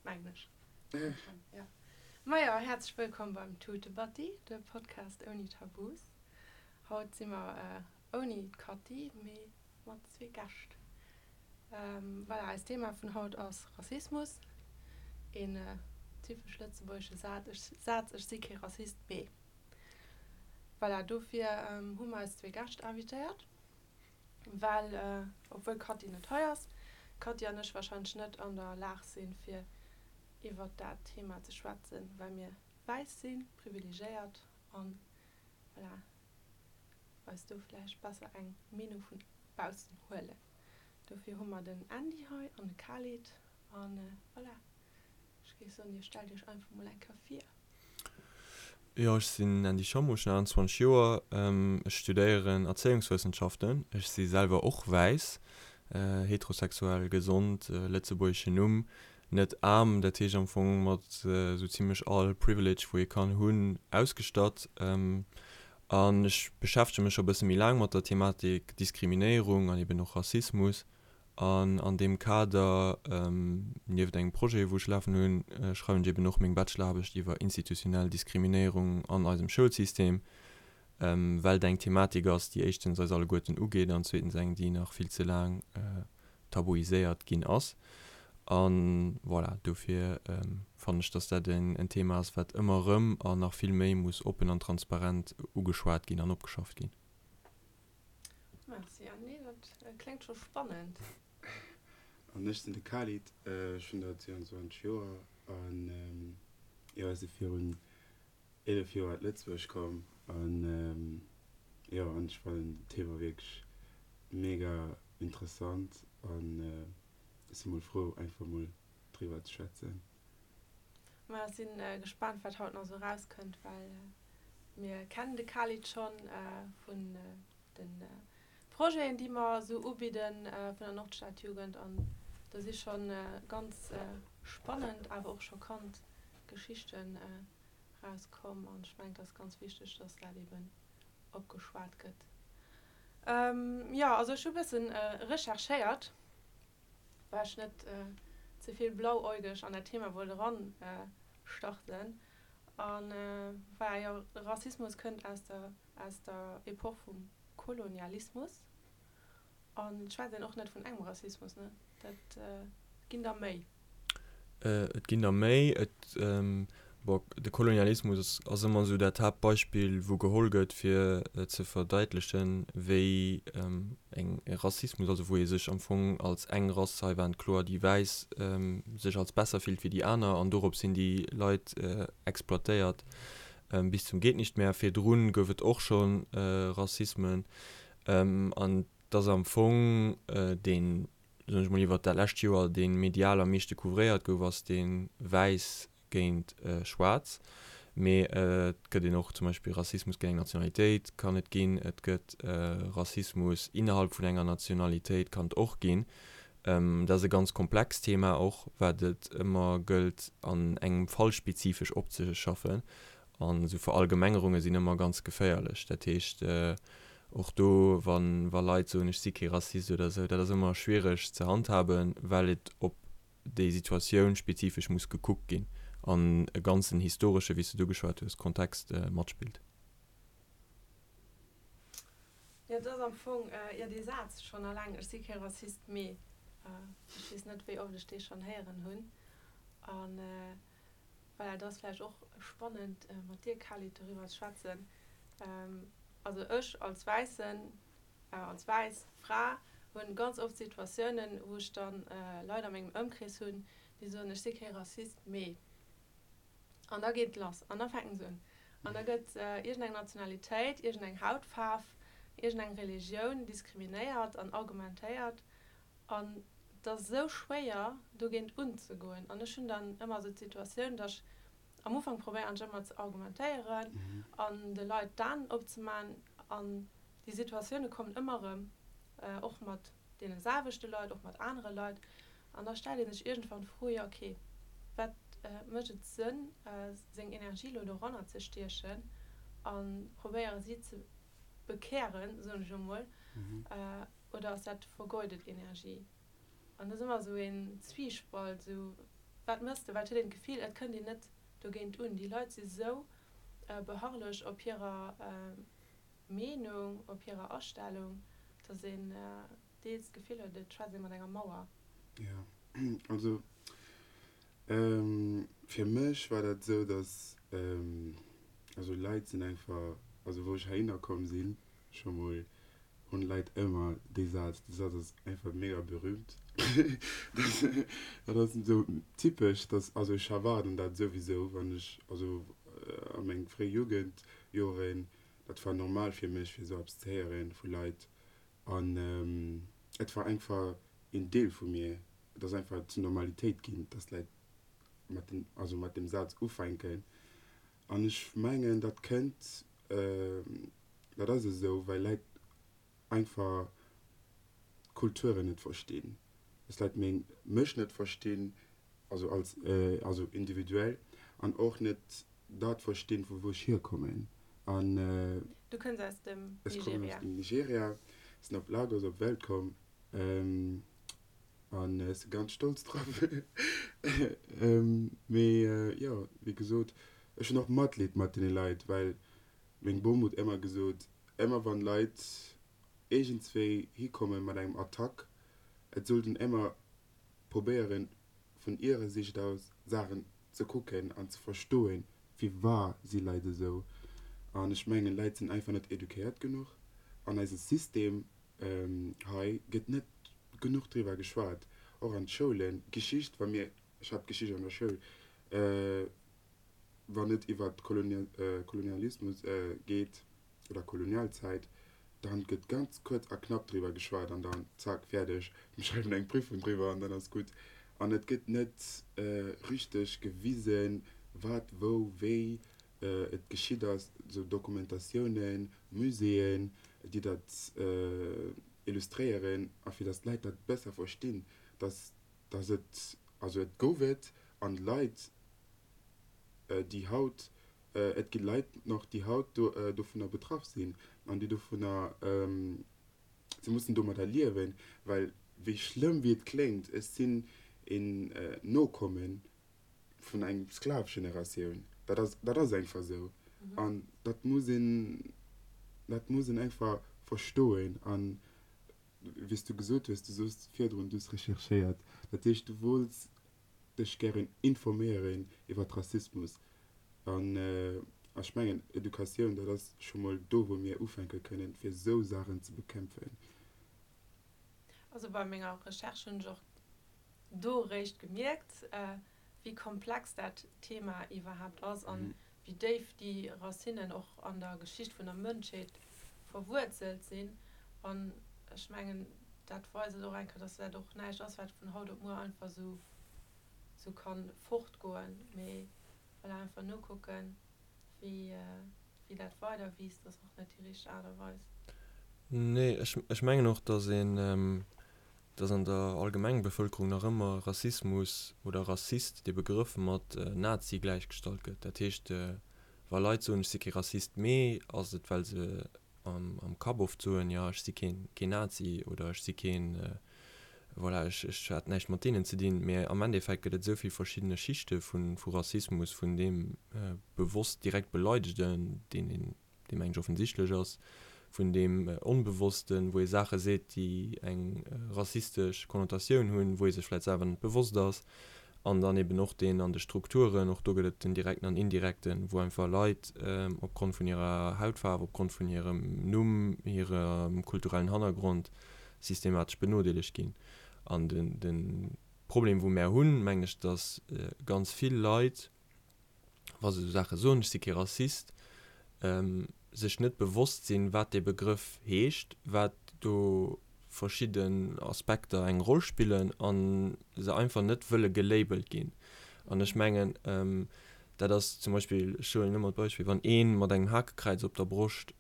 Mengen ech. Ja. Majo, häerzlech wëllkomm beim Tutebatti, de Podcast ouni Tabus. Haut si mer ouni d'Katty, mee mat zwee Gäscht. Voilà, eist Thema vun haut ass Rassismus. Een typesch lëtzebuergesche Saz, Ech si kee Rassist, mee. Voilà, dofir hu mer eis zwee Gäscht invitéiert, well, obwuel d'Katty net hei ass, d'Katty an ech warscheinlech net an der Lag sinn, fir iwwert dat Thema ze schwätzen, well mir wäiss sinn, privilegéiert an, voilà, eis do vläicht besser eng Meenung vun baussen huelen. Dofir hu mer den Andy hei an de Khalid an voilà, ech géif soen, dir stellt iech einfach mol eng Kéier vir. Jo, ech sinn Andy Schommo, ech hunn 28 Joer, ech studéieren Erzéiungswëssenschaften. Ech si selwer och wäiss, heterosexuell, gesond, lëtzebuergeschen Numm, net aarm, dat heescht am Fong mat esou zimlech all Privilege wou ee kann hunn ausgestatt. An ech beschäftege mech scho e bësse méi laang mat der Thematik Diskriminéierung an eben och Rassismus. An an deem Kader, nieft engem Projet, wou ech lafen hunn, schreiwen ech eben och meng Bacheloraarbecht iwwer institutionell Diskriminéierung an eisem Schoulsystem, well et eng Thematik ass, déi éischtens eis alleguerten ugeet an zweetens eng, déi nach vill ze laang tabuiséiert ginn ass. A voilà, dofir fannen ech, dass dat en Thema ass, wat ëmmer erëm an nach vill méi muss oppen an transparent ugeschwat ginn an opgeschafft ginn. Merci Andy, dat kléngt scho spannend. An ech sinn de Khalid, ech hunn der 22 Joer an jo, ech si virun 11 Joer at Lëtzebuerg komm an jo, an ech fannen d'Thema wierklech mega interessant an ech si mol frou einfach mol driwwer ze schwätzen. Ma ech sinn gespaant wat haut nach sou erauskënnt, well mir kennen de Khalid schonn vun de Projeten déi mer sou ubidden vun der Nordstadjugend an do si schonn ganz spannend awer och schockant Geschichten rauskomm an ech mengen et ass ganz wichteg dass dat eben opgeschwat gëtt. Jo also ech hu bëssen recherchéiert well ech net ze vill blauäugeg an dat Thema wollt eran starten. An voilà, jo, Rassismus kënnt aus der, aus der Epoch vum Kolonialismus. An et schwätzt een och net vun engem Rassismus, ne? Dat ginn der méi. Et ginn der méi. Et, bon, de Kolonialismus ass ëmmer esou dat Haaptbeispill, wou geholl gëtt, fir ze verdeitlechen, wéi eng Rassismus, also wou ee sech am Fong als eng Rass, hei waren et kloer déi Wäiss, sech als besser fillt wéi déi aner an dorops sinn déi Leit exploitéiert bis zum Gehtnichtmehr. Virdrun gouf et och scho Rassismen an et ass am Fong deen soen ech mol, iwwert dat lescht Joer, dee medial am meeschte couvréiert gouf, ass dee wäiss géint schwaarz. Mee et gëtt een och zum Beispill Rassismus géint eng Nationalitéit kann et ginn, et gëtt Rassismus innerhalb vun enger Nationalitéit kann et och ginn. Dat ass e ganz komplext Thema och, wat et ëmmer gëllt an engem Fall spezifesch opzeschaffen. An esou Verallgemengerunge sinn ëmmer ganz geféierlech. Dat heescht, och do, wa wa Leit soen, ech si kee Rassist oder esou, dat ass ëmmer schwiereg ze handhaben, well et op déi Situatioun spezifesch muss gekuckt ginn an e ganzen historesche, wéi s de et ugeschwat hues, Kontext matspillt. Jo, et ass am Fong, jo, dee Saz schonn alleng, ech si kee Rassist, mee ech weess net, wéi oft ech dee schonn héieren hunn. An Voilà, et ass vläicht och spannend mat dir Khalid doriwwer ze schwätzen. Also ech als Wäissen, als wäiss Fra hunn ganz oft Situatiounen, wou ech dann Leit a mengem Ëmkrees hunn, déi soen, ech si kee Rassist, mee. An da geet et lass an da fänken se un an da gëtt iergendeng Nationalitéit, iergendeng Hautfaarf, iergendeng Religioun diskriminéiert an argumentéiert An et ass esou schwéier, dogéint unzegoen. An ech hunn dann ëmmer esou d'Situatioun, datt ech am Ufank probéieren ech ëmmer ze argumentéieren an de Leit d'Aen opzemaachen. An déi Situatioune kommen ëmmer erëm, och mat deene selwechte Leit, och mat anere Leit. An da stellt ee sech iergendwann d'Fro, jo okay, wat mécht et Sënn, seng Energie elo doranner ze stiechen a probéiere si ze bekären, soen ech elo mol, Oder ass dat vergeudet Energie? An dat ass ëmmer esou een Zwiespalt, esou. Wat mëss de? Well et huet een d'Gefill, et kënnt een net dogéint un. Déi Leit si sou beharrlech op hirer Meenung, op hirer Astellung, dass een deels d'Gefill huet, et schwätzt ee mat enger Mauer. Jo, also fir mech war dat esou, dass, also Leit sinn einfach, also wou ech heihinner komm sinn, scho mol hunn Leit ëmmer dee Saz, dee Saz ass einfach mega berühmt, dat ass esou typesch, dass, also ech erwaarden dat souwisou, wann ech, also a meng fréi Jugendjoren, dat war normal fir mech fir esou eppes ze héieren vu Leit an et war einfach een Deel vu mir, et ass einfach zur Normalitéit ginn, dass Leit mat dem, also mat deem Saz ufänken an ech mengen dat kënnt, Dat ass esou, well Leit einfach Kulturen net verstinn. Dass Leit meng, mech net verstinn, also als, also individuell, an och net dat verstinn, vu wou ech hierkommen. An. Du kënns aus dem Nigeria. Ech kommen aus dem Nigeria, sinn op Lagos op d'Welt komm an ech si ganz stolz drop. Mee jo, wéi gesot, ech hunn och Matleed mat deene Leit, well Meng Bom huet emmer gesot, emmer wann Leit iergendswéi hikommen mat engem Attack, et sollt een emmer probéieren vun ihrer Sicht aus Saachen ze kucken an ze verstoen, firwar si Leit esou. An ech mengen Leit sinn einfach net eduquéiert genuch. An eise System hei gëtt net genuch driwwer geschwat, och an d'Schoulen. Geschicht, wa mir, ech hat Geschicht an der Schoul, wann et iwwer Kolonialismus geet oder Kolonialzäit, dann gëtt ganz kuerz a knapp driwwer geschwat an dann zack, fäerdeg, mir schreiwen eng Prüfung driwwer an dann ass gutt. An et gëtt net richteg gewisen, wat, wou, wéi et geschitt ass, esou Dokumentatiounen, Muséeën, déi dat illustréieren a fir datt d'Leit dat besser verstinn, datt, datt et, also et gouf et an d'Leit, déi haut, et gi Leit nach, déi haut dovunner betraff sinn an déi dovunner, se mussen domadder liewen, well wéi schlëmm wéi et kléngt, ech sinn een Nokomme vun engem Sklavegeneratioun. Dat ass, dat ass einfach esou an dat muss een, dat muss een einfach verstoen. An wéi s du gesot hues, du soos virdrun, du hues recherchéiert, dat heescht du wollts dech gären informéieren iwwert Rassismus an ech mengen Educatioun dat ass scho mol do wou mir ufänke kënnen fir esou Saachen ze bekämpfen. Also bei menger Recherche hunn ech och do eréischt gemierkt wéi komplex dat Thema iwwerhaapt ass an wéi déif déi Racinnen och an der Geschicht vun der Mënschheet verwuerzelt sinn an ech mengen dat weist et och eng Kéier, dass dat och näischt ass, wat vun haut op muer einfach esou esou kann fortgoen, mee voilà, einfach nokucken, wéi wéi dat weider wiisst, ass och net déi richteg Aart a Weis. Nee, ech ech mengen och, dass een, dass an der Allgemengbevëlkerung nach ëmmer Rassismus oder Rassist, dee Begrëff mat Nazi gläichgestallt gëtt. Dat heescht, wa Leit soen, ech si kee Rassist, mee ass et well se am Kapp oft soen, jo ech si keen Nazi oder ech si keen, voilà, ech ech hat näischt mat deenen ze dinn. Mee am Endeffekt gëtt et esou vill verschiddene Schichte vu Rassismus, vun deem bewosst direkt Beleidegten, deen een, dee mengen ech offensichtlech ass, vun deem Onbewossten, wou ee Saache seet, déi eng rassistesch Konnotatioun hunn, wou ee sech vläicht selwer net bewosst ass, an dann eben och deen an de Strukturen, och do gëtt et den direkten an indirekten, wou einfach Leit opgrond vun hirer Hautfaarf, opgrond vun hirem Numm, hirem kulturellen Hannergrond systematesch benodeelegt ginn. An de Problem, wou mär hunn, mengen ech, datt ganz vill Leit, wa se esou Saache soen, ech si kee Rassist, sech net bewosst sinn, wat dee Begrëff heescht, wat do verschidden Aspekter eng Roll spillen a se einfach net wëlle gelabelt ginn. An ech mengen, dat ass zum Beispill, ech huelen ëmmer d'Beispill, wann ee mat engem Hakekräiz op der Broscht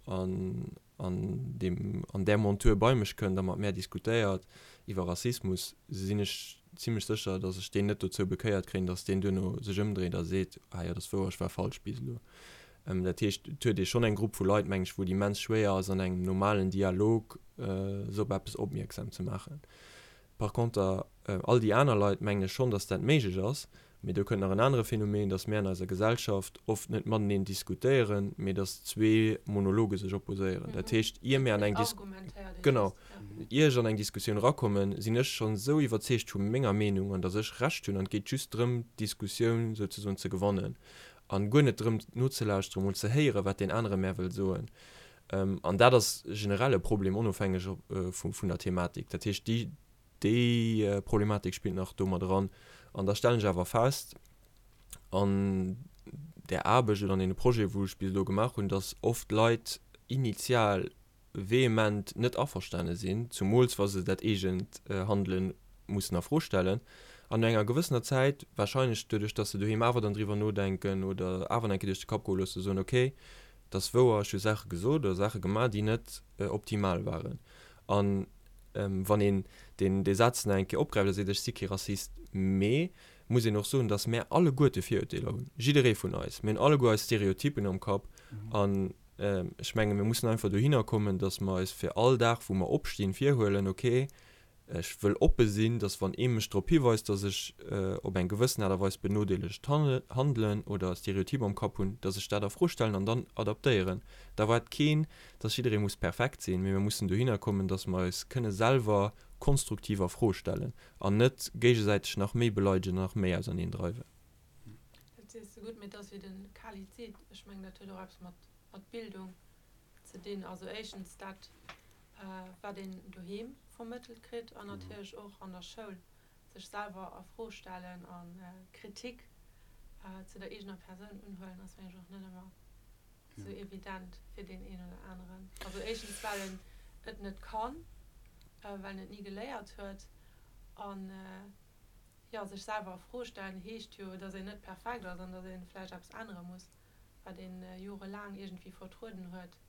an an deem an där Montur bei mech kënnt a mat mär diskutéiert iwwer Rassismus, sinn ech zimlech sécher, datt ech deen net dozou bekéiert kréien, datt deen duerno sech ëmdréit a seet, ah jo, dat ass wouer, ech war falsch bis elo. Dat heescht, et huet ee schonn eng Grupp vu Leit, meng ech, wou et immens schwéier ass, an engem normalen Dialog se op eppes opmierksam ze maachen. Par conter, all déi aner Leit, mengen ech schonn, dass dat méiglech ass. Mee do kënnt nach en anere Phänomen, dass mär an eiser Gesellschaft oft net mateneen diskutéieren, mee dass zwee Monologe sech opposéieren. Dat heescht, ier mär an eng Dis-, genau, ier ech an eng Diskussioun erakommen, sinn ech schonn esou iwwerzeegt vu menger Meenung an dass ech Recht hunn an et geet just drëm, d'Diskussioun souzesoen ze gewannen an guer net drëm nozelauschteren, mol ze héieren, wat deen anere mär wëll soen. An dat ass generell e Problem, onofhängeg vun der Thematik. Dat heescht, déi, déi Problematik spillt nach do mat eran. An da stellen ech awer fest, an där Aarbecht oder an deene Projeten, wou ech bis elo gemaach hunn, dass oft Leit initial vehement net averstane sinn, zumools wa se dat eegent Handele mussen a Fro stellen, an no enger gewëssener Zäit, wahrscheinlech doduerch, dass se doheem awer dann driwwer nodenken oder awer nach eng Kéier duerch de Kapp goe loossen, soen, okay, 't ass wouer, ech hu Saache gesot oder Saache gemaach, déi net optimal waren. An wann een deen dee Saz nach eng Kéier opgräift a seet, ech si kee Rassist, mee muss een och soen, datt mär alleguerte Virurteeler hunn, jidderee vun eis. Mir hunn alleguer eis Stereotypen am Kapp. An ech menge mir mussen einfach dohinner kommen, datt mer eis fir all Dag, wou mer opstinn, virhuelen, okay, Ech wëll oppe sinn, dass wann ee mech drop hiweist, dass ech op eng gewëssen Aart a Weis benodeelegt handelen oder Stereotyp am Kapp hunn, dass ech dat a Fro stellen an dann adaptéieren. Da erwaart keen, dass jidderee muss perfekt sinn, mee mir mussen dohinner kommen, dass mer eis kënne selwer konstruktiv a Fro stellen an net géigesäiteg nach méi beleidegen an nach méi auserneen dreiwen. Dat sees de gutt, mee et ass wéi de Khalid seet, ech mengen dat huet och eppes mat Bildung ze dinn. Also éischtens dat, wat een doheem vermëttelt kritt an natierlech och an der Schoul, sech selwer a Fro stellen a Kritik zu der eegener Persoun unhuelen, ass mengen ech och net ëmmer sou evident fir deen een oder aneren. Also éischtens well en et net kann, well en et ni geléiert huet an jo, sech selwer a Fro stellen heescht jo, datt een net perfekt ass an datt ee vläicht eppes ännere muss, wat ee jorelaang iergendwéi vertrueden huet.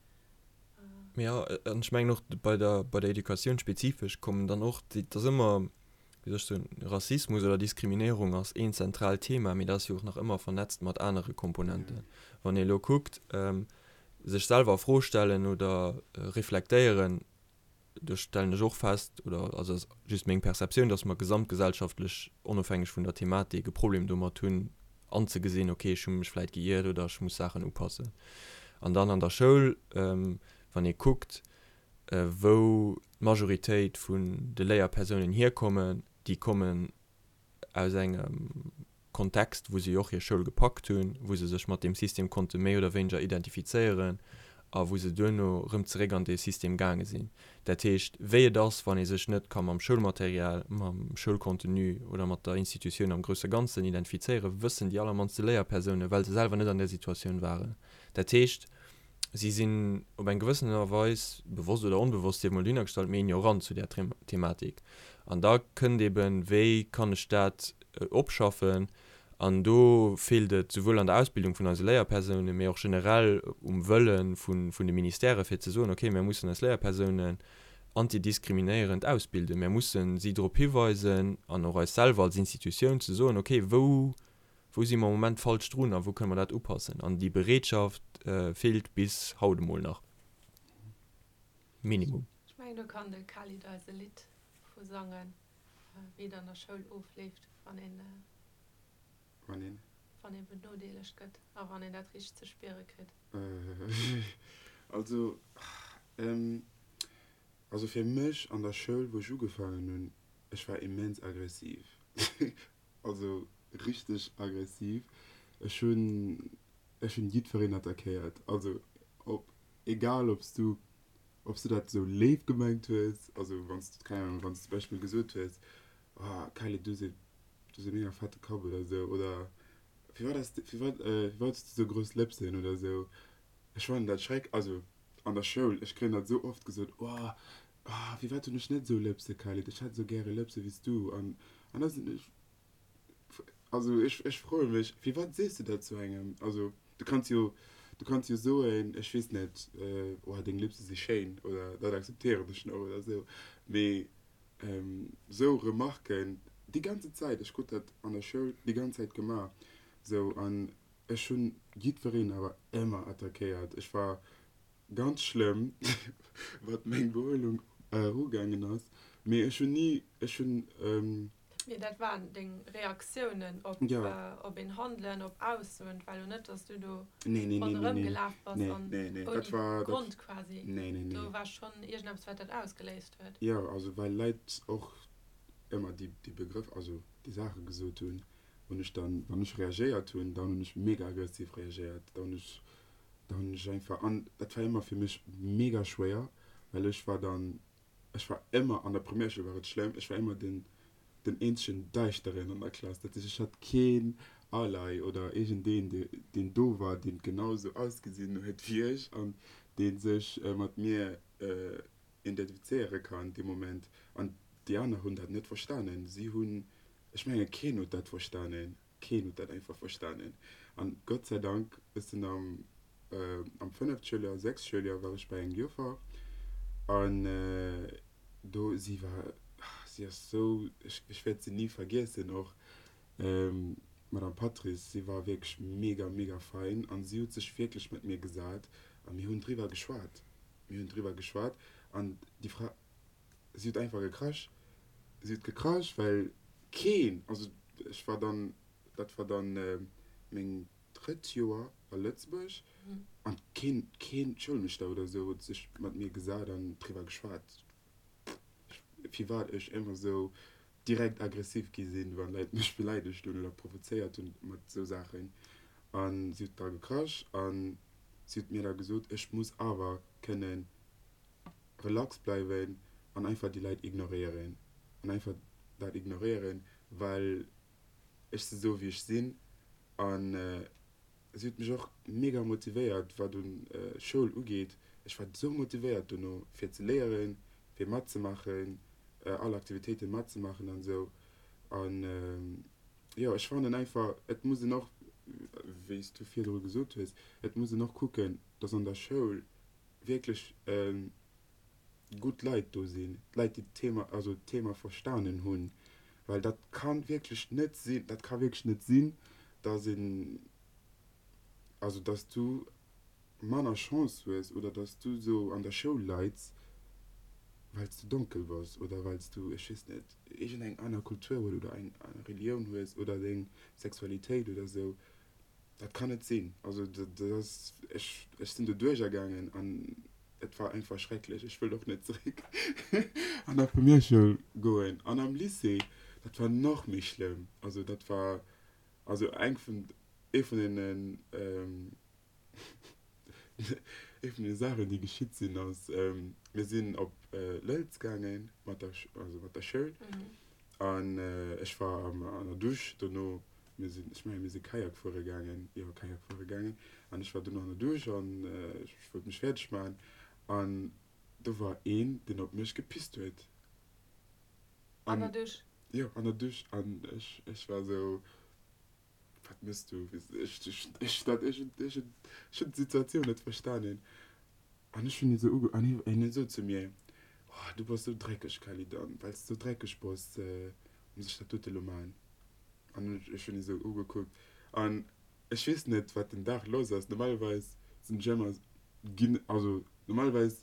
Jo, an ech mengen och bei der, bei der Educatioun spezifesch kommen dann och déi, et ass ëmmer, wéi soll ech soen, Rassismus oder Diskriminéierung ass een zentraalt Thema, mee dat ass jo och nach ëmmer vernetzt mat anere Komponenten. Wann ee elo kuckt, sech selwer a Fro stellen oder reflektéieren, do stellen ech och fest, oder also ass just meng Perceptioun, dass mer gesamtgesellschaftlech, onofhängeg vun der Thematik, e Problem domat hunn anzegesinn, okay, ech hu mech vläit geiert oder ech muss Saachen upassen. An dann an der Schoul, wann ee kuckt, wou d'Majoritéit vun de Léierpersounen hierkommen, déi kommen aus engem Kontext, wou si och hir Schoul gepackt hunn, wou se sech mat deem System konnte méi oder wéineger identifizéieren a wou se duerno erëm zeréck an dee System gaange sinn. Dat heescht, wéi et ass, wann ee sech net ka mam Schoulmaterial, mam Schoulcontenu oder mat der Institutioun am grousse Ganzen identifizéieren, wëssen déi allermannste Léierpersounen, well se selwer net an där Situatioun waren. Dat heescht, si sinn op eng gewëssen Aart a Weis, bewosst oder onbewosst, sief emol dohinnergestallt, méi ignorant zu där Thematik. An da kënnt eben, wéi kann ech dat opschaffen? An do feelt et souwuel an der Ausbildung vun eise Léierpersounen, mee och generell um Wëlle vun de Ministèrë fir ze soen, okay, mir mussen eis Léierpersounen antidiskriminéierend ausbilden, mir mussen si drop hiweisen an och eis selwer als Institutioun ze soen, okay, wou Wou si mer am Moment falsch drun a wou kënne mer dat upassen? An déi Bereetschaft feelt bis haut emol nach. Minimum. Ech mengen, do kann de Khalid eis e Lidd vu sangen, wéi et an der Schoul ofleeft, wann een, Wann een? wann ee benodeelegt gëtt a wann een dat richteg ze spiere kritt. Also, also fir mech an der Schoul, wou ech ugefaangen hunn, ech war immens aggressiv. Also richteg aggressiv. Ech hunn ech hunn jiddwereen attackéiert. Also op egal ob s du ob s du dat esou léif gemengt hues, also wann s du keng Ahnung wann s du zum Beispill gesot hues, oh Kylie du hues e du hues e mega fette Kapp oder esou oder firwat has du firwat firwat hues du esou grouss Lëpsen oder esou. Ech fannen dat schreck also an der Schoul ech kréien dat esou oft gesot, oh Ah, firwat hunn ech net esou Lëpse, Khalid? Ech hätt esou gäre Lëpse wéi s du. An, an da sinn ech, also ech, ech froe mech, firwat sees du dat zu engem? Also du kanns jo, du kanns jo soen, ech weess net, oh, deng Lëpse si schéin oder dat akzeptéieren ech nach oder esou. Mee esou Remarken déi ganze Zäit, ech krut dat an der Schoul déi ganz Zäit gemaach, esou, an ech hunn jiddwereen awer ëmmer attackéiert. Ech war Ganz schlëmm, wat meng Behuelung ugaangen ass. Mee ech hunn ni, ech hunn. Mee dat waren deng Reaktiounen op, op een Handelen, op Aussoen. Et war elo net, dass du do ronderëm gelaf bass an ouni Grond quasi. Do war schonn iergendeppes, wat dat ausgeléist huet. Jo, also well Leit och ëmmer déi, déi Begrëff, also déi Saache gesot hunn, hunn ech dann, wann ech reagéiert hunn, dann hunn ech mega aggressiv reagéiert. Da hunn ech, da hunn ech einfach, an dat war ëmmer fir mech mega schwéier, well ech war dann, Ech war ëmmer, an der Primärschoul war et schlëmm, ech war ëmmer den, den eenzegen Däischteren an der Klass. Dat heescht, ech hat keen Ally oder iergendeen, dee, deen do war, deen genau esou ausgesinn huet wéi ech an dee sech mat mir identifizéiere kann dee Moment. An déi aner hunn dat net verstanen. Si hunn, ech menge keen huet dat verstanen. Keen huet dat einfach verstanen. An Gott sei Dank, ech sinn am, am fënneft Schouljoer, sechst Schouljoer war ech bei eng Joffer an do, si war, si ass sou, ech, ech wäert si ni vergiessen och, d'Madame Patris, si war wierklech mega, mega fein an si huet sech wierklech mat mir gesat a mir hunn driwwer geschwat. Mir hunn driwwer geschwat an déi Fra, Si huet einfach gekrasch. Si huet gekrasch, well keen, also ech war dann, dat war dann meng drëtt Joer a Lëtzebuerg, an keen, keen Schoulmeeschter oder esou huet sech mat mir gesat an driwwer geschwat, firwat ech ëmmer esou direkt aggressiv gi sinn, wann Leit mech beleidegt hunn oder provozéiert hunn mat esou Saachen. A si huet da gekrasch a si huet mir da gesot, ech muss awer kënnen relax bleiwen an einfach déi Leit ignoréieren an einfach dat ignoréieren, well ech si sou wéi ech sinn an si huet mech och mega motivéiert wat un Schoul ugeet. Ech war sou motivéiert dono fir ze léieren, fir matzemaachen, all Aktivitéiten matzemaachen an sou an jo ech fannen einfach et muss een och, wéi s du virdru gesot hues, et muss een och kucken, dass an der Schoul wierklech gutt Leit do sinn, Leit déi d'Thema, also d'Thema verstanen hunn, well dat ka wierklech net sinn, dat ka wierklech net sinn, datt een, also datt s du manner Chance hues oder datt s du esou an der Schoul leits, well s du donkel bass oder well s du, ech weess net, iergendeng aner Kultur hues oder eng aner Relioun hues oder deng Sexualitéit oder esou. Dat kann net sinn. Also dat ass, ech, ech sinn do duerchergaangen an et war einfach schrecklech. Ech wëll och net zeréck an der Primärschoul goen. An am Lycée, dat war nach méi schlëmm. Also dat war, also eng vun, ee vun deenen, Ee vun de Saachen, déi geschitt sinn, ass, mir sinn op Lëlz gaange mat der, also mat der Schoul. An ech war an der Dusch dono. Mir sinn, ech mengen, mir si Kajak fuere gaangen, jo, Kajak fuere gaangen. An ech war dono an der Dusch an ech wollt mech fäerdeg maachen. An do war een, deen op mech gepisst huet. An der Dusch? Jo, an der Dusch. An ech, ech war esou. Wat mëss du? Ech dat ech ech hunn d'Situatioun net verstanen. An ech hunn hie sou uge an hien huet sot zu mir, Oh, du bass sou dreckeg, Khalid, an well s de sou dreckeg bass, muss ech dat dote lo maachen. An ech hunn hie sou ugekuckt an ech weess net, wat den Dag lass ass. Normalerweis sinn ech ëmmer ginn, also normalerweis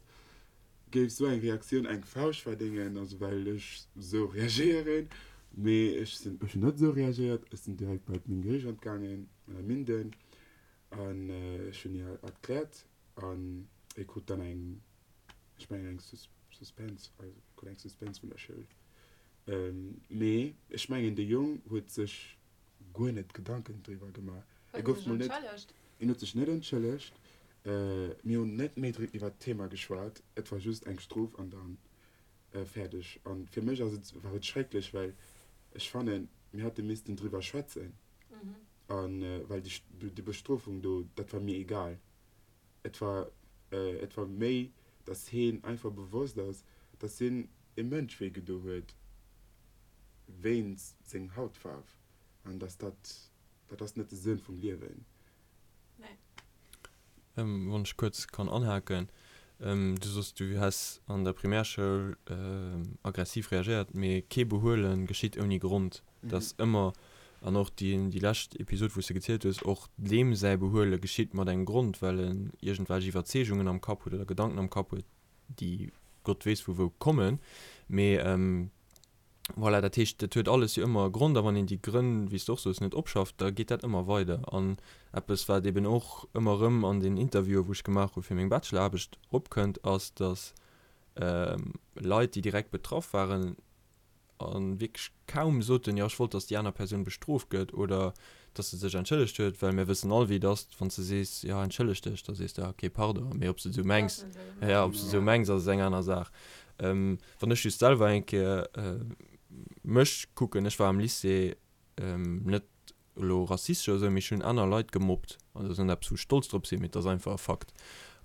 géif sou eng Reaktioun eng Fauscht verdéngen, also well ech sou reagéieren, mee ech sinn, ech hunn net sou reagéiert, ech sinn direkt bei meng Geriichant gaangen, Madame Minden, an ech hunn hir erkläert an hie krut dann eng, ech mengen eng Suspens, also krut eng Suspens vun der Schoul, mee ech mengen de Jong huet sech guer net Gedanken driwwer gemaach. Huet en sech entschëllegt? En huet sech net entschëllegt. Mir hunn net méi iwwer d'Thema geschwat. Et war just eng Strof an dann fäerdeg. A fir mech ass et, war et schrecklech, well ech fannen, mir hätte missten driwwer schwätzen. A well déi Bestrofung do, dat war mir egal. Et war, et war méi, datt heen einfach bewosst ass, datt hien e Mënsch wéi gedo huet wéinst seng Hautfaarf an datt dat, dat ass net de Sënn vum Liewen. Nee. Wann ech kuerz kann anhaken, Du soss, du häss an der Primärschoul aggressiv reagéiert, mee kee Behuele geschitt ouni Grond. Et ass ëmmer, an och déi déi lescht Episod, wou s de gezielt hues, och deem säi Behuele geschitt mat engem Grond, well en iergendwelch Iwwerzeegungen am Kapp huet oder Gedanken am Kapp huet, déi. Gott weess vu wou kommen. Mee voilà, dat heescht, dat huet alles jo ëmmer e Grond a wann een déi Grënn, wéi s de och soos, net opschafft, da geet dat ëmmer weider. An eppes, wat eben och ëmmer erëm an den Interviewen, wou ech gemaach hu fir meng Bacheloraarbecht, eropkënnt, ass, datt Leit, déi direkt betraff waren, a wierklech kaum soten, jo ech wollt, datt déi aner Persoun bestrooft gëtt oder datt se sech entschëllegt huet, well mir wëssen all wéi et ass, wann s de sees, jo entschëlleg dech, da sees de, ok pardon, mee ob s de et esou mengs, jo ob s de esou mengs ass eng aner Saach. Wann ech just selwer eng Kéier mech kucken, ech war am Lycée net elo rassistesch oder esou, mee ech hunn aner Leit gemobbt an dat ass net eppes wou ech stolz drop sinn, mee et ass einfach e Fakt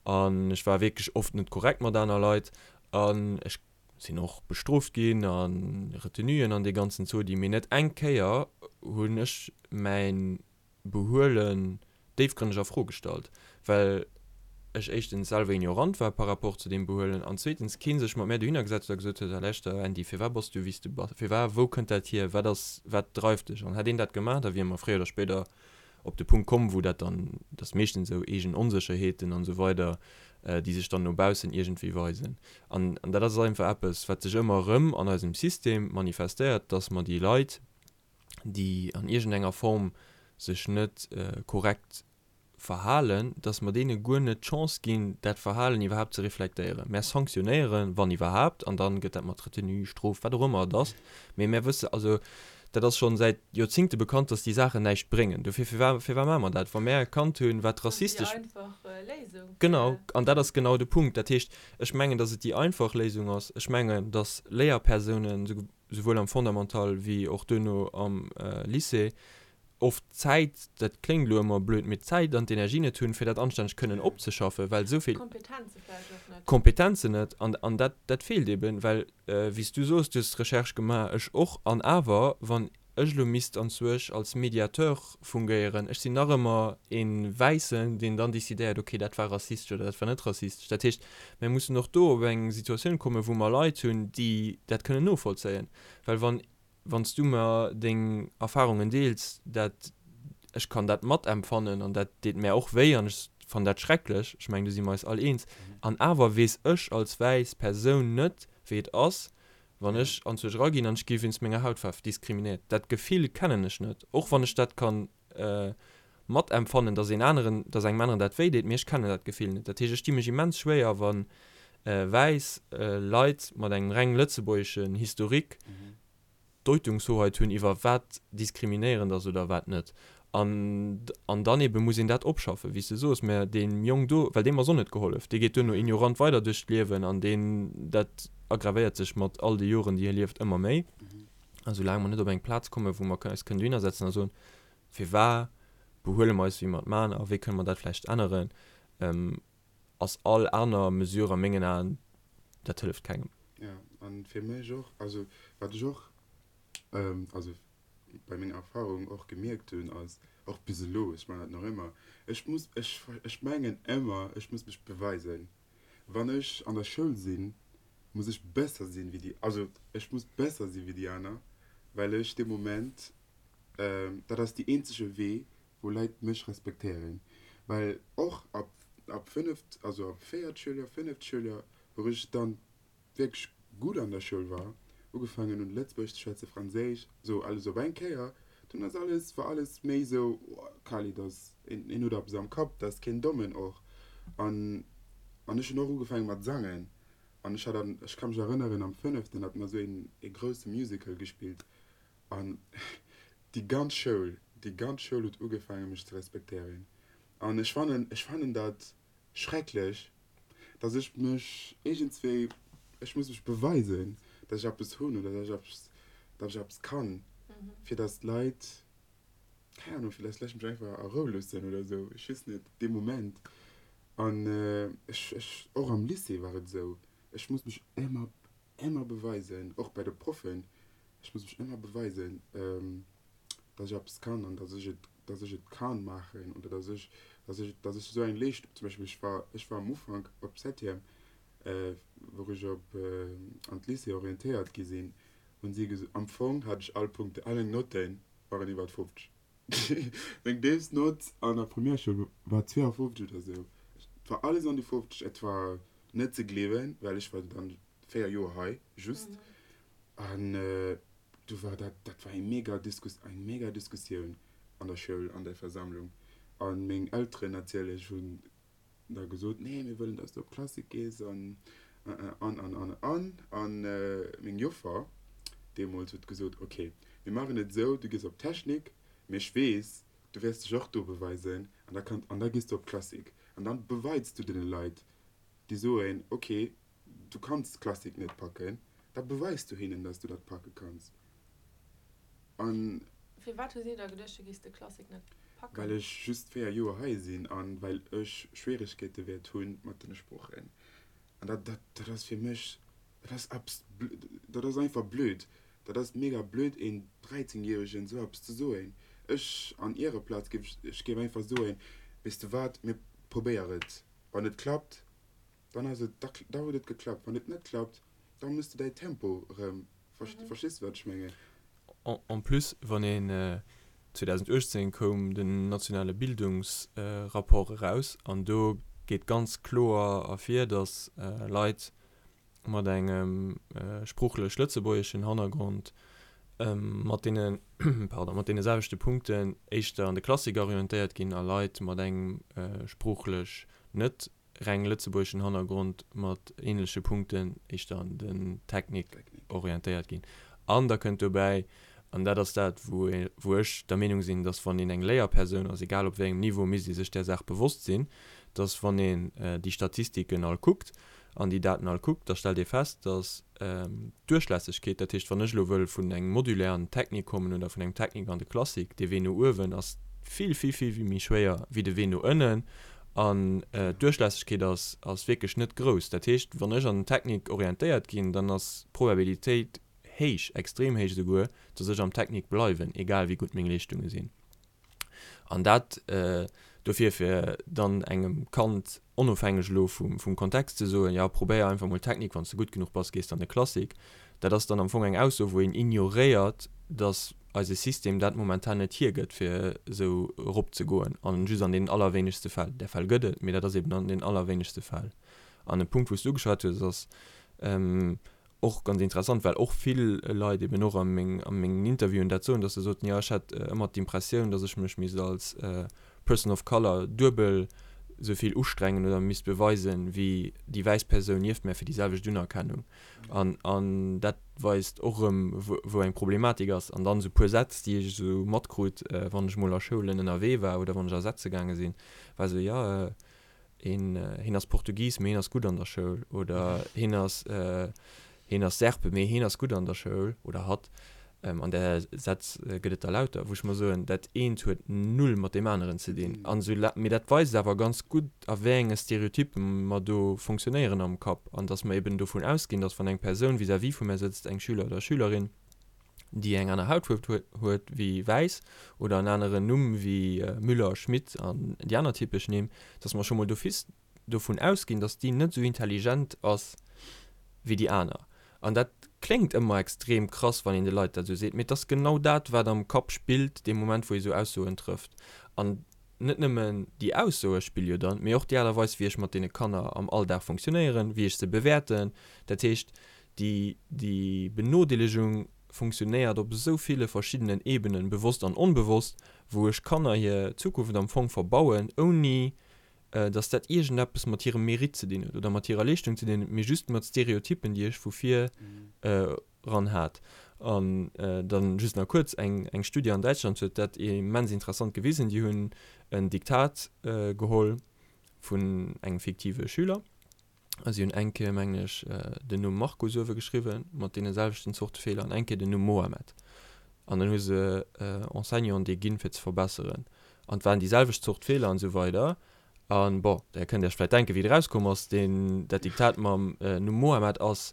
an ech war wierklech oft net korrekt mat aner Leit an ech sinn och bestrooft ginn a Retenuen an dee ganzen Zodi, mee net eng Kéier hunn ech mäin Behuelen déifgrënneg a Fro gestallt, well ech éischtens selwer ignorant war par rapport zu deem Behuelen an zweetens kee sech mat mär dohinner gesat huet a gesot huet, Lauschter Andy, firwat bass du wéi s du bass, firwat, wou kënnt dat hier, wat ass, wat dreift dech? An hätt een dat gemaach, da wiere mer fréier oder spéider op de Punkt komm, wou dat dann, dat ass meeschtens esou eegen Onsécherheeten an esou weider, déi sech dann no baussen iergendwéi weisen. An dat ass einfach eppes, wat sech ëmmer erëm an eisem System manifestéiert, dass mer déi Leit, déi an iergendenger Form sech net korrekt verhalen, dass mer deene guer net d'Chance ginn, dat Verhalen iwwerhaapt ze reflektéieren. Mär sanktionéieren, wann iwwerhaapt, an da gëtt dat mat Retenue, Strof, wat och ëmmer et ass, mee mär wësse, also dat ass schonn säit Joerzingte bekannt, dass déi Saachen näischt bréngen. Dofir, firwat, firwat maache mer dat, wa mär erkannt hunn, wat rassistesch. Dat ass déi einfach Léisung. Genau, an dat ass genau de Punkt. Dat heescht, ech mengen, dass et déi einfach Léisung ass. Ech mengen, dass Léierpersounen, souwuel am Fondamental wéi och duerno am Lycée, oft d'Zäit, dat kléngt elo ëmmer blöd, mee d'Zäit an d'Energie net hunn, fir dat anstänneg kënnen opzeschaffen, well esou vill. D'Kompetenze vläicht och net. D'Kompetenzen net. An, an dat, dat feelt eben, well, wéi s du soos, du hues d'Recherche gemaach, ech och, an awer, wann ech elo misst anzwuesch als Mediateur fungéieren, ech sinn nach ëmmer ee Wäissen, deen dann decidéiert, okay, dat war rassistesch oder dat war net rassistesch. Dat heescht, mir mussen och do op eng Situatioun kommen, wou mer Leit hunn, déi dat kënnen novollzéien, well wann wann s du mer deng Erfahrungen deels, dat, ech kann dat matempfannen an dat deet mär och wéi an ech fannen dat schrecklech, ech mengen do si mer eis all eens, an awer weess ech als wäiss Persoun net wéi et ass, wann ech anzwousch eraginn an ech gi wéinst menger Hautfaarf diskriminéiert. Dat Gefill kennen ech net, och wann ech dat kann matempfannen, dass een aneren, dass engem aneren dat wéi deet, mee ech kennen dat Gefill net. Dat heescht, ech di mech immens schwéier, wa wäiss Leit mat engem reng lëtzebuergeschen Historique Deutungshoheit hunn iwwer wat diskriminéierend ass oder wat net. An, an dann ebe muss een dat opschaffen, wéi s de soos, mä deem Jong do, well deem ass och net gehollef, dee geet duerno ignorant weider duerch d'Liewen an deen, dat aggravéiert sech mat all de Joren, déi hie lieft, ëmmer méi. A soulaang mer net op eng Plaz kommen, wou mer eis kënnen dohinner setzen a soen, Firwat behuele mer eis, wéi mer et maachen a wéi kënne mer dat vläicht änneren, ass all aner Mesure a mengen Aen, dat hëlleft kengem. Jo, a fir mech och, also wat ech och, also bei menger Erfahrung och gemierkt hunn, ass, och bis elo, ech maachen dat nach ëmmer, ech muss, ech, ech mengen ëmmer, ech muss mech beweisen. Wann ech an der Schoul sinn, muss ech besser sinn wéi déi, also ech muss besser si wéi déi aner, well ech dee Moment, dat ass déi eenzege Wee, wou Leit mech respektéieren. Well och ab, ab fënneft, also ab véiert Schouljoer, fënneft Schouljoer, wou ech dann wierklech gutt an der Schoul war, ugefaangen hunn Lëtzebuergesch ze schwätzen, Franséisch, sou alles op eng Kéier, dunn ass alles, war alles méi sou, oh Khalid ass een, een huet eppes am Kapp, dat ass keen Dommen och. An, an ech hunn och ugefaange mat sangen an ech hat an, ech ka mech erënneren am fënneften hat mer sou een ee grousse Musical gespillt an déi ganz Schoul, déi ganz Schoul huet ugefaange mech ze respektéieren an ech fannen, ech fannen dat schrecklech, dass ech mech iergendswéi, ech muss mech beweisen, dass ech eppes hunn oder dass ech eppes, dass ech eppes kann, fir dass d'Leit, keng Ahnung, fir dass d'Leit mech einfach a Rou loossen oder esou, ech weess net, dee Moment. An ech, ech, och am Lycée war et esou, ech muss mech ëmmer, ëmmer beweisen, och bei de Proffen, ech muss mech ëmmer beweisen, dass ech eppes kann an dass ech et, dass ech et kann maachen oder dass ech, dass ech, dass ech esou eng Leeschtung, zum Beispill ech war, ech war am Ufank op Septième, wou ech op an d'Lycée orientéiert gi sinn, hunn si geso, am Fong hat ech all Punkte, all meng Notten waren iwwert 50. Meng déifst Nott an der Primärschoul war 52 oder esou. Et war alles an déi 50, et war net ze gleewen, well ech war dann. 4 Joer hei just an du war dat, dat war eng mega Diskus, eng mega Diskussioun an der Schoul, an der Versammlung an meng Elteren natierlech hunn da gesot, nee mir wëllen dass du op Klassik gees an an an an an an meng Joffer deemools huet gesot, ok mir maachen et esou, du gees op Technik, mee ech weess du wäers dech och do beweisen an da kann an da gees du op Klassik an dann beweits du deene Leit déi soen, ok du kanns Klassik net packen, da beweis du hinnen, dass du dat packe kanns. An. Firwat hu si da geduecht, du géifs de Klassik net packen? Well ech just 4 Joer hei sinn an well ech Schwieregkeete wäert hu mat den Sproochen. An dat, dat, dat ass fir mech, dat ass eppes, dat ass einfach blöd. Dat ass mega blöd een 13 Järegen esou eppes ze soen. Ech an ihrer Plaz géif, ech géif einfach soen, weess de wat, mir probéier et. Wann et klappt, dann ass et, da, da huet et geklappt. Wann et net klappt, da muss de däi Tempo erëm, verstees de wat ech mengen? En plus, wann een, 2018 koum den nationale Bildungsrapport eraus an do geet ganz kloer ervir, datt Leit mat engem sproochlech lëtzebuergeschen Hannergrond mat deene, pardon, mat deene selwechte Punkten éischter an de Klassik orientéiert ginn a Leit mat engem sproochlech net reng lëtzebuergeschen Hannergrond mat ähnleche Punkten éischter an den Technik orientéiert ginn. An da kënnt dobäi, an dat ass dat, wou wou ech der Meenung sinn, dass wann een eng Léierpersoun ass, egal op wéi engem Niveau, misst ee sech där Saach bewosst sinn, dass wann een déi Statistiken all kuckt an déi Daten all kuckt, da stellt ee fest, dass d'Duerchlässegkeet, dat heescht, wann ech elo wëll vun engem Modulaire an den Technik kommen oder vun engem Technik an de Classique, dee Wee no uewen ass vill, vill, vill méi schwéier wéi de Wee no ënnen. An d'Duerchlässegkeet ass, ass wierklech net grouss. Dat heescht, wann ech an den Technik orientéiert ginn, dann ass d'Probabilitéit héich, extrem héich esouguer, dass ech am Technik bleiwen, egal wéi gutt meng Leeschtunge sinn. An dat dofir, fir dann engem Kand, onofhängeg elo vum Kontext, ze soen, jo, probéier einfach mol Technik, wann s de gutt genuch bass, gees de an de Classique. Dat ass dann am Fong eng Ausso, wou een ignoréiert, datt eise System dat momentan net hiergëtt, fir esou eropzegoen, an just an deenen allerwéinegste Fäll. Där Fäll gëtt et, mee dat ass eben an den allerwéinegste Fäll. An e Punkt, wou s du ugeschwat hues, ass, Och ganz interessant, well och vill Leit eben och a meng, a mengen Interviewen dat soen, dass se soten, jo ech hat ëmmer d'Impressioun, dass ech mech misst als Person of Color duebel esou vill ustrengen oder misst beweisen, wéi déi wäiss Persoun nieft mär fir déi selwecht Unerkennung. An, an dat weist och erëm, wou, wou eng Problematik ass. An dann esou puer Sätz, déi ech esou matkrut, wann ech mol a Schoulen ënnerwee war oder wann ech a Sätze gaange sinn, war esou, jo, Een, hien ass Portugis, mee hien ass gutt an der Schoul. Oder hien ass, hien ass Serbe, mee hien ass gutt an der Schoul. Oder hatt. An där Sätz gëtt et der lauter, wou ech mer soen, dat eent huet null mat deem aneren ze dinn. An esou, mee dat weist awer ganz gutt, a wéi enge Stereotyppe mer do fonctionnéieren am Kapp. An datt mer eben dovun ausginn, datt wann eng Persoun vis-à-vis vu mär sëtzt, eng Schüler oder Schülerin, déi eng aner Hautfuerf huet wéi wäiss oder en aneren Numm wéi Müller, Schmit an déi aner typesch Nimm, dass mer scho mol d'office dovun ausginn, dass déi net esou intelligent ass wéi déi aner. An dat kléngt ëmmer extrem krass, wann een de Leit dat esou seet, mee et ass genau dat, wat am Kapp spillt dee Moment, wou ee esou Aussoen trëfft. An net nëmmen déi Aussoe spille jo dann, mee och déi Aart a Weis, wéi ech mat deene Kanner am Alldag funktionéieren, wéi ech se bewäerten. Dat heescht, Déi, déi Benodeelegung funktionéiert op esou ville verschiddenen Ebenen, bewosst an onbewosst, wou ech Kanner hir Zukunft am Fong verbauen, ouni dass dat iergendeppes mat hirem Mérite ze dinn huet oder mat hirer Leeschtung ze dinn huet, mee just mat Stereotyppen, déi ech vu vir eran hat. An dann just nach kuerz, eng, eng Studie an Däitschland huet dat immens interessant gewisen. Déi hunn en Diktat geholl vun engem fiktive Schüler. A si hunn eng Kéier, mengen ech, den Numm Marco uewe geschriwwen, mat deene selwechten Zorte Feeler, an eng Kéier den Numm Mohamed. An dann hu se Enseignanten déi ginn, fir ze verbesseren. An et waren déi selwecht Zort Feeler an esou weider. A bon, där kënnt Iech vläicht denken, wéi et erauskomm ass, deen, dat Diktat mam Numm Mohamed ass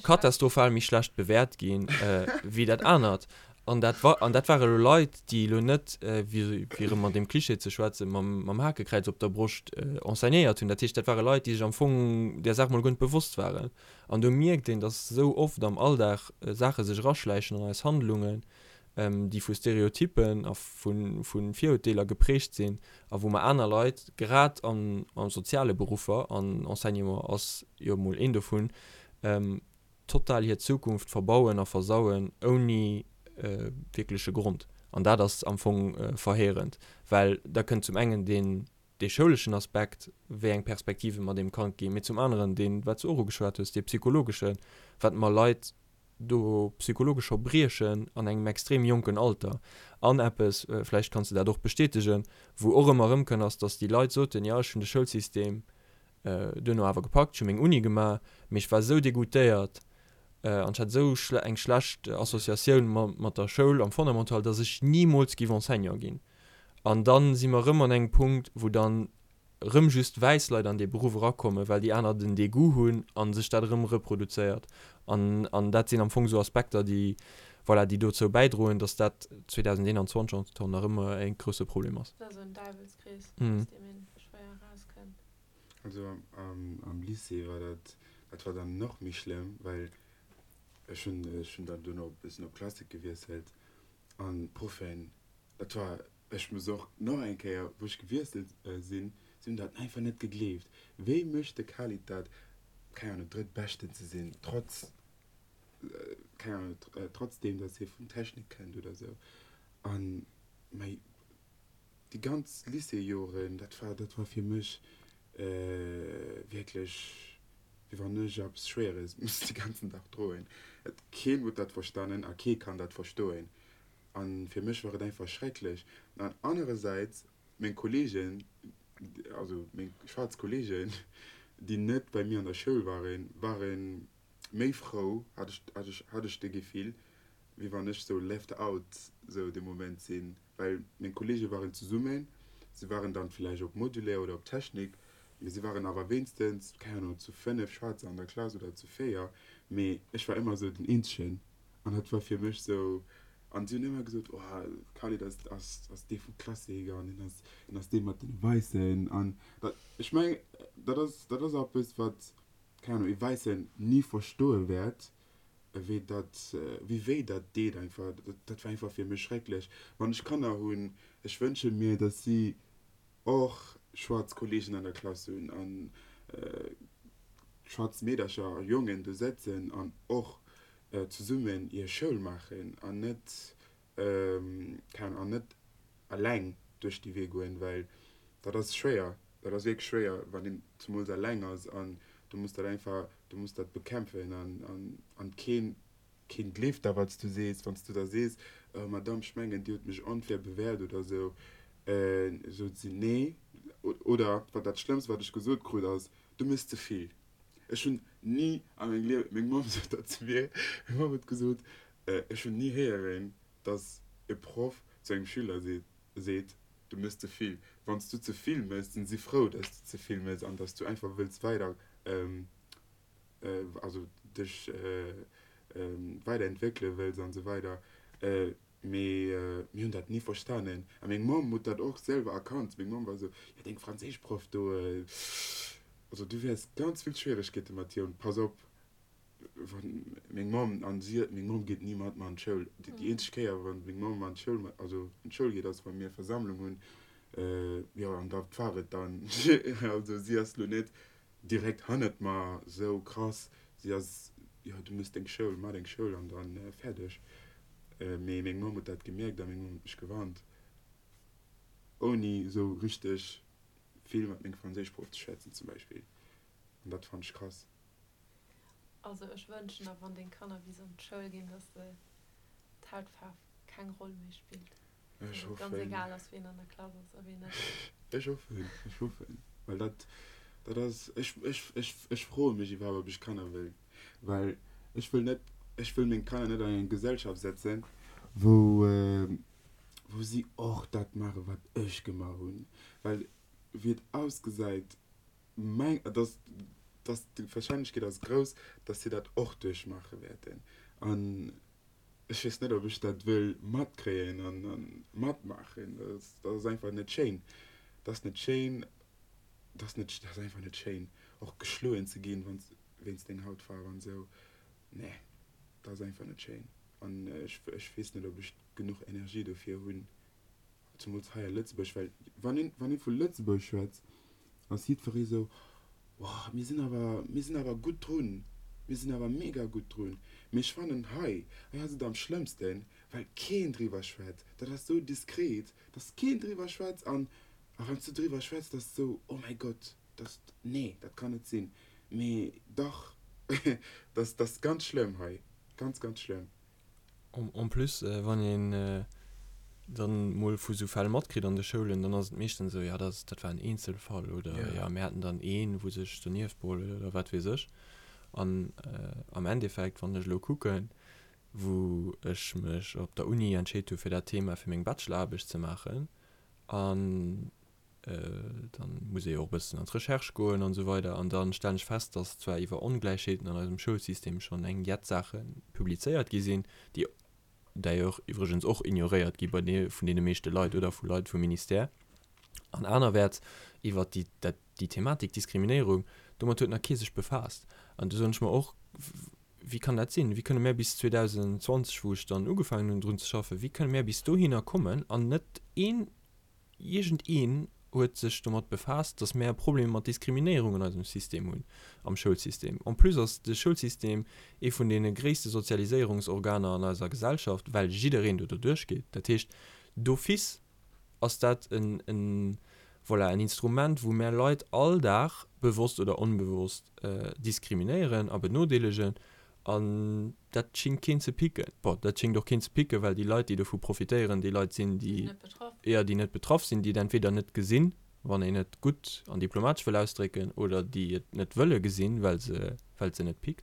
katastrophal méi schlecht bewäert ginn wéi dat anert. An dat wa, an dat ware lo Leit, déi elo net, fir erëm an deem Klischee ze schwätzen, mam, mam Hakekräiz op der Broscht enseignéiert hunn. Dat heescht, dat ware Leit, déi sech am Fong där Saach mol guer net bewosst waren. An do mierkt een, datt esou oft am Alldag Saache sech eraschläichen an eis Handlungen, déi vu Stereotyppen a vu, vu Virurteeler geprägt sinn a wou mer aner Leit, grad an, a soziale Beruffer, an Enseignement ass jo mol een dovun,. Total hir Zukunft verbauen a versauen ouni wierkleche Grond. An dat ass am Fong verheerend, well da kënnt zum engen deen, dee schouleschen Aspekt, wéi eng Perspektive mer deem Kand ginn, mee zum aneren deen, wat s du och ugeschwat hues, dee psychologeschen, wat mer Leit do psychologesch scho briechen an engem extrem jonken Alter. An eppes, vläicht kanns de dat och bestätegen, wou och ëmmer erëmkënn, ass, datt déi Leit soten, jo ech hunn de Schoulsystem duerno awer gepackt, ech hu meng Uni gemaach, mee ech war esou degoûtéiert an ech hat esou eng schlecht Associatioun mat der Schoul am Fondamental, datt ech nimools géif Enseignant ginn. An da si mer erëm an engem Punkt, wou dann erëm just wäiss Leit an dee Beruff erakommen, well déi aner den Degoût hunn a sech dat erëm reproduzéiert. An, an dat sinn am Fong esou Aspekter, déi, voilà, déi dozou bäidroen, datt dat 2021 nach ëmmer e grousse Problem ass. Dat ass esou en Däiwelskrees, aus deem ee schwéier erauskënnt. Also am Lycée war dat, dat war dann nach méi schlëmm, well ech hunn, ech hunn dann duerno e bëssen op Klassik gewiesselt an d'Proffen, dat war, ech muss och nach eng Kéier, wou ech gewiesselt sinn, si hunn dat einfach net gegleeft. Wéi mécht de Khalid dat, keng Ahnung, Drëttbeschten ze sinn, trotz, keng Ahnung, trotzdeem, datt hie vun Technik kënnt oder esou. An mei. Déi ganz Lycéejoren, dat war, dat war fir mech wierklech, wéi wann ech eppes Schwéieres muss de ganzen Dag droen. Et, keen huet dat verstanen a kee kann dat verstoen. A fir mech war et einfach schrecklech. An anerersäits, meng Kolleegen, also meng schwaarz Kolleegen, déi net bei mir an der Schoul waren, ware méi frou, hat ech, hat ech, hat ech de Gefill, wéi wann ech sou left out sou de Moment sinn. well meng Kollege waren zesummen, se waren dann villäicht op Modulaire oder op Technik, mee se waren awer wéinstens, keng Ahnung, zu 5 Schwaarzer an der Klass oder zu 4, mee ech war ëmmer sou den eenzegen an dat war fir mech sou, an si hunn ëmmer gesot, oh Khalid ass, ass, ass dee vum Klassik an hien ass, hien ass dee mat den Wäissen an dat, ech mengen, dat ass, dat ass eppes wat, keng Ahnung, ee Wäissen ni verstoe wäert, wéi dat, wéi wéi dat deet einfach, dat war einfach fir mech schrecklech. Wann ech Kanner hunn, ech wënsche mir, datt si och schwaarz Kollegen an der Klass hunn an schwaarz Meedercher a Jongen do sëtzen an och zesummen hir Schoul maachen an net, keng Ahnung, an net eleng duerch déi Wee goen, well dat ass schwéier, dat ass wierklech schwéier, wann een zemools eleng ass an du muss dat einfach, du muss dat bekämpfen an, an, an keen, keen gleeft da wat s du sees. Wann s du da sees, oh Madame, ech mengen Dir hutt mech onfair bewäert oder esou, sot si nee. Oder wat dat Schlëmmst wat ech gesot krut ass, du méchs ze vill. Ech hunn ni a mengem Liewen, meng Mamm sot dat zu mir, meng Mamm huet gesot, ech hunn ni héieren, dass e Proff zu engem Schüler seet, du mëss ze vill. Wann s du ze vill mëss, sinn si frou, dass du ze vill mëss an dass du einfach wëlls weider, also dech weiderentwéckele wëlls an esou weider. Mee mir hunn dat ni verstanen. A meng Mamm huet dat och selwer erkannt. Meng Mamm war esou, jo deng Franséischproff do, also du wäers ganz vill Schwieregkeete mat hir hunn, pass op. Wann meng Mamm, an si, meng Mamm geet ni mat mer an d'Schoul. Déi eenzeg Kéier, wann meng Mamm an d'Schoul, also an d'Schoul geet, ass wa mir Versammlung hunn. Jo, an dat war et dann. Also si ass lo net direkt hannert mer sou krass. Si ass, jo, du mëss deng Schoul, maach deng Schoul an dann fäerdeg. Mee meng Mamm huet dat gemierkt a meng Mamm huet mech gewarnt, ouni sou richteg vill mat mengem Franséischproff ze schwätzen zum Beispill. An dat fannt ech krass. Also ech wënschen der, wann deng Kanner bis an d'Schoul ginn, dass de d'Hautfaarf keng Roll méi spillt. Ech Dass et ganz hoffen. egal ass, wien an der Klass ass a wien net. Ech hoffen, ech hoffen, well dat, dat ass, ech, ech, ech, ech froe mech iwwerhaapt, ob ech Kanner wëll, well ech wëll net, ech wëll meng Kanner net an eng Gesellschaft setzen, wou, wou si och dat maachen, wat ech gemaach hunn, well wéi et ausgesäit, Meng, dass, dass d'Wahrscheinlechkeet ass grouss, dass si dat och duerchmaache wäerten. An ech weess net, ob ech dat wëll matkréien an, a matmaachen. Dat ass, dat ass einfach net schéin. Dat ass net schéin, dat ass net, dat ass einfach net schéin, och geschloen ze ginn, wann s, wéinst deng Hautfaarf an esou. Nee, dat ass einfach net schéin. An ech, ech weess net, ob ech genuch Energie dofir hunn. Zemools hei a Lëtzebuerg, well wann een, wann ee vu Lëtzebuerg schwätzt, ass jiddweree sou, Wow, mir sinn awer, mir sinn awer gutt drun. Mir sinn awer mega gutt drun. Mee ech fannen hei, hei ass et am schlëmmsten, well keen driwwer schwätzt. Dat ass sou diskret, dass keen driwwer schwätzt an a wann s du driwwer schwätz, dat ass sou, oh mäi Gott, dat, nee, dat kann net sinn. Mee dach, dat ass ganz schlëmm hei, ganz, ganz schlëmm. En plus, wann een dann mol vu sou Fäll matkritt an de Schoulen, dann ass et meeschtens esou, jo dat dat war en Eenzelfall oder jo mir haten dann een, wou sech donieft beholl huet oder wat weess ech. An am Endeffekt, wann ech elo kucken, wou ech mech op der Uni entscheet hu fir dat Thema fir meng Bacheloraarbecht ze maachen an dann muss ee jo och e bëssen an d'Recherche goen an esou weider an da stellen ech fest, dass zwar iwwer Ongläichheeten an eisem Schoulsystem schonn eng jett Saache publizéiert gi sinn, déi d'ailleurs iwwregens och ignoréiert gi bei de vun deene meeschte Leit oder vu Leit vum Ministère an anerwäerts iwwer déi dat déi Thematik Diskriminéierung, domat huet nach kee sech befaasst. An do soen ech mer och, Wéi kann dat sinn? Wéi kënne mär bis 2020, wou ech dann ugefaangen hunn drun ze schaffen, wéi kënne mär bis dohinner kommen an net een Iergend een huet sech domat befaasst, dass mär e Problem mat Diskriminéierung an eisem System hunn, am Schoulsystem. En plus ass de Schoulsystem ee vun deene gréisste Sozialiséierungsorganer an eiser Gesellschaft, well jiddereen do doduerch geet. Dat heescht, d'office ass dat en, en, voilà, en Instrument, wou mär Leit all Dag, bewosst oder onbewosst, diskriminéieren a benodeelegen. An dat schingt keen ze picken. Bon, dat schingt och keen ze picken, well déi Leit, déi dovu profitéieren, déi Leit sinn, déi, jo, déi net betraff sinn, déi et entweder net gesinn, wann een et gutt an diplomatesch wëll ausdrécken, oder déi et net wëlle gesinn, well se, well et se net pickt.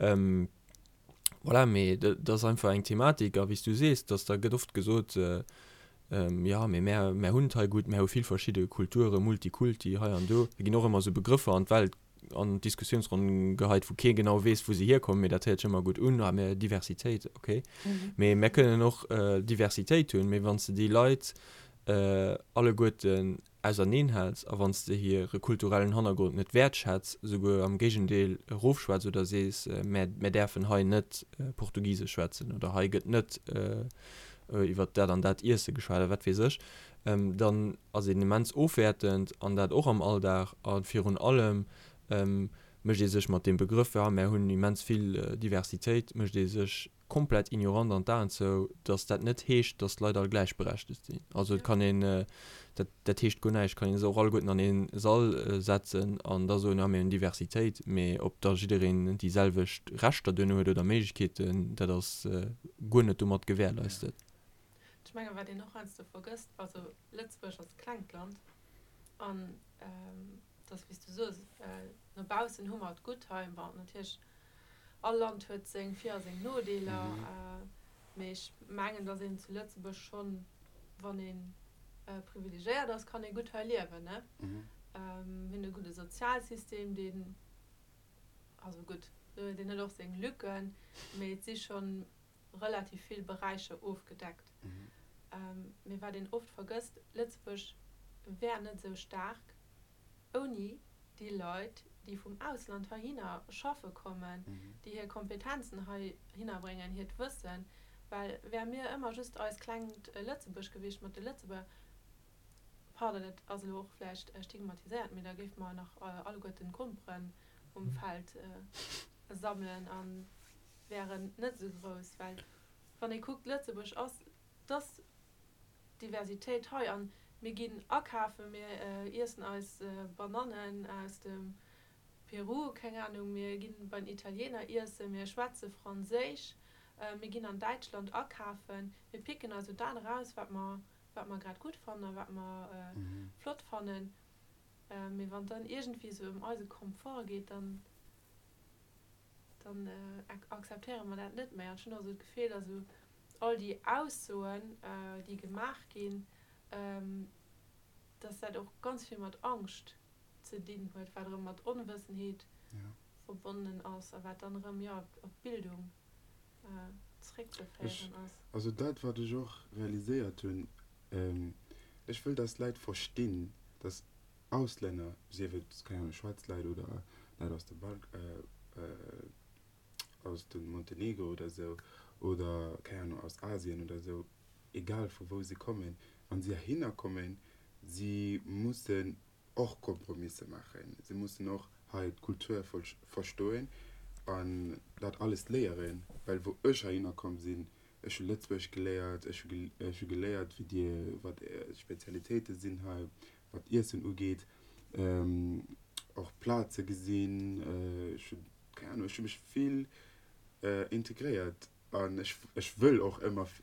Voilà, mee dat ass einfach eng Thematik. A wéi s du sees, dass da gëtt oft gesot, jo, mee mär, mär hunn et hei gutt, mär hu vill verschidde Kulturen, Multikulti hei an do. Da ginn och ëmmer esou Begrëffer an d'Welt an d'Diskussiounsronn geheit, wou kee genau weess, wou se hierkommen, mee dat héiert sech ëmmer gutt un, ah, mir Diversitéit, okay. Mee mir kënnen och Diversitéit hunn, mee wann s de déi Leit alleguerten auserneen häls a wann s de hire kulturellen Hannergrond net wäertschätz, esouguer am Géigendeel erofschwätz oder sees, mär, mär däerfen hei net Portugisesch schwätzen oder hei gëtt net iwwer dat an dat Iesse geschwat oder wat weess ech, dann ass een immens ofwäertend an dat och am Alldag a virun allem mécht ee sech mat deem Begrëff, ja mär hunn immens vill Diversitéit, mécht ee sech komplett ignorant an d'Aen zou, datt dat net heescht, datt d'Leit all gläichberechtegt sinn. Also et kann een, dat dat heescht guer näischt, kann ee se och alleguerten an ee Sall setzen an da soen, ja mir hunn Diversitéit, mee ob da jiddereen déi selwecht Rechter duerno huet oder Méiglechkeeten, dat ass guer net domat gewährleistet. Ech mengen, wat een och heiansdo vergësst, also Lëtzebuerg ass e klengt Land an et ass wéi s du soos, no baussen hu mer et gutt hei. Bon, natierlech, all Land huet seng Vir a seng Nodeeler, mee ech mengen, datt een zu Lëtzebuerg schonn, wann ee privilegéiert ass, kann ee gutt hei liewen, ne? Mir hunn e gudde Sozialsystem, deen, also gutt, deen huet och seng Lücken, mee et si schonn relativ vill Beräicher ofgedeckt. Mee wat een oft vergësst, Lëtzebuerg wär net esou staark ouni déi Leit, déi vum Ausland heihinner schaffe kommen, déi hir Kompetenzen heihinner bréngen, hiert Wëssen. Well wäre mir ëmmer just eist klengt Lëtzebuerg gewiescht mat de Lëtzebuerger, pardon, dat ass elo och vläicht stigmatiséiert, mee da géife mer nach alleguerten Gromperen um Feld sammelen a wären net esou grouss, well wann ee kuckt, Lëtzebuerg ass, et ass Diversitéit hei an mir ginn akafen, mir iessen eis Banannen aus dem Peru, keng Ahnung, mir ginn bei den Italiener iessen, mir schwätze Franséisch, mir ginn an Däitschland akafen, mir picken eis esou dat eraus, wat mer, wat mer grad gutt fannen a wat mer flott fannen. Mee wann et dann iergendwéi esou ëm eise Komfort geet, dann. dann akzeptéiere mer dat net méi. An ech hunn och esou d'Gefill, datt esou all déi Aussoen, déi gemaach ginn, datt dat och ganz vill mat Angscht ze dinn huet, wat erëm mat Onwëssenheet verbonnen ass a wat dann erëm, jo, op d'Bildung zréckzeféieren ass. Also dat, wat ech och realiséiert hunn, ech wëll, datt d'Leit verstinn, datt Auslänner, sief et, keng Ahnung, schwaarz Leit oder Leit aus dem Balk, aus dem Montenegro oder esou, oder, keng Ahnung, aus Asien oder esou, egal vu wou se kommen, wann si heihinner kommen, si mussen och Kompromisse maachen, si mussen och hei d'Kultur verstoen. An dat alles léieren, well wou ech heihinner komm sinn, ech hu Lëtzebuergesch geléiert, ech hu ech hu geléiert wéi dir, wat är Spezialitéite sinn hei, wat Iessen ugeet, och Plaze gesinn, ech hu, keng Ahnung, ech hu mech vill integréiert an ech ech wëll och ëmmer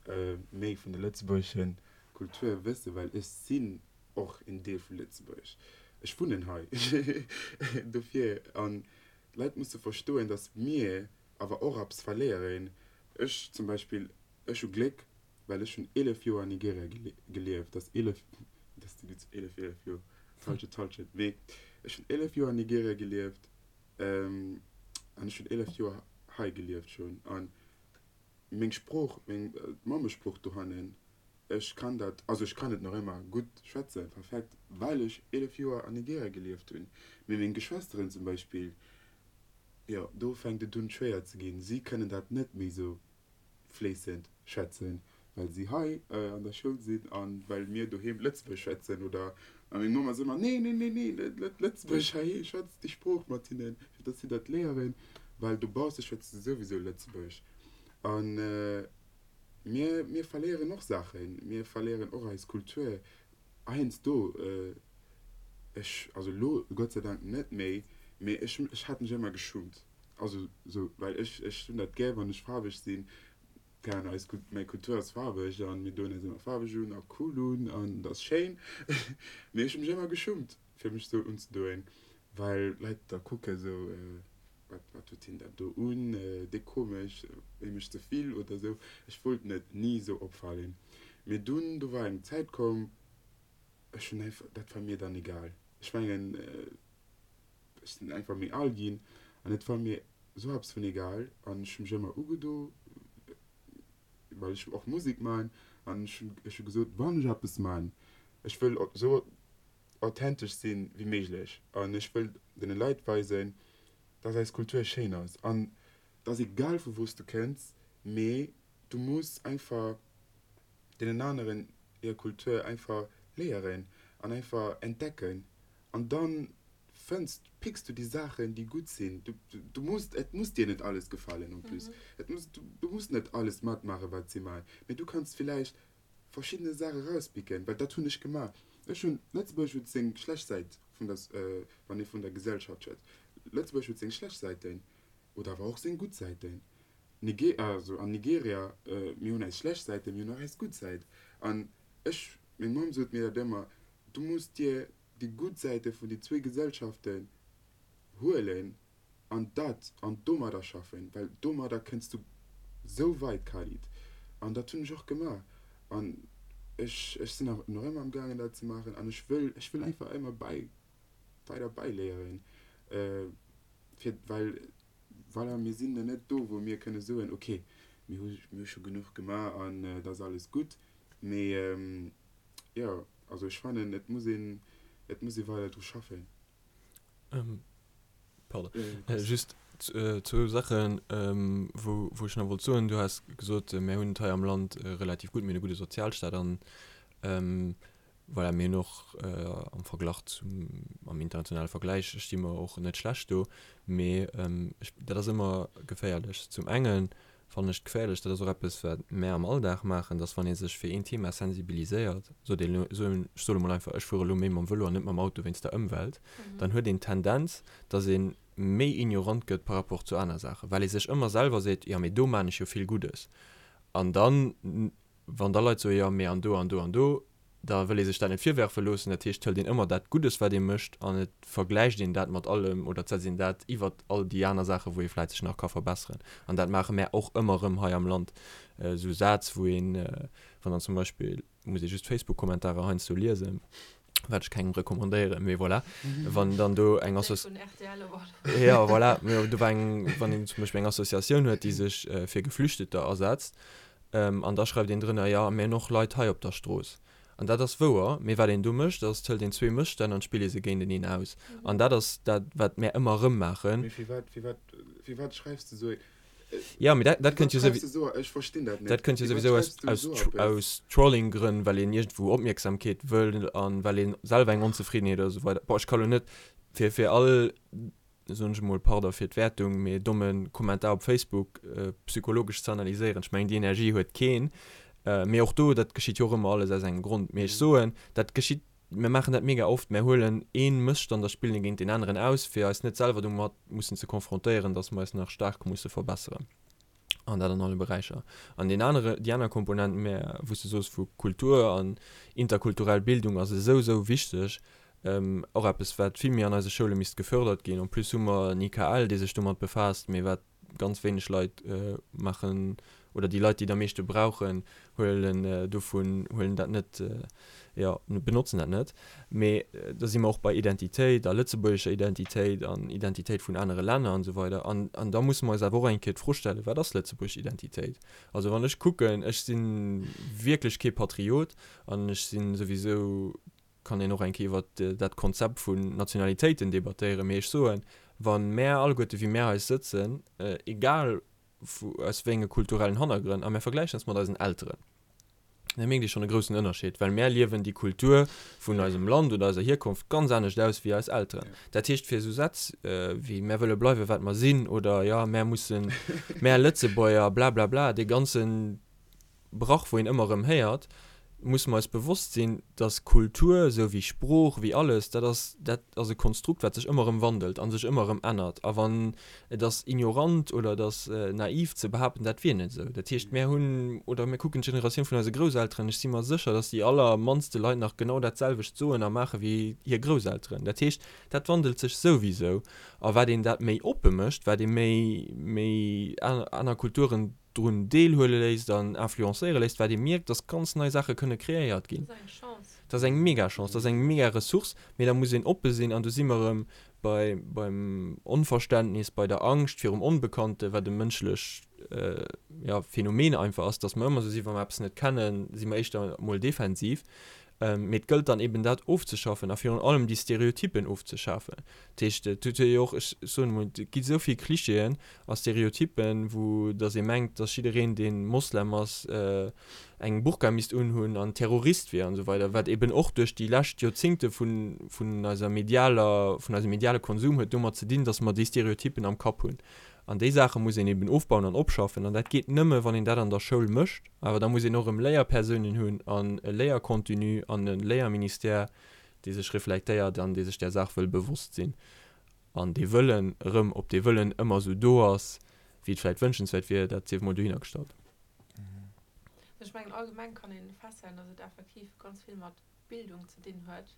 méi vun der lëtzebuergesche Kultur wëssen, well ech sinn och en Deel vu Lëtzebuerg, ech wunnen hei dofir an D'Leit musse verstoen, datt mir awer och eppes verléieren. Ech zum Beispill, ech hu Gléck, well ech hunn 11 Joer an Nigeria gelieft. Dat ass 11, dat ass déi gutt 11, 11 Joer, d'Hallschent, d'Hallschent, mee ech hunn 11 Joer an Nigeria gelieft an ech hunn 11 Joer hei gelieft schonn. A meng Sprooch, meng Mammesprooch dohannen, Ech kann dat, also ech kann et nach ëmmer gutt schwätzen, perfekt, well ech 11 Joer an Nigeria gelieft hunn. Mee meng Geschwësteren zum Beispill, jo, do fänkt et un schwéier ze ginn. Si kënnen dat net méi sou fléissend schwätzen, well si hei an der Schoul sinn a well mir doheem Lëtzebuergesch schwätzen. Oder, a meng Mamm ass ëmmer, Nee, nee, nee, nee, net Lëtzebuergesch heiheem, schwätz déi Sprooch mat hinnen, fir datt si dat léieren, well dobausse schwätze se souwisou Lëtzebuergesch. An. Mir, mir verléieren och Saachen, mir verléieren och eis Kultur heiansdo. Ech, also elo Gott sei Dank net méi, mee ech, ech hat mech ëmmer geschummt. Also sou, well ech, ech hunn dat gär, wann ech faarweg sinn. Keng Ahnung, eis, mäi Kultur ass faarweg an mir doen eis ëmmer faarweg un a cool un an et ass schéin. Mee ech hu mech ëmmer geschummt, fir mech sou unzedoen, well d'Leit da kucke sou. Wat, wat huet hien dat do un, déi komesch, hie mécht ze vill oder esou. Ech wollt net ni esou opfalen. Mee dunn, do war eng Zäit komm, ech hunn einfach, dat war mir dann egal. Ech mengen, ech sinn einfach méi al ginn an et war mir esou eppes vun egal an ech hu mech ëmmer ugedo, well ech och Musek man an ech hunn, ech hu gesot, wann ech eppes man, ech wëll esou authentesch sinn wéi méiglech an ech wëll den Leit weisen, dass eis Kultur schéin ass an et ass egal vu wou s du kënns, mee du muss einfach deenen aneren hir Kultur einfach léieren an einfach entdecken an dann fënns, picks du déi Saachen déi gutt sinn. Du, du muss, et muss dir net alles gefalen en plus, et muss, du muss net alles matmaachen wat si maachen, mee du kanns villäicht verschiddene Saache rauspicken, well dat hunn ech gemaach. Ech hunn, Lëtzebuerg huet seng schlecht Säit vun der, wann ee vun der Gesellschaft schwätzt, Lëtzebuerg huet seng schlecht Säiten oder awer och seng gutt Säiten. Nige, also an Nigeria, mir hunn eis schlecht Säiten, mir hunn och eis gutt Säit. An ech, meng Mamm sot mir dat ëmmer, du muss dir déi gutt Säite vun déi zwéi Gesellschaften huelen an dat an domadder schaffen, well domadder kënns du sou weit, Khalid. An dat hunn ech och gemaach an ech ech sinn nach ëmmer am gaangen dat ze maachen an ech wëll ech wëll einfach ëmmer bäi weider bäiléieren, fir well voilà mir sinn nach net do wou mir kënne soen, ok mir hu mir hu scho genuch gemaach an et ass alles gutt, mee jo also ech fannen et muss een et muss ee weider dru schaffen. Ähm, pardon. Äh, just äh, zwou Sachen, ähm, wou, wou ech nach wollt soen. Du has gesot, äh, mir hunn et hei am Land äh, relativ gutt, mir hunn e gudde Sozialstaat an ähm, voilà, mir hunn och äh, am Verglach zum, am internationale Vergläich sti mer och net schlecht do. Mee ähm, ech, dat ass ëmmer geféierlech. Zum engen fannen ech geféierlech, dat ass och eppes, wat mär am Alldag maachen, dass wann ee sech fir een Thema sensibiliséiert, sot een elo, soen, ech soe mol einfach, ech fuere elo méi mam Vëlo an net mam Auto wéinst der Ëmwelt, dann huet een d'Tendenz, dass ee méi ignorant gëtt par rapport zu aner Saachen, well ee sech ëmmer selwer seet, jo mee do maan ech jo vill Guddes. An dann, wann da Leit soen, jo mee an do an do an do, da wëll ee sech dat net virwerfe loossen. Dat heescht, hëlt een ëmmer dat Guddes, wat ee mécht, an et vergläicht een dat mat allem oder et setzt een dat iwwert all déi aner Saachen, wou ee vläicht sech nach ka verbesseren. An dat maache mär och ëmmer erëm hei am Land, esou Sätz, wou een, wann dann zum Beispill, muss ee just d'Facebook-Kommentarer heiansdo liesen, wat ech kengem recommandéieren, mee voilà, wann dann do eng Associ. Jo, voilà, mee do war eng, wann een zum Beispill eng Associatioun huet, déi sech fir Geflüchteter asetzt, An da schreift een drënner, jo, mir hunn och Leit hei op der Strooss. An dat ass wouer, mee wat een do mécht, ass, et hëlt een zwee Mësstänn an spillt ee se géinteneen aus. An dat ass dat, wat mär ëmmer erëm maachen. Mee firwat, firwat, firwat schreifs de esou ee. Jo, mee dat, dat kënnt jo souwi. Esou, ech verstinn dat net. Dat kënnt jo souwisou aus, aus, aus Trolling-Grënn, well een iergendwou Opmierksamkeet wëll an well ee selwer eng Onzefriddenheet oder esou weider. Bon, ech ka lo net fir, fir all. Soen ech emol, pardon fir d'Wäertung, mee e domme Kommentar op Facebook psychologesch ze analyséieren, ech mengen déi Energie huet keen. Mee och do, dat geschitt jo och ëmmer alles aus engem Grond. Mee ech soen, dat geschitt, mir maachen dat mega oft, mir huelen ee Mësstand a spillen e géint deen aneren aus, fir eis net selwer domat mussen ze konfrontéieren, datt mer eis nach staark musse verbesseren. An dat an alle Beräicher. An deen anere, déi aner Komponent, mä wou s de soos vu Kultur an interkulturell Bildung ass esou, esou wichteg, och eppes wat vill méi an eise Schoule misst gefördert ginn. En plus hu mer en IKL, dee sech domat befaasst, mee wat ganz wéineg Leit maachen, oder déi Leit, déi et am meeschte brauchen, huelen dovun, huelen dat net, jo, benotzen dat net. Mee da si mer och bei Identitéit a lëtzebuergescher Identitéit an Identitéit vun anere Länner an esou weider. An, an da musse mer eis awer och eng Kéier d'Fro stellen, Wat ass lëtzebuergesch Identitéit? Also wann ech kucken, ech si wierklech kee Patriot an ech si souwisou, kann een och eng Kéier iwwert dat Konzept vun Nationalitéiten debattéieren, mee ech soen, wa mär alleguerte wéi mär hei sëtzen, egal vu aus wéi enge kulturellen Hannergrënn, a mär vergläichen eis mat eisen Elteren, da mierkt ee schonn e groussen Ënnerscheed, well mär liewen déi Kultur vun eisem Land oder eiser Hierkonft ganz anescht aus wéi eis Elteren. Dat heescht, fir esou Sätz wéi mär wëlle bleiwe wat mer sinn oder jo mär mussen, mär Lëtzebuerger blablabla, dee ganzen Brach, wou een ëmmer erëm héiert, musse mer eis bewosst sinn, dass Kultur, esou wéi Sprooch, wéi alles, dat ass, dat ass e Konstrukt, wat sech ëmmer erëm wandelt a sech ëmmer erëm ännert. A wann, et ass ignorant oder et ass naiv ze behaapten, dat wier net esou. Dat heescht, mär hunn, oder mir kucken d'Generatioun vun eise Grousselteren, ech si mer sécher, dass déi allermannste Leit nach genau dat selwecht soen a maache wéi hir Grousselteren. Dat heescht, dat wandelt sech souwisou. A wat een dat méi oppe mécht, wat ee méi, méi aner Kulturen drun deelhuele léisst an influencéiere léisst, wat ee mierkt, dass ganz nei Saache kënne kreéiert ginn. Dat ass eng Chance. Dat ass eng mega Chance, dat ass eng mega Ressource, mee da muss een oppe sinn an do si mer erëm bei, beim Onverständnis, bei der Angscht virum Onbekannte, wat e mënschlech, ja, Phänomen einfach ass, dass mer ëmmer esou sinn, wa mer eppes net kennen, si mer éischter emol defensiv. Mee et gëllt dann eben dat ofzeschaffen a virun allem déi Stereotypen ofzeschafen. Dat heescht, et huet jo och, ech soen emol, et gi esou vill Klischeeën a Stereotypen, wou datt ee mengt, datt jiddereen, dee Moslem ass, eng Burka misst unhunn an Terrorist wier an esou weider, wat eben och duerch déi lescht Joerzingte vun, vun eiser medialer, vun eisem mediale Konsum huet domat ze dinn, datt mer déi Stereotypen am Kapp hunn. An déi Saache muss een eben ofbauen an opschaffen. An dat geet nëmme, wann een dat an der Schoul mécht. Awer da muss een och erëm Léierpersounen hunn an e Léiercontenu an e Léierministère, dee sech reflektéiert an dee sech där Saach wëll bewosst sinn. An dee Wëllen erëm, ob dee Wëllen ëmmer esou do ass, wéi et vläicht wënschenswäert wier, dat sief emol dohinnergestallt. Ech mengen, allgemeng kann ee festhalen, datt et effektiv ganz vill mat Bildung ze dinn huet.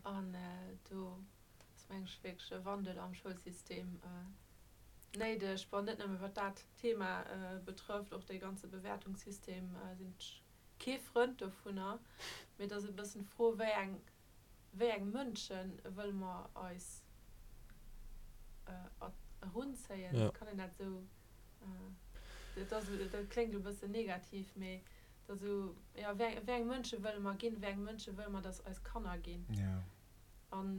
An do ass mengen ech wierklech e Wandel am Schoulsystem néideg. Bon, net nëmme wat dat Thema betrëfft, och dee ganze Bewäertungssystem sinn ech kee Frënd dovunner, mee et ass e bëssen d'Fro, wéi eng, wéi eng Mënsche wëlle mer eis erunzéien? Kann een dat esou, dat ass, dat kléngt elo e bëssen negativ, mee et ass esou, jo, wéi eng, wéi eng Mënsche wëlle mer ginn, wéi eng Mënsche wëlle mer, datt eis Kanner ginn? An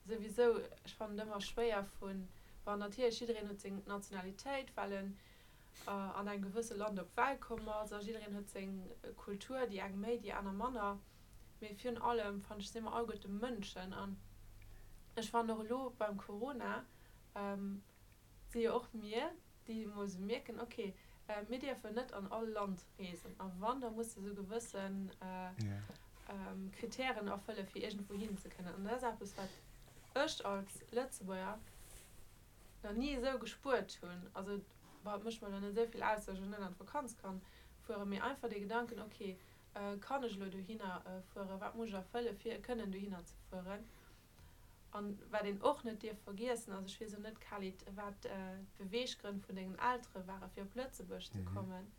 souwisou, ech fannen et ëmmer schwéier vun, bon natierlech jiddereen huet seng Nationalitéit, well en an engem gewësse Land op d'Welt komm ass a jiddereen huet seng Kultur, déi eng méi, déi aner manner, mee virun allem fannen ech si mer alleguerte Mënschen an ech fannen och elo beim Corona, si jo och mir, déi emol esou mierken, ok, mir dierfen net an all Land reesen a wann, da muss de esou gewësse Kritären erfëlle fir iergendwou hin ze kënnen. An dat ass eppes, wat ech als Lëtzebuerger nach ni esou gespuert hunn. Also, bon, et mécht mer elo net esou vill aus, datt ech elo net an d'Vakanz kann fueren, mee einfach dee Gedanken, ok, kann ech elo dohinner fueren, wat muss ech erfëlle fir kënnen dohinner ze fueren? An wat een och net dierf vergiessen ass, ech weess elo net, Khalid, wat d'Beweeggrënn vun dengen Eltere ware fir op Lëtzebuerg ze kommen,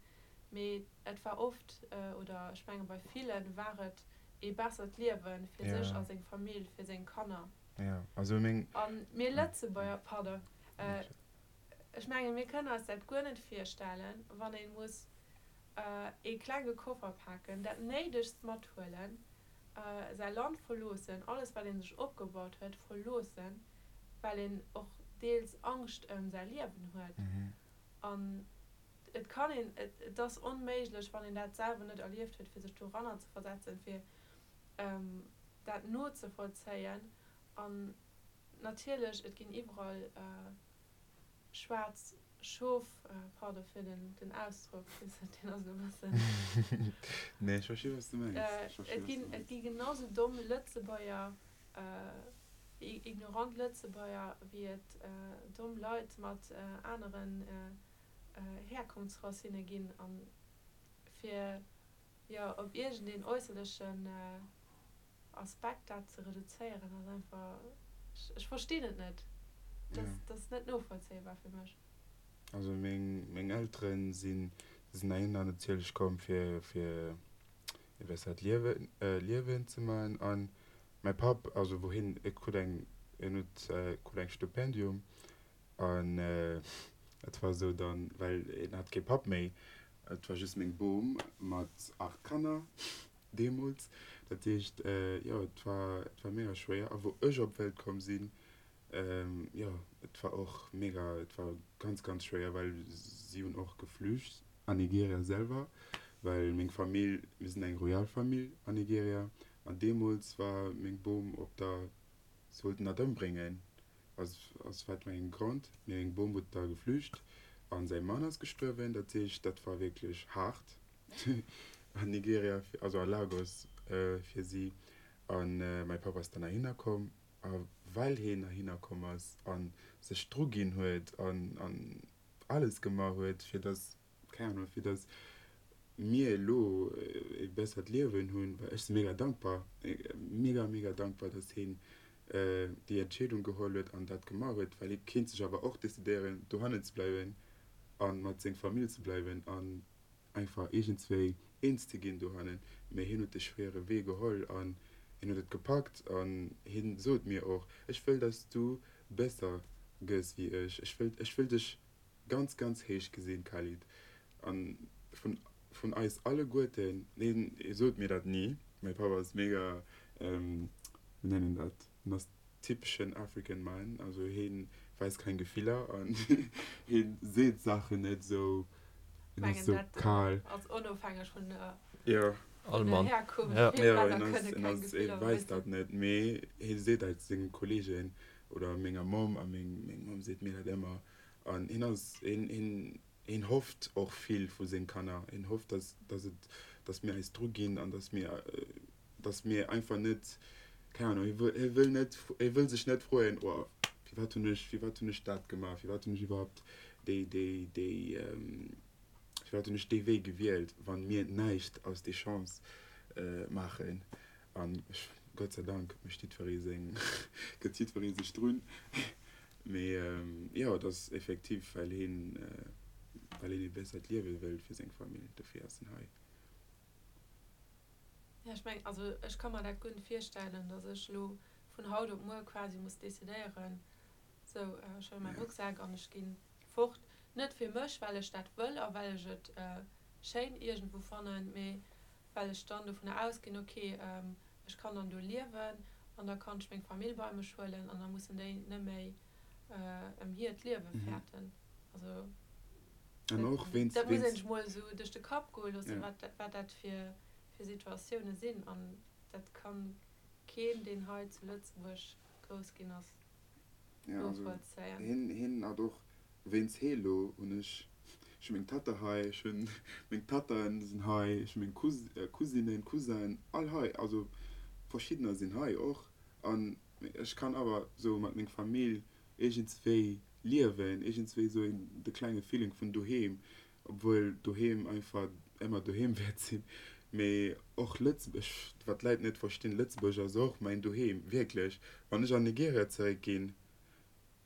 mee et war oft, oder ech menge bei villen war et ee bessert Liewe fir sech a seng Famill, fir seng Kanner. A mir Lëtzebuerger, pardon, ech menge mir kënnen eis dat guer net virstellen, wann ee muss ee klenge Koffer paken, dat Néidegst mathuelen, säi Land verloossen, alles wat ee sech opgebaut huet verloossen, well een och deels Angscht ëm säi Liewen huet. An et kann een, et ass onméiglech, wann een dat selwer net erlieft huet, fir sech doranner ze versetzen, fir dat nozevollzéien. An. Natierlech, et ginn iwwerall schwaarz Schof, pardon fir den Ausdrock, weess net, deen ass elo e bëssen. Nee, ech versti wat s de mengs. Ech versti Et wat s ginn, de et mengs. gi genau sou domm Lëtzebuerger, ignorant Lëtzebuerger, wéi et domm Leit mat aneren Herkunftsracinne ginn. An fir, jo, op iergendeen äusserlechen Aspekt dat ze reduzéieren ass einfach, ech verstinn et net, dat ass net novollzéibar fir mech. Also meng meng Elteren sinn sinn heihinner natierlech komm fir fir e bessert Liewen Liewen ze man an mäi Papp also wou hien e krut eng en huet krut eng Stipendium an et war esou dann well en hat kee Papp méi et war just meng Bom mat 8 Kanner Deemools. Dat heescht, jo, et war, et war mega schwéier. A wou ech op d'Welt komm sinn, jo, et war och mega, et war ganz, ganz schwéier, well si hunn och geflücht an Nigeria selwer, well meng Famill, mir sinn eng royal Famill an Nigeria, an deemools war meng Bom op der, si wollten dat ëmbréngen, aus, aus wat fir engem Grond, mee meng Bom huet da geflücht a säi Mann ass gestuerwen. Dat heescht, dat war wierklech haart. An Nigeria, also a Lagos fir si. A mäi Papp ass dann heihinner komm. A well hien heihinner komm ass a sech dru ginn huet an alles gemaach huet, fir datt, keng Ahnung, fir datt mir elo e bessert Liewen hunn, well ech si mega dankbar, mega, mega dankbar, datt hien déi Entscheedung geholl huet an dat gemaach huet, well hie kéint sech awer och decidéieren, dohannen ze bleiwen a mat seng Famill ze bleiwen an einfach iergendswéi eens ze ginn dohannen, mee hien huet de schwéiere Wee geholl an hien huet et gepackt an hien sot mir och, ech wëll dass du besser gëss wéi ech, ech wëll, ech wëll dech ganz, ganz héich gesinn, Khalid. An vun, vun eis alleguerten, hien sot mir dat ni, mäi Papp ass mega, wéi nennt een dat, hien ass typeschen African Man, also heen weist keng Gefiller an heen seet Saachen net sou, heen ass sou kal. Ass onofhängeg vun der Jo. All Mann. Herkunft. Ja. Vill Jo, Männer heen ass, kënne heen keng ass, hee Gefiller weist weisen. dat net, mee hee seet dat senge Kollegen oder menger Mamm a meng meng Mamm seet mir dat ëmmer an heen ass, heen heen heen hofft och vill vu seng Kanner, heen hofft dass dass et dass mir eis dru ginn an dass mir dass mir einfach net, keng Ahnung, hie wëll, hie wëll net, hie wëll sech net froen, oh, firwat hunn ech, firwat hunn ech dat gemaach, firwat hunn ech iwwerhaupt déi, déi, déi, firwat hunn ech dee Wee gewielt, wann mir näischt aus déi Chance maachen. An ech, Gott sei Dank mécht jiddweree seng, gëtt jiddweree sech drun. Mee jo, et ass effektiv, well hien, well hien ee bessert Liewe wëllt fir seng Famill, dofir ass en hei. Ja, ech mengen, also ech ka mer dat guer net virstellen, datt ech elo vun haut op muer quasi muss decidéieren, sou ech huele mäi Rucksak an ech gi fort. Net fir mech, well ech dat wëll a well ech et schéin iergendwou fannen, mee well ech dann dovunner ausginn, ok, ech kann dann do liewen an da kann ech meng Famill bei mech huelen an da mussen déi net méi ëm hiert Liewe fäerten. Also An och wéinst, dat muss een wéinst, sech mol esou duerch de Kapp goe loossen, ja. wat wat dat fir fir Situatioune sinn. An dat kann keen, deen hei zu Lëtzebuerg grouss ginn ass, Ja, also novollzéien. hien, hien hat och, wéinst hee lo hunn ech, ech hu meng Tatta hei, ech hunn meng Tattaen sinn hei, ech hu meng Cous, Cousinen, Cousin, all hei, also verschiddener sinn hei och. An ech kann awer sou mat meng Famill iergendswéi liewen, iergendswéi sou een de klenge Feeling vun doheem, obwuel doheem einfach ëmmer doheem wäert sinn, mee och Lëtzebuerg, wat d'Leit net verstinn, Lëtzebuerg ass och mäin Doheem, wierklech. Wann ech an Nigeria zeréck ginn,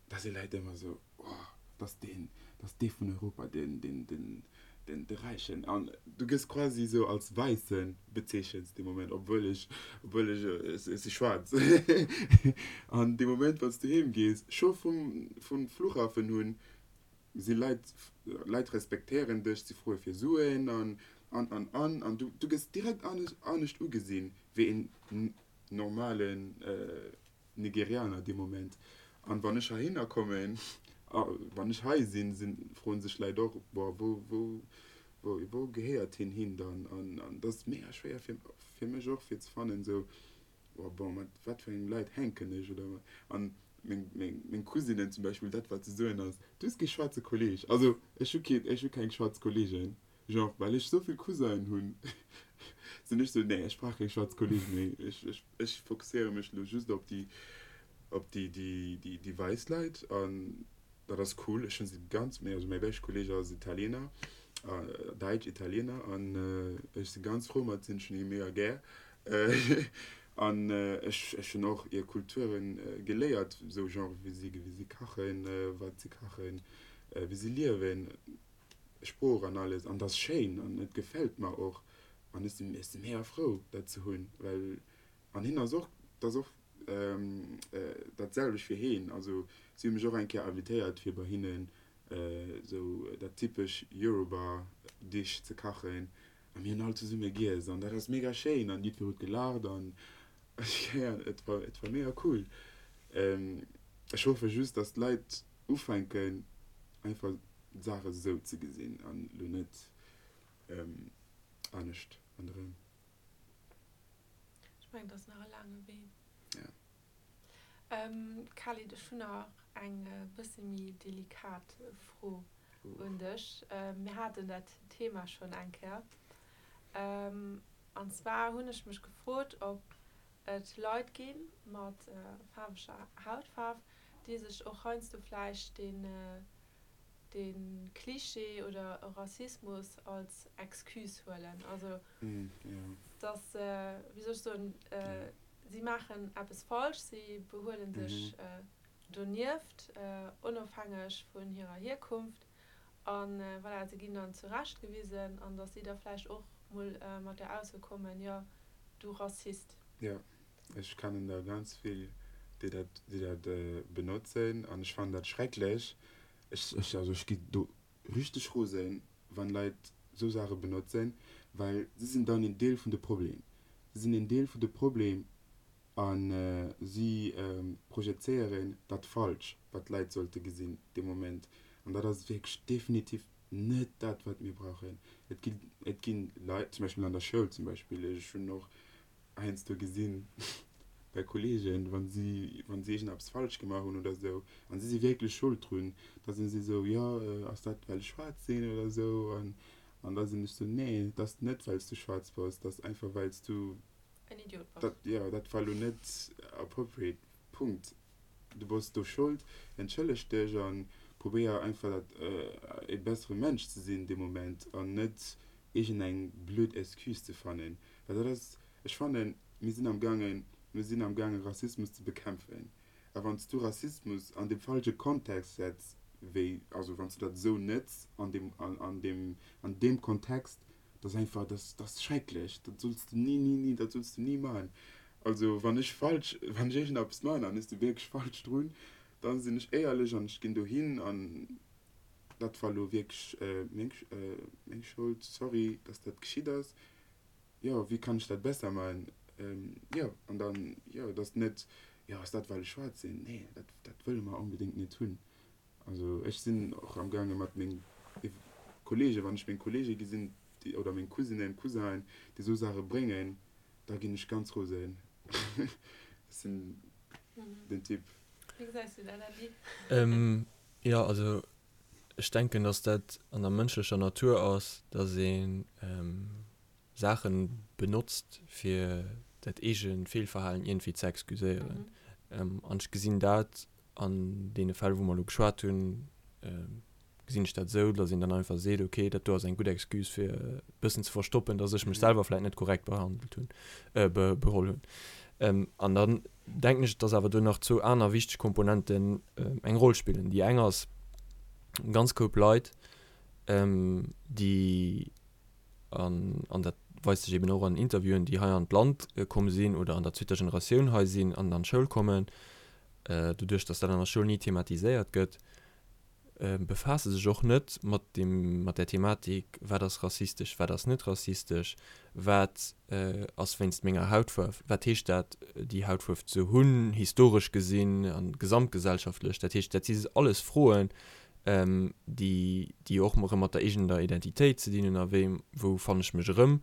da si Leit ëmmer sou, oh, dat ass deen, dat ass dee vun Europa, deen, deen, deen, den de Räichen an du gëss quasi sou als Wäisse bezeechent dee Moment, obwuel ech, obwuel ech, ech si schwaarz. An dee Moment wann s du heem gees, scho vum, vum Flughafen hunn, si Leit, Leit respektéieren dech, si froe fir Suen an, an, an, an, an du, du gëss direkt anescht, anescht ugesinn wéi een normalen Nigerianer dee Moment. An wann ech heihinner kommen, a wann ech hei sinn, sinn, froen sech Leit och, boah, wou, wou, wou, wou gehéiert hien hin dann? An, an dat ass mega schwéier fir, fir mech och fir ze fannen, esou, boah, bon, mat wat fir engem Leit hänken ech oder wat? An. Meng, meng, meng Cousinen zum Beispill, dat wat se soen ass, Du hues kee schwaarze Kolleg. Also ech hu keen, ech hu keng schwaarz Kollegen, genre well ech esou vill Cousinen hunn, sinn ech sou, nee, ech brauch keng schwaarz Kolleg méi, ech, ech, ech fokusséiere mech elo just op déi, op déi, déi, déi, déi wäiss Leit an dat ass cool. Ech hunn se ganz, also mäi beschte Kolleg ass Italiener, Däitsch Italiener an ech si ganz frou mat sinn, ech hunn hie mega gär. An ech ech hunn och hir Kulturen geléiert, esou genre wéi si wéi si kachen, wat si kachen, wéi si liewen, Sprooch an alles. An dat ass schéin an et gefält mer och. An ech sinn ech si mega frou dat ze hunn, well an hien ass och, dat ass och dat selwecht fir hien. Also si hu mech och eng Kéier invitéiert fir bei hinnen esou dat typesch Yoruba Dish ze kachen. A mir hunn all zesumme giess an dat ass mega schéin an jiddwer huet gelaacht an et war, et war mega cool. Ech hoffe just, dass d'Leit ufänken einfach d'Saache sou ze gesinn an lo net anescht ronderëm. Ech mengen, et ass nach e laange Wee. Ja. Khalid, ech hunn nach eng bësse méi delikat Fro un dech. Mir haten dat Thema schonn eng Kéier. An zwar hunn ech mech gefrot, ob et Leit gi mat faarweger Hautfaarf, déi sech och heiansdo vläicht deen de Cliché oder e Rassismus als Excuse huelen. Also dass, wéi soll ech soen, si maachen eppes falsch, si behuele sech donieft, onofhängeg vun hirer Hierkunft a voilà, se ginn dann zurechtgewisen an dass si da vläicht och mol mat der Ausso kommen, jo, du Rassist. Jo, ech kennen der ganz vill, déi dat, déi dat benotzen an ech fannen dat schrecklech. Ech, ech, also ech gi do richteg rosen, wann Leit esou Saache benotzen, well si sinn dann een Deel vun de Problem. Si sinn een Deel vun de Problem a si projezéieren dat falsch, wat d'Leit sollte gesinn dee Moment. An dat ass wierklech definitiv net dat, wat mir brauchen. Et gi, et gi Leit, zum Beispill an der Schoul zum Beispill, ech hunn och heiansdo gesinn bei Kollegen, wa si, wa si iergendeppes falsch gemaach hunn oder esou, an si si wierklech Schold drun, da sinn si esou, jo, ass dat well ech schwaarz sinn oder esou? An, an da sinn ech esou, nee, et ass net well s du schwaarz bass, et ass einfach well s du En Idiot bass. Dat, jo, dat war elo net appropriate, Punkt. Du bass do Schold, entschëlleg dech a probéier einfach dat, e bessere Mensch ze sinn dee Moment an net iergendeng blöd Excuse ze fannen. Well dat ass, ech fannen, mir sinn am gaangen, mir sinn am gaangen Rassismus ze bekämpfen. A wann s du Rassismus an deem falsche Kontext setz, wéi, also wann s du dat esou nëtz an deem, an deem, an deem Kontext, dat ass einfach, dat ass schrecklech, dat solls du ni, ni, ni, dat solls du ni maachen. Also wann ech falsch, wann ech iergendeppes maachen an ech si wierklech falsch drun, da sinn ech éierlech an ech ginn dohin an dat war elo wierklech meng, meng Schold, sorry, dass dat geschitt ass. Jo, wéi kann ech dat besser maachen? Jo, an dann, jo, et ass net, jo, ass dat well ech schwaarz sinn? Nee, dat, dat wëlle mer onbedéngt net hunn. Also ech sinn och am gaange mat meng Kollegen, wann ech meng Kollege gesinn, déi, oder meng Cousinen, Cousinen, déi esou Saache bréngen, da ginn ech ganz rosen. Ech sinn den Typ. Wéi gesäis du dat, Andy? Jo, also ech denken, datt dat an der mënschlecher Natur ass, datt ee Saache benotzt, fir dat eege Feelverhalen iergendwéi ze excuséieren. An ech gesinn dat an deene Fäll, wou mer elo geschwat hunn, gesinn ech dat esou, datt een dann einfach seet, okay, dat do ass eng gutt Excuse, fir e bëssen ze verstoppen, datt ech mech selwer vläicht net korrekt behandelt hunn, beholl hunn. An dann denken ech, datt awer do nach zwou aner wichteg Komponenten eng Roll spillen. Déi eng ass, e ganz Koup Leit, déi, an, an dat weist sech eben och an Interviewen, déi hei an d'Land komm sinn oder an der zweeter Generatioun hei sinn an an d'Schoul kommen, doduerch datt dat an der Schoul ni thematiséiert gëtt, befaasse sech och net mat deem, mat där Thematik, wat ass rassistesch, wat ass net rassistesch, wat ass wéinst menger Hautfaarf, wat heescht dat, déi Hautfuerf ze hunn, historesch gesinn a gesamtgesellschaftlech. Dat heescht, dat si alles Froen, déi, déi och erëm mat der eegener Identitéit ze dinn hunn a wéi, wou fannen ech mech erëm.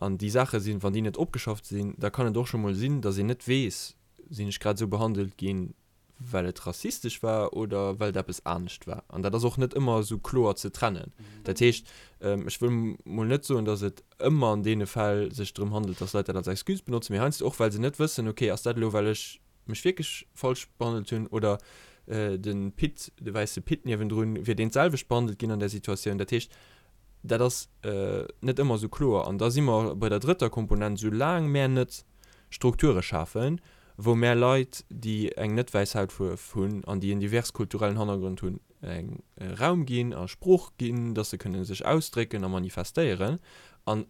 An déi Saache sinn, wann déi net opgeschafft sinn, da kann et och scho mol sinn, datt een net weess, sinn ech grad esou behandelt ginn? well et rassistesch war oder well et eppes anescht war. An dat ass och net ëmmer esou kloer ze trennen. Dat heescht, ech wëll mol net soen, datt et ëmmer an deene Fäll sech drëm handelt, datt Leit dat als Excuse benotzen, mee heiansdo och, well se net wëssen, okay, ass dat elo, well ech mech wierklech falsch behandelt hunn oder de Pit, de wäisse Pit niewendrun, wier deen d'selwecht behandelt ginn an där Situatioun. Dat heescht, dat ass net ëmmer esou kloer. An da si mer bei der drëtter Komponent, Soulaang mär net Strukture schafen, wou mär Leit, déi eng net wäiss Hautfuerf hunn an déi en divers kulturellen Hannergrond hunn, eng Raum ginn a Sprooch ginn, dass se kënne sech ausdrécken a manifestéieren an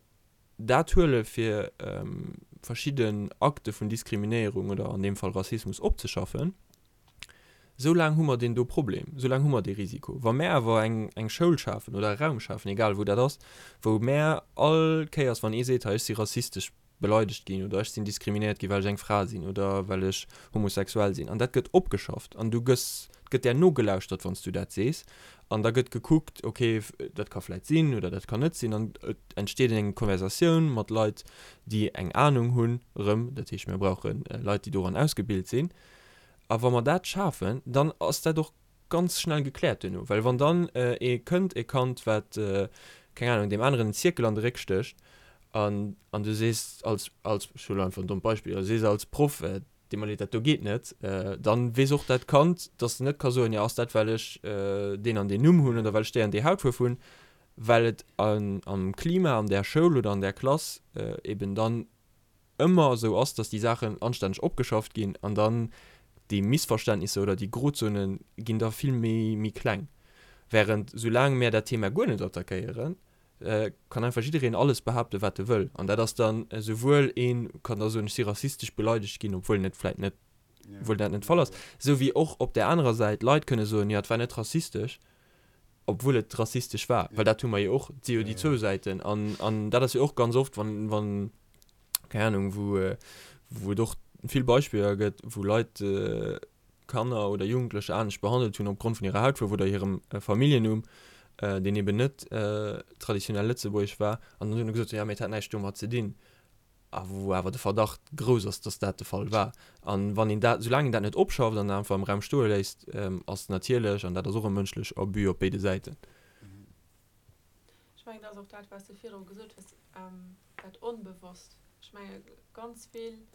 dat huele fir verschidden Akte vun Diskriminéierung oder an deem Fall Rassismus opzeschaffen, esou laang hu mer deen do Problem, esou laang hu mer dee Risiko. Wa mär awer eng eng Schoul schafen oder e Raum schafen, egal wou dat ass, wou mär all Kéiers wann ee seet, hei ech si rassistesch beleidegt ginn oder ech sinn diskriminéiert ginn, well ech eng Fra sinn oder well ech homosexuell sinn. An dat gëtt opgeschafft an du gëss, et gëtt där nogelauschtert, wann s du dat sees. An da gëtt gekuckt, okay, dat ka vläit sinn oder dat kann net sinn. An et entsteet eng Konversatioun mat Leit, déi eng Anung hunn erëm. Dat heescht, mir brauche Leit, déi doran ausgebilt sinn. A wa mer dat schafen, dann ass dat och ganz schnell gekläert duerno, well wann dann ee kënnt, e Kand wat, keng Ahnung, deem aneren en Zierkel an de Réck stécht an an du sees als, als, ech huelen einfach en dommt Beispill, du sees als Proff, deet mer leed, dat do geet net, dann weess och dat Kand, dass en net ka soen, jo ass dat well ech deen an deen Numm hunn oder well ech déi an déi Hautfuerf hunn, well et am Klima an där Schoul oder an där Klass eben dann ëmmer esou ass, dass déi Saachen anstänneg opgeschafft ginn an dann déi Missverständnisser oder déi Grozone ginn da vill méi méi kleng. Während soulaang mär dat Thema guer net attackéieren, kann einfach jiddereen alles behaapten, wat e wëll. An dat ass dann esouwuel ee kann da soen, ech si rassistesch beleidegt ginn, obwuel en et vläit net, obwuel dat net de Fall ass, esou wéi och op där anerer Säit Leit kënne soen, jo et war net rassistesch, obwuel et rassistesch war, well dat hu mer jo och, et si jo déi zwou Säiten. An, an dat ass jo och ganz oft, wann, wann, keng Ahnung, wou, wou et och vill Beispiller gëtt, wou Leit Kanner oder Jugendlecher anescht behandelt hunn opgrond vun hirer Hautfuerf oder hirem Familljennumm, deen eben net traditionell lëtzebuergesch war, an dann hunn se gesot, jo, mee et hat näischt domat ze dinn. A wou awer de Verdacht grouss ass, dass dat de Fall war. A wann een dat, soulaang een dat net opschafft an einfach am Raum stoe léisst, ass natierlech, an dat ass och e mënschlech Abus op béide Säiten. Ech mengen, dat ass och dat, wat s de virdru gesot hues, dat Onbewosst. Ech menge ganz vill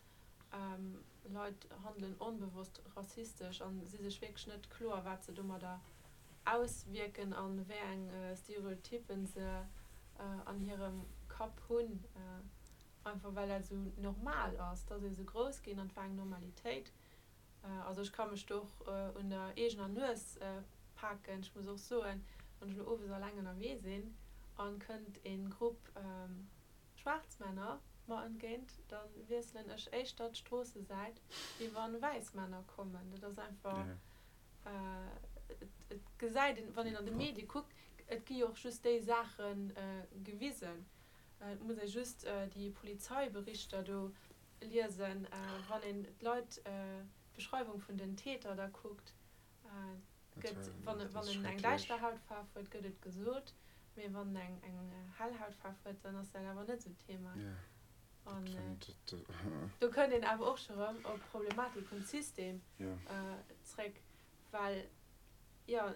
Leit handelen onbewosst rassistesch a si sech wierklech net kloer, wat se domadder auswierken a wéi eng Stereotyppen se an hirem Kapp hunn, einfach well dat esou normal ass. Et ass ee sou grouss ginn an et war eng Normalitéit. Also ech ka mech do och un der eegener Nues paken. Ech muss och soen, wann ech elo owes alleng ënnerwee sinn an kënnt ee Grupp schwaarz Männer mer entgéint, da wiesselen ech éischter d'Stroossesäit, wéi wann wäiss Männer kommen. Dat ass einfach, et gesäit een, wann een an de Medie kuckt, et gi jo och just déi Saache gewisen. Et muss ee just déi Polizeiberichter do liesen, wann een d'Leit, d'Beschreiwung vun den Täter da kuckt, gëtt, wann en eng däischter Hautfaarf huet, gëtt et gesot, mee wann en eng hell Hautfaarf huet, dann ass dat awer net esou d'Thema. An do kënnt een awer och scho rëm op d'Problematik vum System zréck, well jo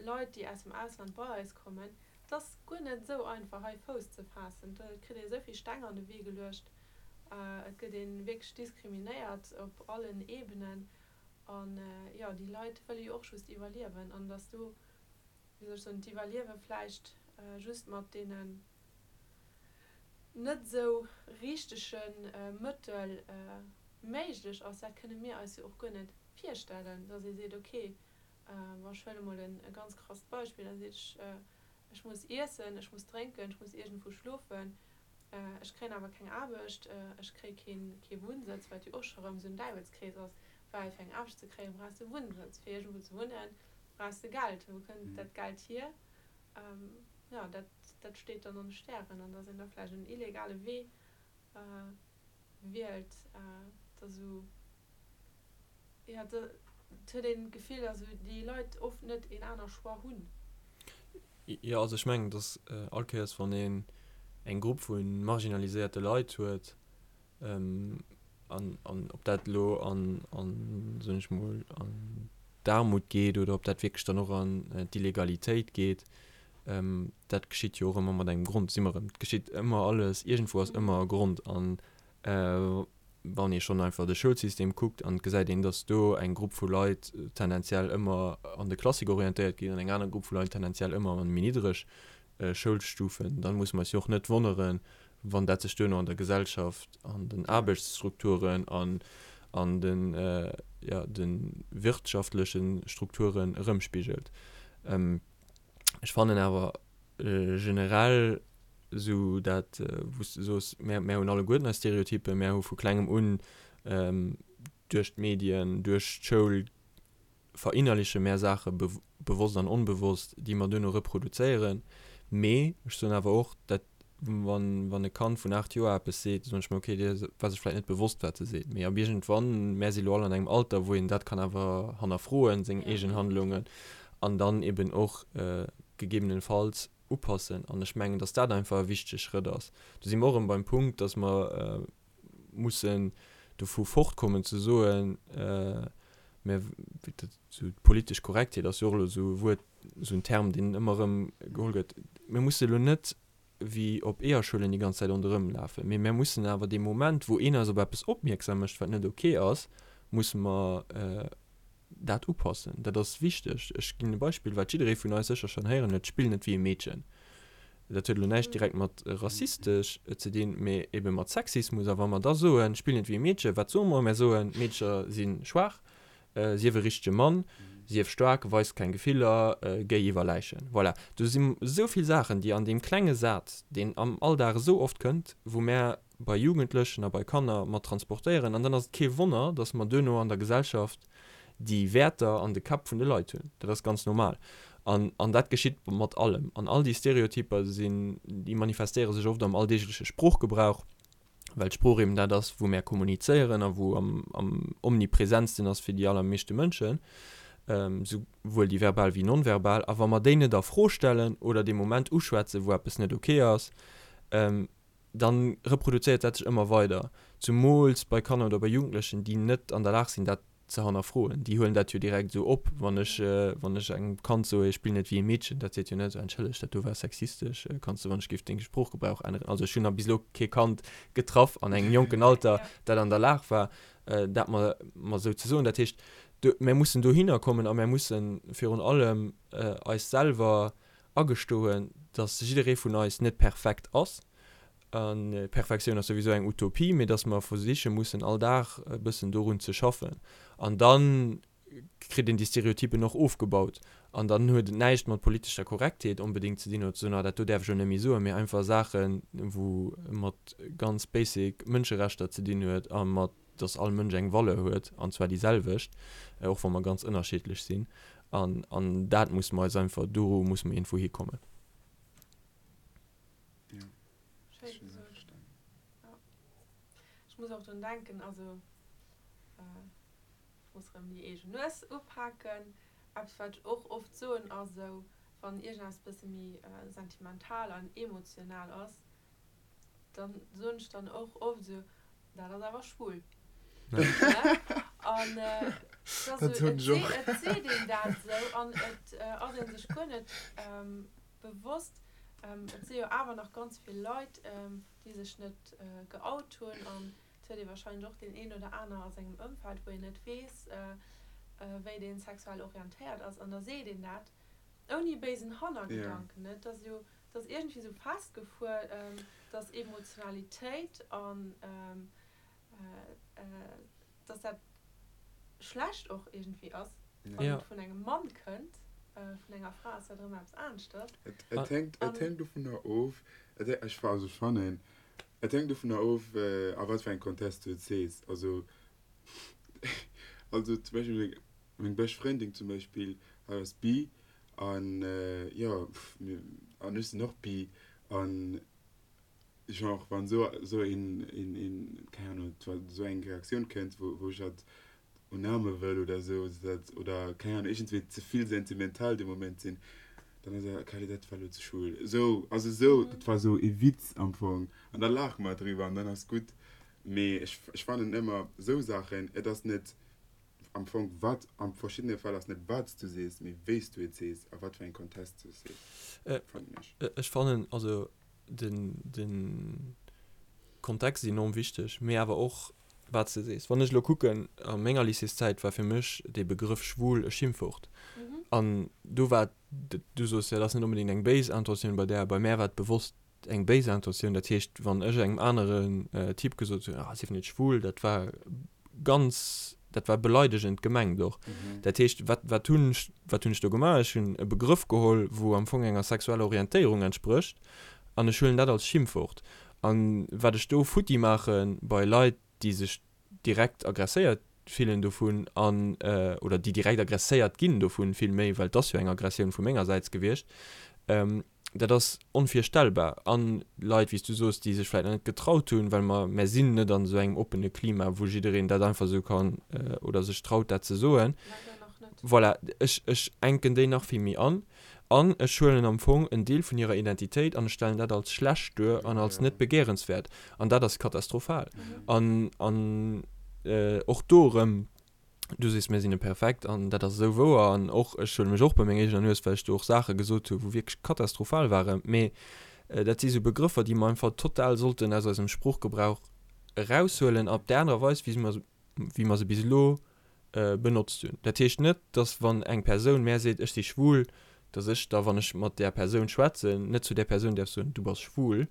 Leit, déi aus dem Ausland bei eis kommen, et ass guer net esou einfach hei Fouss ze faassen. Do kritt ee esou vill Steng an de Wee geluecht, et gëtt ee wierklech diskriminéiert op allen Ebenen. An jo, déi Leit wëlle jo och just iwwerliewen. An datt do, wéi soll ech soen, d'Iwwerliewe vläicht just mat deenen net esou richtege Mëttel méiglech ass, dat kënne mir eis jo och guer net virstellen, datt ee seet, okay, bon, ech huele mol e ganz krasst Beispill, da seet ech, ech muss iessen, ech muss drénken, ech muss iergendwou schlofen, ech kréien awer keng Aarbecht, ech kréie keen, kee Wunnsëtz, wat jo och scho rëm esou en Däiwelskrees ass, well fir eng Aarbecht ze kréien, brauchs de Wunnsëtz, fir iergendwou ze wunnen, brauchs de Geld, wou kënnt dat Geld hier? Jo, dat, dat steet dann an de Stären an datt een da vläicht en illegale Wee wielt, dat ass esou, jo, et huet een d'Gefill, datt esou déi Leit oft net een aner Choix hunn. Jo, also ech mengen, datt all Kéiers wann een eng Grupp vu marginaliséierte Leit huet. An, an ob dat elo an, an, soen ech mol, an d'Aarmut geet oder ob dat wierklech dann och an d'Illegalitéit geet, dat geschitt jo och ëmmer mat engem Grond. Si mer erëm, et geschitt ëmmer alles, iergendwou ass ëmmer e Grond. An wann ee schonn einfach de Schoulsystem kuckt an et gesäit een, datt do eng Grupp vu Leit tendenziell ëmmer an de Klassik orientéiert ginn an eng aner Grupp vu Leit tendenziell ëmmer an méi niddreg Schoulstufen, dann musse mer eis jo och net wonneren, wann dat sech duerno an der Gesellschaft, an den Aarbechtsstrukturen an an den, jo, de wirtschaftleche Strukturen erëmspigelt. Ech fannen awer generell esou dat, wou s de soos, mär, mär hunn alleguerten eis Stereotypen, mär hu vu klengem un duerch d'Medien, duerch d'Schoul verinnerliche mär Saache bewosst an onbewosst, déi mer duerno reproduzéieren. Mee ech soen awer och, dat wann, wann e Kand vun 8 Joer eppes seet, soen ech mer, okay, dee war sech vläicht net bewosst, wat e seet. Mee ab iergendwann, mär si lo all an engem Alter, wou een dat kann awer hannerfroen, seng eegen Handlungen, an dann eben och gegebenenfalls upassen. An ech mengen, dass dat einfach e wichtege Schrëtt ass. Do si mer och erëm beim Punkt, dass mer mussen dovu fortkommen ze soen, mä esou d'politesch Korrektheet ass jo och elo esou e Wuert, esou en Term, deen ëmmer erëm geholl gëtt. Mir musse elo net wéi op Eeërschuelen déi ganz Zäit ronderëm lafen, mee mir mussen awer dee Moment, wou een eis op eppes opmierksam mécht, wat net ok ass, musse mer dat upassen. Dat ass wichteg. Ech ginn e Beispill, wat jidderee vun eis sécher schonn héieren huet, Spill net wéi e Meedchen. Dat huet elo näischt direkt mat rassistesch ze dinn, mee ebe mat Sexismus. A wa mer da soen, Spill net wéi e Meedchen, wat soe mer? Mer soen, Meedcher si schwaach, sief e richtege Mann, sief staark, weis keng Gefiller, géi iwwer Läichen. Voilà. Do si esou vill Saachen, déi an deem klenge Saz, deen am Alldag esou oft kënnt, wou mär bei Jugendlechen a bei Kanner mat transportéieren. An dann ass et kee Wonner, dass mer duerno an der Gesellschaft déi Wäerter an de Käpp vun de Leit hunn. Dat ass ganz normal. An, an dat geschitt mat allem. An all déi Stereotyper sinn, déi manifestéiere sech oft am alldeegleche Sproochgebrauch, well d'Sprooch eben dat ass, wou mär kommunizéieren a wou am, am omnipresentsten ass fir déi allermeeschte Mënschen, souwuel déi verbal wéi non-verbal. A wa mer déi net a Fro stellen oder dee Moment uschwätzen, wou eppes net ok ass, dann reproduzéiert dat sech ëmmer weider, zumools bei Kanner oder bei Jugendlechen, déi net an der Lag sinn, dat ze hannerfroen. Déi huelen dat jo direkt esou op. Wann ech, wann ech engem Kand soe, spill net wéi e Meedchen, dat seet jo net, entschëlleg, dat do war sexistesch, kanns de wann ech géif deng Sproochgebrauch änneren. Also ech hunn nach bis elo kee Kand getraff an engem jonken Alter, dat an der Lag war, dat mer, mer esou ze soen. Dat heescht, do, mär mussen dohinner kommen a mär mussen virun allem eis selwer agestoen, dass jidderee vun eis net perfekt ass, a Perfektioun ass souwisou eng Utopie, mee dass mer versiche mussen all Dag e bëssen dorun ze schaffen. An da kritt een déi Stereotypen och ofgebaut. An dann huet et näischt mat politescher Korrektheet onbedéngt ze dinn oder ze soen, ah dat do däerf ech elo net méi soen, mee einfach Saachen, wou mat ganz basic Mënscherechter ze dinn huet a mat dass all Mënsch eng Valeur huet, an zwar déi selwecht, och wa mer ganz ënnerschiddlech sinn. An, an dat musse mer eis einfach, do musse mer iergendwou hikommen. Ja. Schéin gesot. Ja. Ech muss och drun denken, also ech muss erëm déi eegen Nues upaken. Eppes, wat ech och oft soen, ass esou, wann iergendeppes e bësse méi sentimental an emotional ass, Dann soen ech dann och oft esou, dat ass awer schwul. An et seet een dat esou an et ass ee sech guer net bewosst. Et si jo awer nach ganz vill Leit, déi sech net geout hunn. An et huet ee warscheinlech och deen een oder aner a sengem Ëmfeld, wou een net weess, wéi dee sexuell orientéiert ass. An da seet een dat ouni béisen Hannergedanken. Et ass jo Et ass iergendwéi esou festgefuer, dass Emotionalitéit an dass dat schlecht och iergendwéi ass, wann et vun engem Mann kënnt. Vun enger Fra ass dat erëm eppes aneschters. Et hänkt, et hänkt dovunner of, ech, also ech fannen, et hänkt dovunner of, a wat fir engem Kontest du et sees. Also, also zum Beispill meng bescht Frëndin zum Beispill, hatt ass bi An jo, an ech sinn och bi. An genre wann esou esou een een een keng Ahnung esou eng Reaktioun kënnt, wou wou ech hatt unaarme wëll oder esou, dat oder keng Ahnung iergendwéi ze vill sentimental dee Moment sinn, dann ass e Kelly dat war elo ze schwul. Esou, also esou, dat war esou ee Witz am Fong an da laache mer driwwer an dann ass gutt. Mee ech, ech fannen ëmmer esou Saachen, et ass net am Fong wat, a verschiddene Fäll ass net wat s du sees, mee wéi s du et sees a wat fir engem Kontest du et sees, fannen ech. Ech fannen also den, den Kontext ass enorm wichteg, mee awer och wat s de sees. Wann ech elo kucken, a menger Lycéeszäit war fir mech dee Begrëff schwul e Schimpfwort. An do war, du soos jo, dat ass net onbedéngt eng béis Intentioun bei där, bei mär war et bewosst eng béis Intentioun. Dat heescht, wann ech engem aneren Typ gesot hunn, ah, sief net schwul, dat war ganz, dat war beleidegend gemengt och. Dat heescht, wat, wat hunn ech, wat hunn ech do gemaach? Ech hunn e Begrëff geholl, wou am Fong enger sexueller Orientéierung entsprécht, an ech huelen dat als Schimpfwort. An wat ech do futti maache bei Leit, déi sech direkt aggresséiert fillen dovun an, oder déi direkt aggresséiert ginn dovun villméi, well et ass jo eng Aggressioun vu mengersäits gewiescht, dat ass onvirstellbar. An Leit, wéi s du soos, déi sech vläicht nach net getraut hunn, well mer, mer sinn net an esou engem oppene Klima, wou jiddereen dat einfach esou kann oder sech traut, dat ze soen. Leider nach net. Voilà, ech, ech enken déi nach vill méi an. An ech huelen am Fong en Deel vun hirer Identitéit an ech stellen dat als schlecht duer an als net begéierenswäert. An dat ass katastrophal. An, an och do erëm, Du sees, mir sinn net perfekt an dat ass esou wouer an och ech huele mech och bei menger eegener Nues, well ech do och Saache gesot hu wou wierklech katastrophal waren. Mee dat si sou Begrëffer, déi mer einfach total sollten aus eisem Sproochgebrauch eraushuelen op där anerer Weis, wéi mer, wéi mer se bis elo benotzt hunn. Dat heescht net, dass wann eng Persoun mär seet, ech si schwul, dass ech da, wann ech mat där Persoun schwätzen, net zu där Persoun däerf soen, du bass schwul.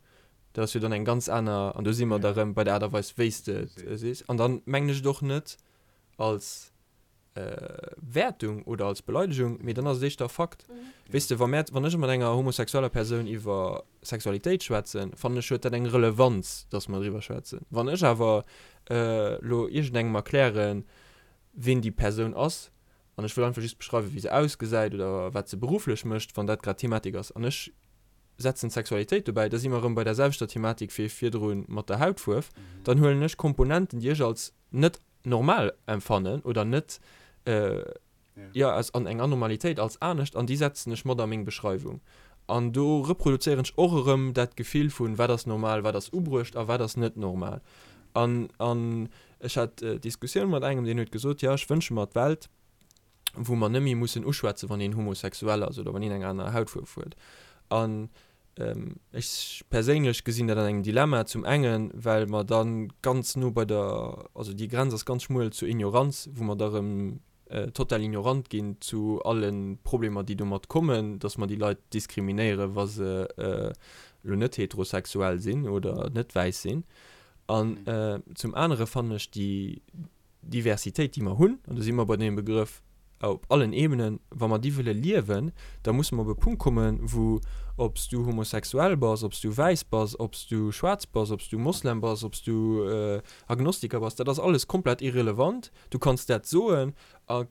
Dat ass jo dann eng ganz aner, an do si mer da rëm bei der Aart a Weis, wéi s de et sees. An dann mengen ech et och net als Wäertung oder als Beleidegung, mee dann ass et éischter Fakt. Weess de, wa mär, wann ech mat enger homosexueller Persoun iwwer Sexualitéit schwätzen, fannen ech, huet dat eng Relevanz, dass mer driwwer schwätzen. Wann ech awer elo iergendengem erklären, ween déi Persoun ass, an ech wëll einfach just beschreiwen, wéi se ausgesäit oder wat se berufflech mécht, wann dat grad d'Thematik ass, an ech setzen d'Sexualitéit dobäi, da si mer erëm bei der selwechter Thematik wéi virdru mat der Hautfuerf, dann huelen ech Komponenten, déi ech als net normal empfannen oder net, jo, als an eng Anormalitéit, als anescht, an déi setzen ech mat a meng Beschreiwung. An do reproduzéieren ech och erëm dat Gefill vun, wat ass normal, wat ass ubruecht a wat ass net normal. An, an ech hat d'Diskussioun mat engem, deen huet gesot, jo, ech wënsche mer d'Welt, wou mer net méi mussen uschwätzen, wann een homosexuell ass oder wann een eng aner Hautfuerf huet. An ech perséinlech gesinn dat an engem Dilemma, zum engen, well mer da ganz no bei der, also déi Grenz ass ganz schmuel zur Ignoranz, wou mer da erëm total ignorant ginn zu alle Problemer, déi domat kommen, dass mer déi Leit diskriminéieren, wa se elo net heterosexuell sinn oder net wäiss sinn. An zum anere fannen ech déi Diversitéit, déi mer hunn, an do si mer bei deem Begrëff op allen Ebenen, wa mer déi wëlle liewen, da musse mer op e Punkt kommen, wou, ob s du homosexuell bass, ob s du wäiss bass, ob s du schwaarz bass, ob s du Moslem bass, ob s du Agnostiker bass, dat ass alles komplett irrelevant. Du kanns dat soen a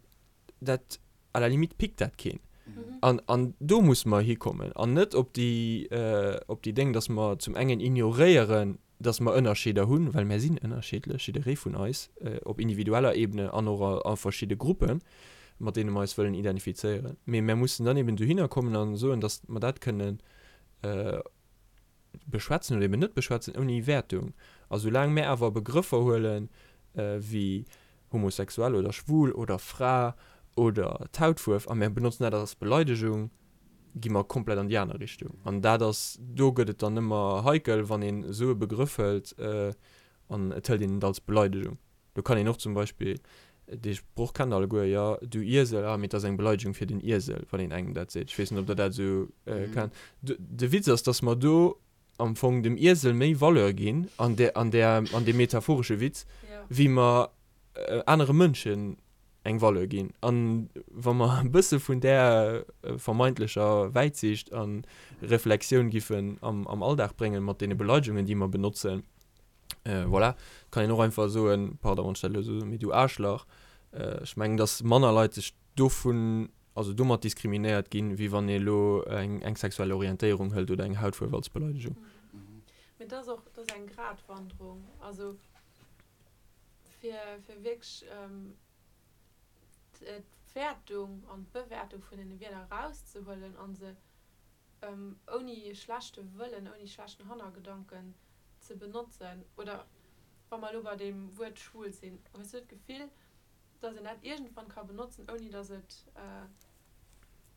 dat, à la limite pickt dat keen. An, an do musse mer hikommen an net op déi, op déi Déng, dass mer zum engen ignoréieren, dass mer Ënnerscheeder hunn, well mär sinn ënnerscheedlech, jidderee vun eis, op individueller Ebene an och a verschidde Gruppen, mat deene mer eis wëllen identifizéieren. Mee mär mussen dann eben dohinner kommen a soen, dass mer dat kënnen beschwätzen oder eben net beschwätzen, ouni Wäertung. A soulaang mär awer Begrëffer huelen, wéi homosexuell oder schwul oder Fra oder d'Hautfuerf a mär benotzen dat als Beleidegung, gi mer komplett an déi aner Richtung. An dat ass, do gëtt et dann ëmmer heikel, wann een esou e Begrëff hëlt an et hëlt een et als Beleidegung. Do kann een och zum Beispill, dee Sproch kennt der alleguer, jo, du Iesel, ah, mee et ass eng Beleidegung fir den Iesel, wann een engem dat seet. Ech weess net, ob der dat esou kennt. De Witz ass, dass mer do am Fong dem Iesel méi Valeur ginn an där, an där, an deem metaphoresche Witz, wéi mer anere Mënschen eng Valeur ginn. An wa mer e bësse vun där vermeintlecher Wäitsiicht a Reflexioun giffen am, am Alldag bréngen, mat deene Beleidegungen, déi mer benotzen, voilà, kann een och einfach soen, pardon, wann ech dat elo esou soen, mee du Aarschlach. Ech mengen, dass manner Leit sech dovun, also domat diskriminéiert ginn, wéi wann ee elo eng, eng sexuell Orientéierung hëlt oder eng Hautfuerf als Beleidegung. Mee dat ass och, dat ass eng Gratwanderung. Also fir, fir wierklech d'Wäertung an d'Bewäertung vun deene Wierder erauszehuelen a se ouni schlechte Wëllen, ouni schlechten Hannergedanken ze benotzen. Oder. Wa mer elo bei deem Wuert schwul sinn, hues du d'Gefill, dass een dat iergendwann ka benotzen, ouni dass et,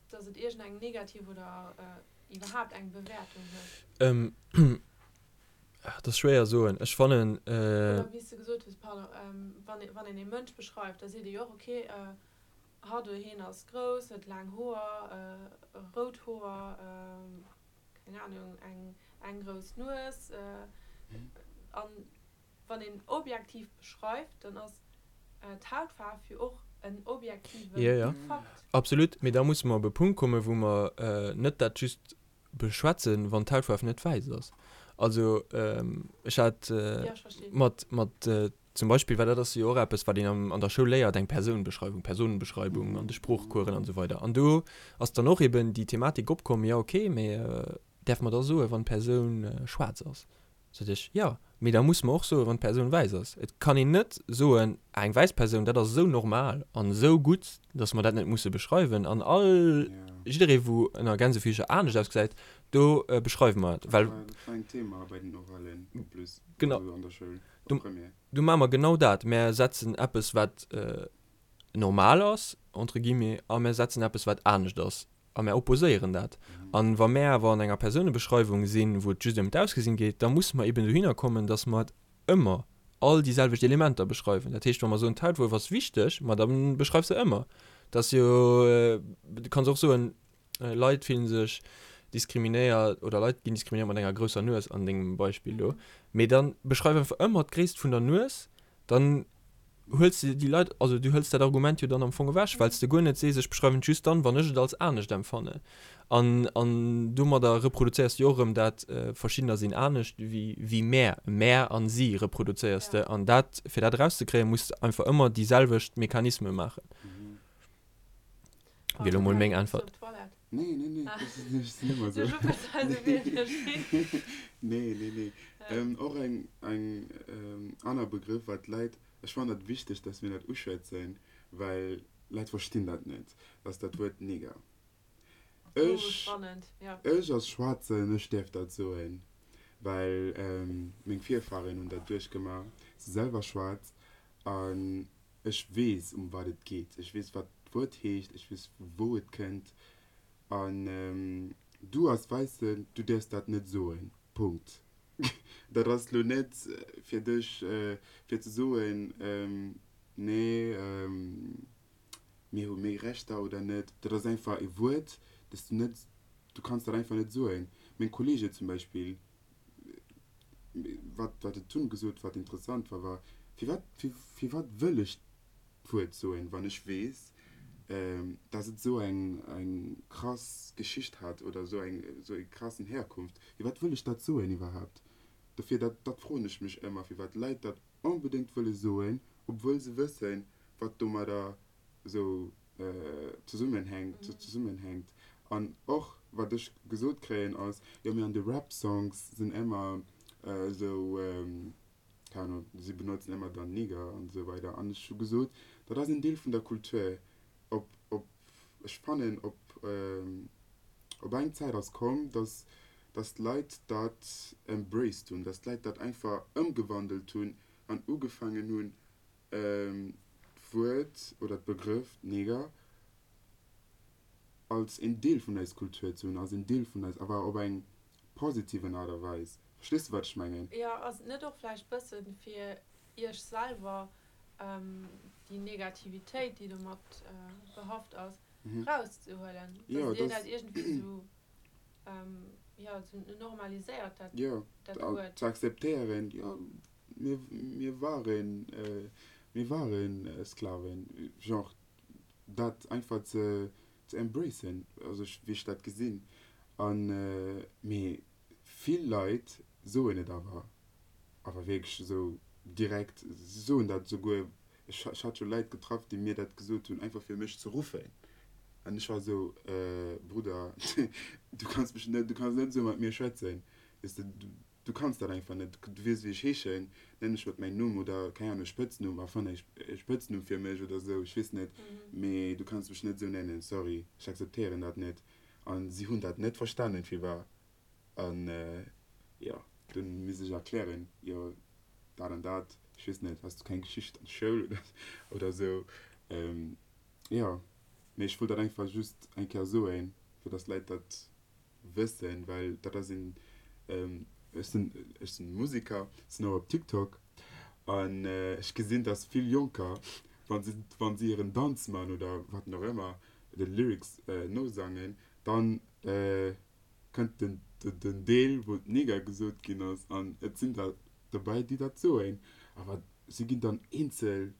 dass et iergendeng negativ oder iwwerhaapt eng Bewäertung huet? Dat ass schwéier soen. Ech fannen. Oder wéi s de gesot hues, pardon, wann wann een ee Mënsch beschreift, da seet ee jo och, okay, hatt oder hien ass grouss, huet laang Hoer, rout Hoer, keng Ahnung, eng eng grouss Nues. An wann een objektiv beschreift, dann ass d'Hautfaarf jo och en objektive Jo, jo, Fakt. absolut. Mee da musse mer op e Punkt kommen, wou mer net dat just beschwätzen, wann d'Hautfaarf net wäiss ass. Also ech hat mat, mat zum Beispill, well dat ass jo och eppes, wat een am, an der Schoul léiert, eng Persounbeschreiwung, Personenbeschreibung an de Sproochcoursen an esou weider. An do ass dann och eben déi Thematik opkomm, jo okay, mee däerfe mer da soen, wann d'Persoun schwaarz ass? Sot ech, Jo, mee da musse mer och soen, wann d'Persoun wäiss ass. Et kann een net soen, ah, eng wäiss Persoun, dat ass esou normal an esou gutt, datt mer dat net musse beschreiwen. An all, jidderee wou ënner Gänsefiecher anescht ausgesäit, do beschreiwe mer et, well. Dat war en Thema bei den Oralen en plus, also an der Schoul, op Première. Do maache mer genau dat, Mer setzen eppes, wat normal ass, entre guillemets, a mer setzen eppes, wat anescht ass. A mär opposéieren dat. A wa mär awer an enger Persounebeschreiwung sinn, wou et just ëm d'Ausgesinn geet, da musse mer eben dohinner kommen, datt mer et ëmmer all déi selwecht Elementer beschreiwen. Dat heescht, wa mer soen, d'Hautfuerf ass wichteg, ma da beschreif se ëmmer. Dat ass jo, du kanns och soen, Leit fillen sech diskriminéiert oder Leit ginn diskriminéiert mat enger grousser Nues an dengem Beispill do. Mee da beschreif einfach ëmmer d'Gréisst vun der Nues, dann huels de déi Leit, also du hëls dat Argument jo dann am Fong ewech, well s de guer net sees, ech beschreiwen et just dann, wann ech et als anescht empfannen. An, an domadder reproduzéiers de jo och erëm dat, verschiddener sinn anescht wéi, wéi mär, mär an si reproduzéiers de. An dat, fir dat erauszekréien, muss de einfach ëmmer déi selwecht Mechanisme maachen. Wier elo mol meng Äntwert. Nee, nee, nee, ech sinn ëmmer esou. Nee, nee, nee. Och eng, eng aner Begrëff, wat d'Leit, ech fannen dat wichteg, dass mir dat uschwätzen, well Leit verstinn dat net, ass dat Wuert Neger. Ech, ech als Schwaarzen, ech däerf dat soen, well meng Virfahren hunn dat duerchgemaach, si selwer schwaarz an Ech weess, ëm wat et geet. Ech weess, wat d'Wuert heescht. Ech weess, vu wou et kënnt. An du als Wäissen, du däerfs dat net soen. Punkt. Dat ass elo net fir dech, fir ze soen, Nee, mir hu méi Rechter oder net. Dat ass einfach e Wuert, dat s du net, du kanns dat einfach net soen. Meng Kolleege zum Beispill, wat wat et dunn gesot wat interessant war, war, firwat firwat wëll ech d'Wuert soen, wann ech weess, dass et esou eng eng krass Geschicht hat oder esou eng esou eng krassen Herkunft, firwat wëll ech dat soen iwwerhaapt? Dofir dat dat froen ech mech ëmmer, firwat Leit dat onbedéngt wëlle soen, obwuel se wëssen, wat domadder esou zesummenhänkt, zesummenhänkt. An och wat ech gesot kréien ass, jo mee an de Rap Songs sinn ëmmer esou, keng Ahnung, si benotzen ëmmer dann Nigger an esou weider. An ech hu gesot, dat ass en Deel vun der Kultur. Op, op, ech fannen op, op eng Zäit ass komm, dass, dass d'Leit dat embraced hunn, dass d'Leit dat einfach ëmgewandelt hunn an ugefaangen hunn, d'Wuert oder d'Begrëff Neger als een Deel vun eis Kultur ze hunn, als een Deel vun eis, awer op eng positiven Aart a Weis. Verstees de wat ech mengen? Jo, ass et net och vläicht bëssen fir iech selwer déi Negativitéit déi domat behaft ass, rauszehuelen, dass dir dat iergendwéi esou jo esou normaliséiert dat Wuert? Jo, ze akzeptéieren, jo. Mir, mir waren, mir waren Sklaven. Genre, dat einfach ze, ze embracen, also wéi ech dat gesinn. An, mee vill Leit soen et awer, awer wierklech esou direkt, si soen dat esouguer, ech, ech hat scho Leit getraff, déi mir dat gesot hunn, einfach fir mech ze ruffen. An ech war esou, Brudder, du kanns mech net, du kanns net esou mat mir schwätzen, weess de. Du kanns dat einfach net. Du weess wéi ech heeschen, nenn mech mat mäin Numm oder, keng Ahnung, e Spëtznumm, erfann e Spëtznumm fir mech oder esou, ech weess net, mee du kanns mech net esou nennen, sorry, ech akzeptéieren dat net. An si hunn dat net verstanen, firwat. An jo, dunn misst ech erklären, jo. dat an dat, ech weess net, has du keng Geschicht an der Schoul oder oder esou. Jo, mee ech wollt dat einfach just eng Kéier soen, fir dass d'Leit dat wëssen, well dat ass een, ech sinn, ech sinn Musiker, sinn och op TikTok an ech gesinn, dass vill Jonker, wa se, wa si hiren Danz man oder wat och ëmmer, de Lyrics nosangen, dann kënnt den, den Deel, wou Neger gesot ginn ass an et sinn der dobäi, déi dat soen, awer si ginn dann eenzel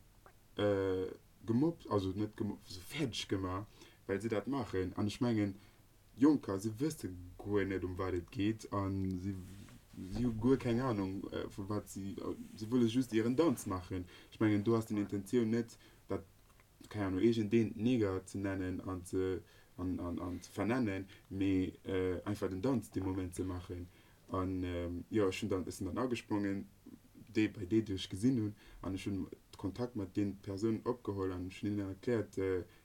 gemobbt, also net gemobbt, sou fäerdeg gemaach, well si dat maachen an ech mengen, Jonker, si wësse guer net ëm wat et geet a si si hu guer keng Anung vu wat si, si wëlle just hiren Danz maachen. Ech mengen do ass den Intentioun net dat, keng Anung, iergendeen Neger ze nennen an ze an an an ze vernennen, mee einfach den Danz dee Moment ze maachen. An jo, ech hunn dann, ech sinn dann agesprongen, déi bei déi déi ech gesinn hunn an ech hunn Kontakt mat deenen Persounen opgeholl an ech hunn hinnen erkläert,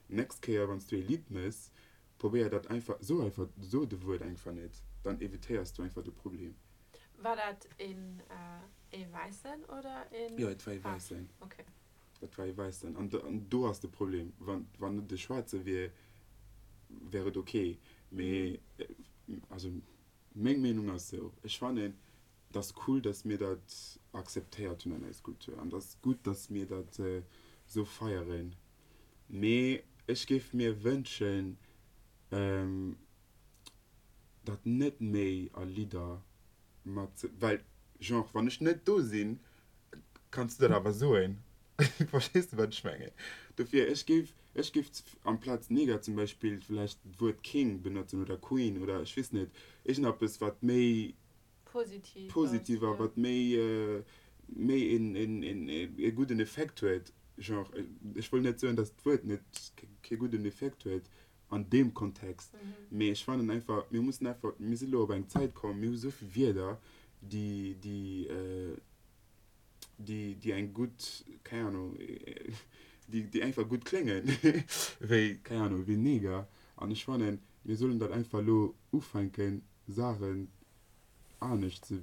nächst Kéier wann s du ee Lidd méchs, Probéier dat einfach, so einfach, so de Wuert einfach net, dann evitéiers du einfach de Problem. War dat een ee Wäissen oder een Jo, et war ee Wäissen. Okay. Dat war ee Wäissen. An an do ass de Problem. Wann wann et e Schwaarze wier, wär et ok. Mee also meng Meenung ass esou, ech fannen, et ass cool, datt mir dat akzeptéiert hunn an eis Kultur an et ass gutt, datt mir dat esou feieren. Mee ech géif mir wënschen, dat net méi a Lidder mat ze, well genre wann ech net do sinn, kanns du dat awer soen. Verstees de wat ech mengen? Dofir, ech géif, ech géif amplaz Neger zum Beispill vläicht d'Wuert King benotzen oder Queen oder ech weess net, iergendeppes wat méi Positiv ass, positiv a wat méi méi een een een e gudden Effekt huet. Genre, ech wëll net soen, datt d'Wuert net kee gudden Effekt huet an deem Kontext, mee ech fannen einfach, mir mussen einfach, mir si lo op eng Zäit komm, mir hu sou vill Wierder, déi déi déi déi eng gutt, keng Ahnung, déi déi einfach gutt kléngen, wéi, keng Ahnung, wéi Neger. An ech fannen, mir sollen dat einfach lo ufänken, Saachen anescht ze,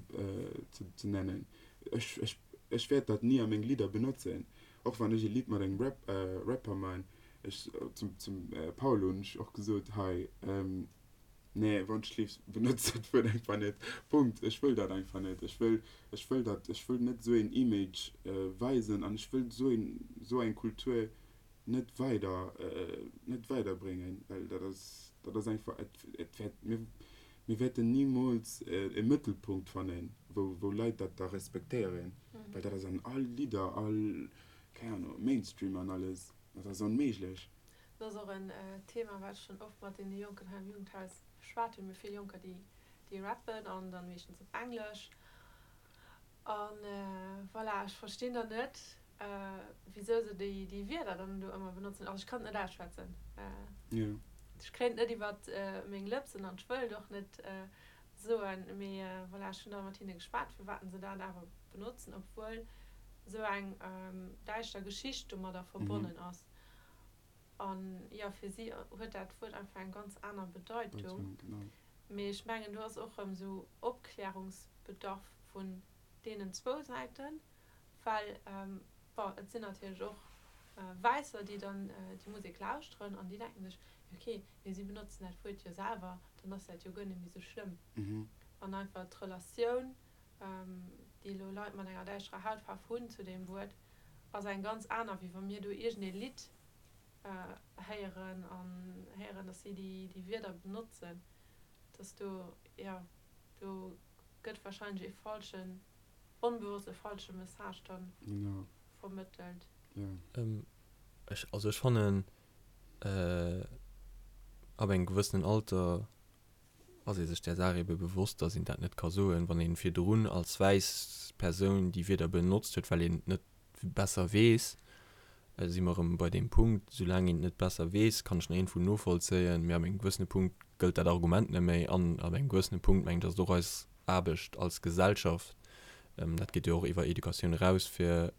ze, ze nennen. Ech, ech, ech wäert dat ni a meng Lidder benotzen. Och wann ech e Lidd mat engem Rap, Rapper man, ech, zum, zum Paolo hunn ech och gesot, hei, nee, wann ech lief, benotz dat Wuert einfach net. Punkt. Ech wëll dat einfach net. Ech wëll, ech wëll dat, ech wëll net esou een Image weisen an ech wëll esou een, esou eng Kultur net weider, net weiderbréngen, well dat ass, dat ass einfach, et, et wäert, mir, mir wäerten nimools e Mëttelpunkt fannen, wou, wou Leit dat da respektéieren, well dat ass an all Lidder, all, keng Ahnung, Mainstream an alles, dat ass onméiglech. Dat ass och en Thema, wat ech schonn oft mat deene Jonken hei am Jugendhaus beschwat hunn. Mir hu vill Jonker, déi, déi rappen an dann meeschtens op Englesch. An voilà, ech verstinn dann net, wisou se déi déi Wierder dann do ëmmer benotzen. Also ech kann et net ausschwätzen. Ech kréien et net iwwert meng Lëpsen an ech wëll et och net soen. Mee voilà, ech hunn da mat hinne geschwat, firwat se dat awer benotzen, obwuel esou eng däischter Geschicht domadder verbonnen ass. An jo, fir si huet dat Wuert einfach eng ganz aner Bedeitung. Mee ech mengen, do ass och erëm esou Opklärungsbedarf vun deenen zwou Säiten, well, bon, et sinn natierlech och Wäisser, déi dann déi Musek lauschteren an déi denken sech, jo okay, mee si benotzen dat Wuert jo selwer, dann ass dat jo guer net méi esou schlëmm. An einfach d'Relatioun, déi elo Leit mat enger däischterer Hautfaarf hunn zu deem Wuert, ass eng ganz aner, wéi wa mir do iergendee Lidd héieren an héieren, dass si déi Wierder benotzen, dass do, jo, do gëtt wahrscheinlech ee falschen, onbewosst e falsche Message dann vermëttelt. Ech, also ech fannen, ab engem gewëssenen Alter ass ee sech där Saach ebe bewosst, dass een dat net ka soen, wann ee virdrun als wäiss Persoun déi Wierder benotzt huet, well een et net besser weess, si mer erëm bei deem Punkt, soulaang een et net besser weess, kann ech nach iergendwou novollzéien, mee ab engem gewëssene Punkt gëllt dat Argument net méi an ab engem gewëssene Punkt, mengen ech, ass et och eis Aarbecht als Gesellschaft, dat geet jo och iwwer Educatioun eraus, fir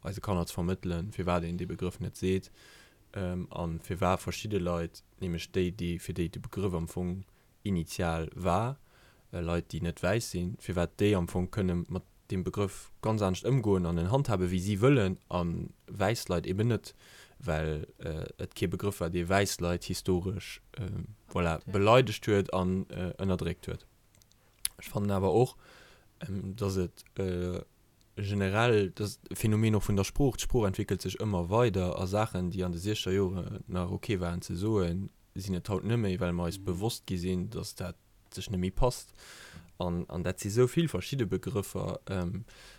eise Kanner ze vermëttelen, firwat een dee Begrëff net seet a firwat verschidde Leit, nämlech déi, déi fir déi de Begrëff am Fong initial war, Leit, déi net wäiss sinn, firwat déi am Fong kënne mat. deem Begrëff ganz anescht ëmgoen an en handhaben, wéi si wëllen, a wäiss Leit eben net, well et kee Begrëff war, dee wäiss Leit historesch, voilà, beleidegt huet an ënnerdréckt huet. Ech fannen awer och, dass et generell, dass e Phänomen och vun der Sprooch, d'Sprooch entwéckelt sech ëmmer weider a Saachen, déi an de siechzeger Joren nach ok waren ze soen, sinn et haut net méi, well mer eis bewosst gi sinn, dass dat sech net méi passt. An, an dat si sou vill verschidde Begrëffer,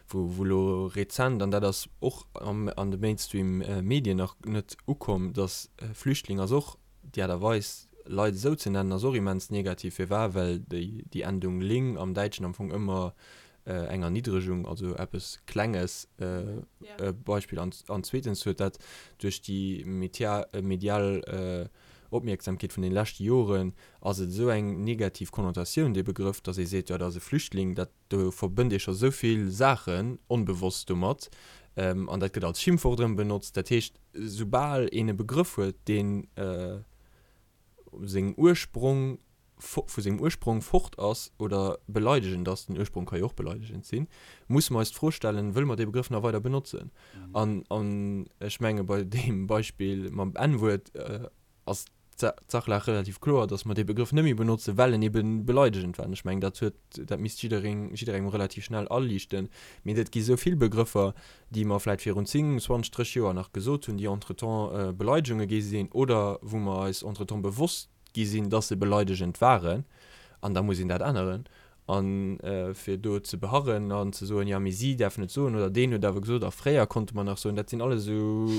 wou, wou elo rezent, an dat ass och am, an de Mainstream-Medien nach net ukomm, dass Flüchtling ass och, déi Aart a Weis, Leit esou ze nennen, ass och immens negativ. Firwat? Well déi, déi Endung ling am Däitschen am Fong ëmmer eng Erniddregung, also eppes Klenges, Beispill. An, an zweetens huet dat duerch déi medial Opmierksamkeet vun den leschte Joren ass et esou eng negativ Konnotatioun, dee Begrëff, datt ee seet, jo dat ass e Flüchtling, dat, do verbënnt ee scho esou vill Saachen onbewosst domat an dat gëtt als Schimpfwort erëm benotzt. Dat heescht, soubal een e Begrëff huet, deen sengem Ursprong, vu sengem Ursprong fort ass oder beleidegend ass, den Ursprong ka jo och beleidegend sinn, musse mer eis d'Fro stellen, wëlle mer dee Begrëff nach weider benotzen? An, an ech menge bei deem Beispill mam N-Wuert ass d'Sachlag relativ kloer, datt mer dee Begrëff net méi benotzen, well en ebe beleidegend war. An ech mengen, dat huet, dat misst jiddereen, jidderengem relativ schnell aliichten. Mee et gi sou vill Begrëffer, déi mer vläit virun 10, 20, 30 Joer nach gesot hunn, déi entretemps Beleidegunge gi sinn oder wou mer eis entretemps bewosst gi sinn, dass se beleidegend waren, an da muss een dat änneren. A fir do ze beharren an ze soen, jo mee si däerfen et soen oder deen huet awer gesot a fréier konnte mer nach soen, dat sinn alles esou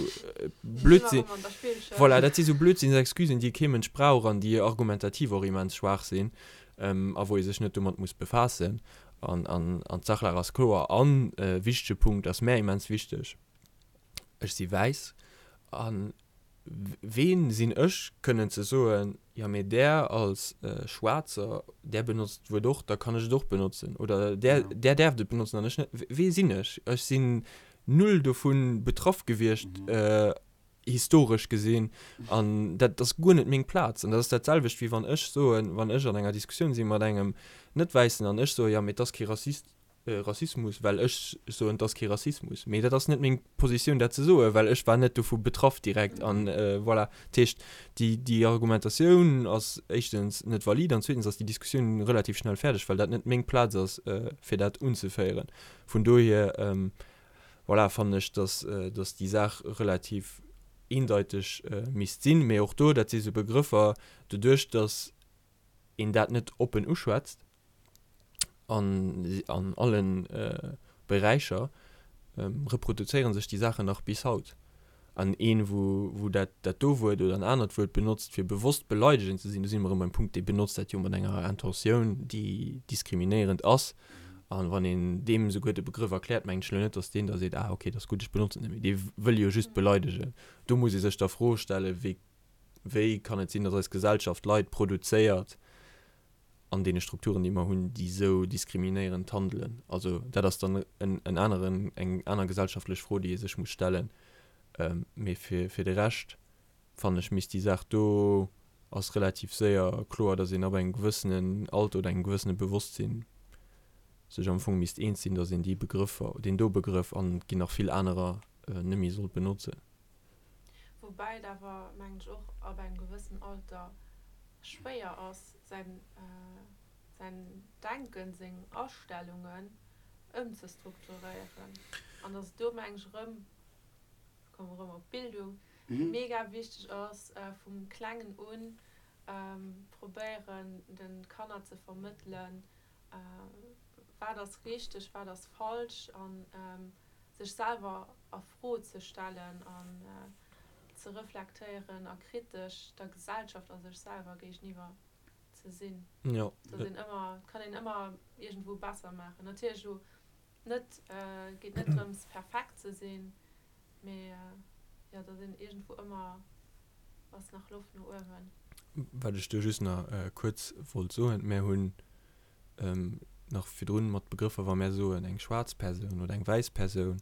Blödsinn, voilà, dat si sou Blödsinnsexcusen, déi kee Mënsch brauch an déi argumentativ och immens schwaach sinn a wou ee sech net domat muss befaassen. An d'Sachlag ass kloer. An e wichtege Punkt ass mär immens wichteg, Ech si wäiss an Ween sinn ech, kënnen ze soen, jo mee där als Schwaarzer, där benotzt d'Wuert och, da kann ech et och benotzen. Oder där, där däerft et benotzen an ech net. Wee sinn ech? Ech sinn null dovu betraff gewiescht, historesch gesinn, an dat ass guer net meng Plaz. An dat ass dat selwecht, wéi wann ech soen, wann ech an enger Diskussioun si mat engem Net-Wäissen an ech soe, jo mee et ass kee Rassist, Rassismus, well ech soen, et ass kee Rassismus. Mee dat ass net meng Positioun, dat ze soen, well ech war net dovu betraff direkt. An voilà. Dat heescht, déi, déi Argumentatioun ass éischtens net valid an zweetens ass déi Diskussioun relativ schnell fäerdeg, well dat net meng Plaz ass, fir dat unzeféieren. Vun dohier, voilà, fannen ech, dass, dass déi Saach relativ eendeiteg misst sinn. Mee och do, dat si sou Begrëffer, doduerch dass een dat net oppen uschwätzt, an an allen Beräicher reproduzéieren sech déi Saachen nach bis haut. An een, wou wou dat dat do Wuert oder en anert Wuert benotzt, fir bewosst beleidegend ze sinn, do si mer erëm beim Punkt, dee benotzt dat jo mat enger Intentioun, déi diskriminéierend ass. An wann een deem esouguer de Begrëff erkläert, mengen ech elo net, datt deen da seet, ah okay, dat ass gutt, ech benotzen et net méi. Dee wëll jo just beleidegen. Do muss ee sech da Froe stellen, wéi wéi kann et sinn, datt eis Gesellschaft Leit produzéiert, an deene Strukturen, déi mer hunn, déi esou diskriminéierend handelen. Also dat ass dann en, en aneren, eng aner gesellschaftlech Fro, déi ee sech muss stellen. Mee fir, fir de Rescht, fannen ech, misst déi Saach do, ass relativ séier kloer, datt een ab engem gewëssenen Alter oder engem gewëssene Bewosstsinn sech am Fong misst eens sinn, datt een déi Begrëffer, deen do Begrëff, an et ginn nach vill anerer, net méi sollt benotzen. Woubäi et awer, mengen ech, och ab engem gewëssenen Alter schwéier ass, säin, säin Denken, seng Astellungen ëmzestrukturéieren. An dass et do, mengen ech, erëm, ech kommen erëm op d'Bildung, mega wichteg ass, vum Klengen un probéieren, de Kanner ze vermëttelen, wat ass richteg, wat ass falsch an sech selwer a Fro ze stellen an ze reflektéieren a kritesch der Gesellschaft a sech selwer géigeniwwer ze sinn. Jo. Dass een ëmmer, et kann een ëmmer iergendwou besser maachen. Natierlech elo net, et geet net drëms perfekt ze sinn, mee jo, dass een iergendwou ëmmer ass nach Loft no uewen. Wat ech do just nach kuerz wollt soen, Mär hunn nach virdrun mat Begrëffer, wa mär soen eng schwaarz Persoun oder eng wäiss Persoun.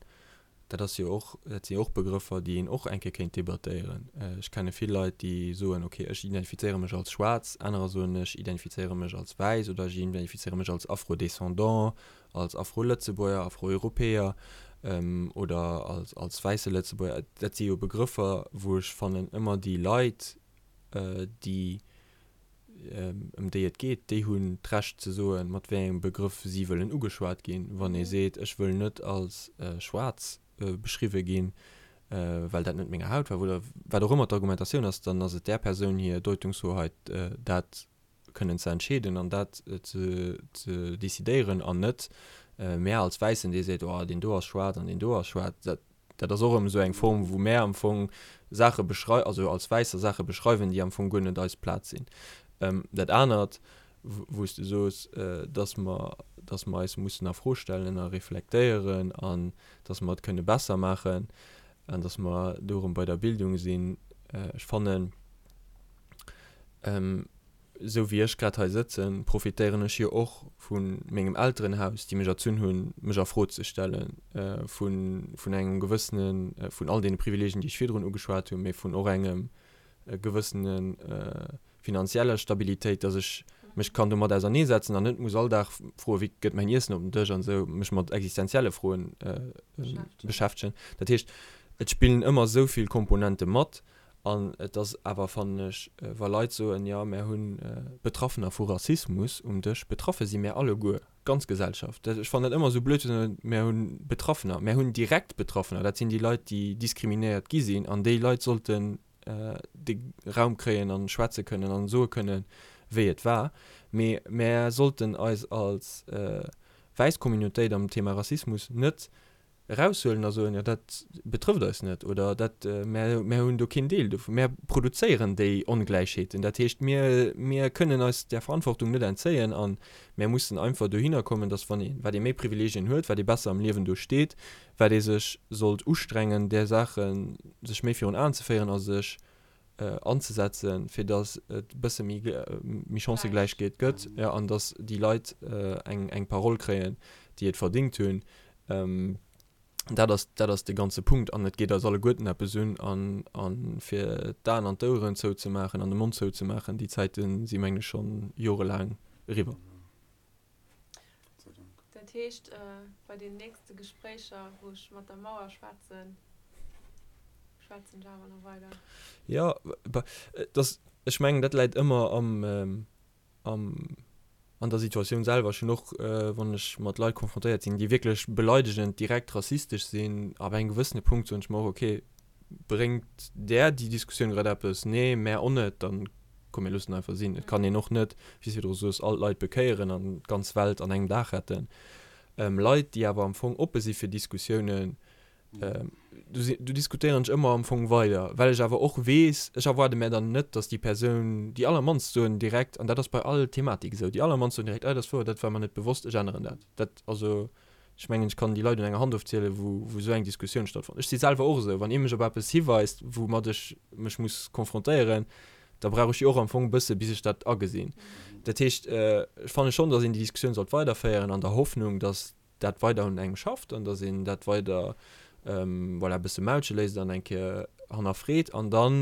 Dat ass jo och, dat si jo och Begrëffer, déi een och eng Kéier kéint debattéieren. Ech kenne vill Leit, déi soen, ok, ech identifizéiere mech als schwaarz, anerer soen, ech identifizéiere mech als wäiss oder ech identifizéiere mech als Afro-Descendant, als Afro-Lëtzebuerger, Afro-Europäer oder als, als wäisse Lëtzebuerger. Dat si jo Begrëffer, wou ech fannen, ëmmer déi Leit, déi ëm déi et geet, déi hunn d'Recht ze soen, mat wéi engem Begrëff si wëllen ugeschwat ginn. Wann ee seet, ech wëll net als schwaarz beschriwwe ginn, well dat net menger Hautfaarf oder wat och ëmmer d'Argumentatioun ass, dann ass et där Persoun hir Deutungshoheit, dat kënnen ze entscheeden an dat ze decidéieren an net mär als Wäissen, dee seet, oh deen do ass schwaarz an deen do ass schwaarz. Dat Dat ass och erëm esou eng Form, wou mär am Fong Saache beschrei-, also als Wäisser Saache beschreiwen, déi am Fong guer net eis Plaz sinn. Dat anert, wou s de soos, dass mer, dass mer eis mussen a Fro stellen a reflektéieren an dass mer et kënne besser maachen an dass mer do erëm bei der Bildung sinn, ech fannen, Esou wéi ech grad hei sëtzen, profitéieren ech jo och vu mengem Elterenhaus, déi mech erzunn hunn, mech a Fro ze stellen, vu vun engem gewëssenen, vun all deene Privileegien, déi ech virdrun ugeschwat hunn, mee vun och engem gewëssene finanzieller Stabilitéit, dass ech mech kann domat auserneesetzen an net muss all Dag froen, wéi gëtt mäin Iessen op den Dësch an esou, mech mat existenzielle Froen beschäftegen. Dat heescht, et spillen ëmmer esou vill Komponente mat An et ass awer, fannen ech, wa Leit soen, jo, mär hu Betraffener vu Rassismus um Dësch, betraffe si mär alleguer, d'ganz Gesellschaft. Ech fannen dat ëmmer esou blöd ze soen, mär hu Betraffener. Mär hunn direkt Betraffener, dat sinn déi Leit, déi diskriminéiert gi sinn. An déi Leit sollten de Raum kréien a schwätze kënnen an soe kënnen, wéi et war. Mee mär sollten eis als wäiss Communautéit am Thema Rassismus net eraushuelen a soen, jo dat betrëfft eis net oder dat, mär, mär hunn do keen Deel dovun. Mär produzéieren déi Ongläichheeten. Dat heescht, mir, mir kënnen eis där Verantwortung net entzéien a mär mussen einfach dohinner kommen, datt wann ee, wat ee méi Privileegien huet, wat ee besser am Liewen do steet, wat ee sech sollt ustrengen, där Saache sech méi virun Aen ze féieren a sech anzesetzen, fir datt et e bësse méi, méi Chancëgläichkeet gëtt, jo, an datt déi Leit eng, eng Parole kréien, déi et verdingt hunn. Dat ass, dat ass de ganze Punkt an et geet eis alleguerten eppes un. An, a fir d'Aen an d'Oueren zouzemaachen an de Mond zouzemaachen, déi Zäite si mengen ech schonn jorelaang eriwwer. Dat heescht, bei den nächste Gespréicher, wou ech mat der Mauer schwätzen, schwätzen ech awer nach weider. Jo, et ass, ech mengen, dat läit ëmmer am, am, an der Situatioun selwer. Ech hunn och, wann ech mat Leit konfrontéiert sinn, déi wierklech beleidegend, direkt rassistesch sinn, ab engem gewëssene Punkt soen ech mer och, okay, bréngt där déi Diskussioun grad eppes? Nee, mär och net, dann komm mir loossen einfach sinn. Et kann een och net, wéi s de virdru soos, all d'Leit bekéieren an d'ganz Welt an engem Dag retten. Leit, déi awer am Fong oppe si fir Diskussiounen, do si, do diskutéieren ech ëmmer am Fong weider, well ech awer och weess, ech erwaarde mär dann net, datt déi Persoun, déi allermannst soen direkt, an dat ass bei all Thematik esou, déi allermannst soen direkt, ah dat ass wouer, dat war mer net bewosst, ech änneren dat. Dat, also ech mengen, ech kann déi Leit un enger Hand ofzielen, wou, wou esou eng Diskussioun stattfonnt. Ech si selwer och esou, wann ee mech op eppes hiweist, woumat ech mech muss konfrontéieren, da brauch ech jo och am Fong e bësse bis ech dat agesinn. Dat heescht, ech fanne schonn, datt een déi Diskussioun sollt weiderféieren an der Hoffnung, datt dat weider un engem schafft an datt een dat weider voilà, e bësse maulche léisst an eng Kéier hannerfreet an dann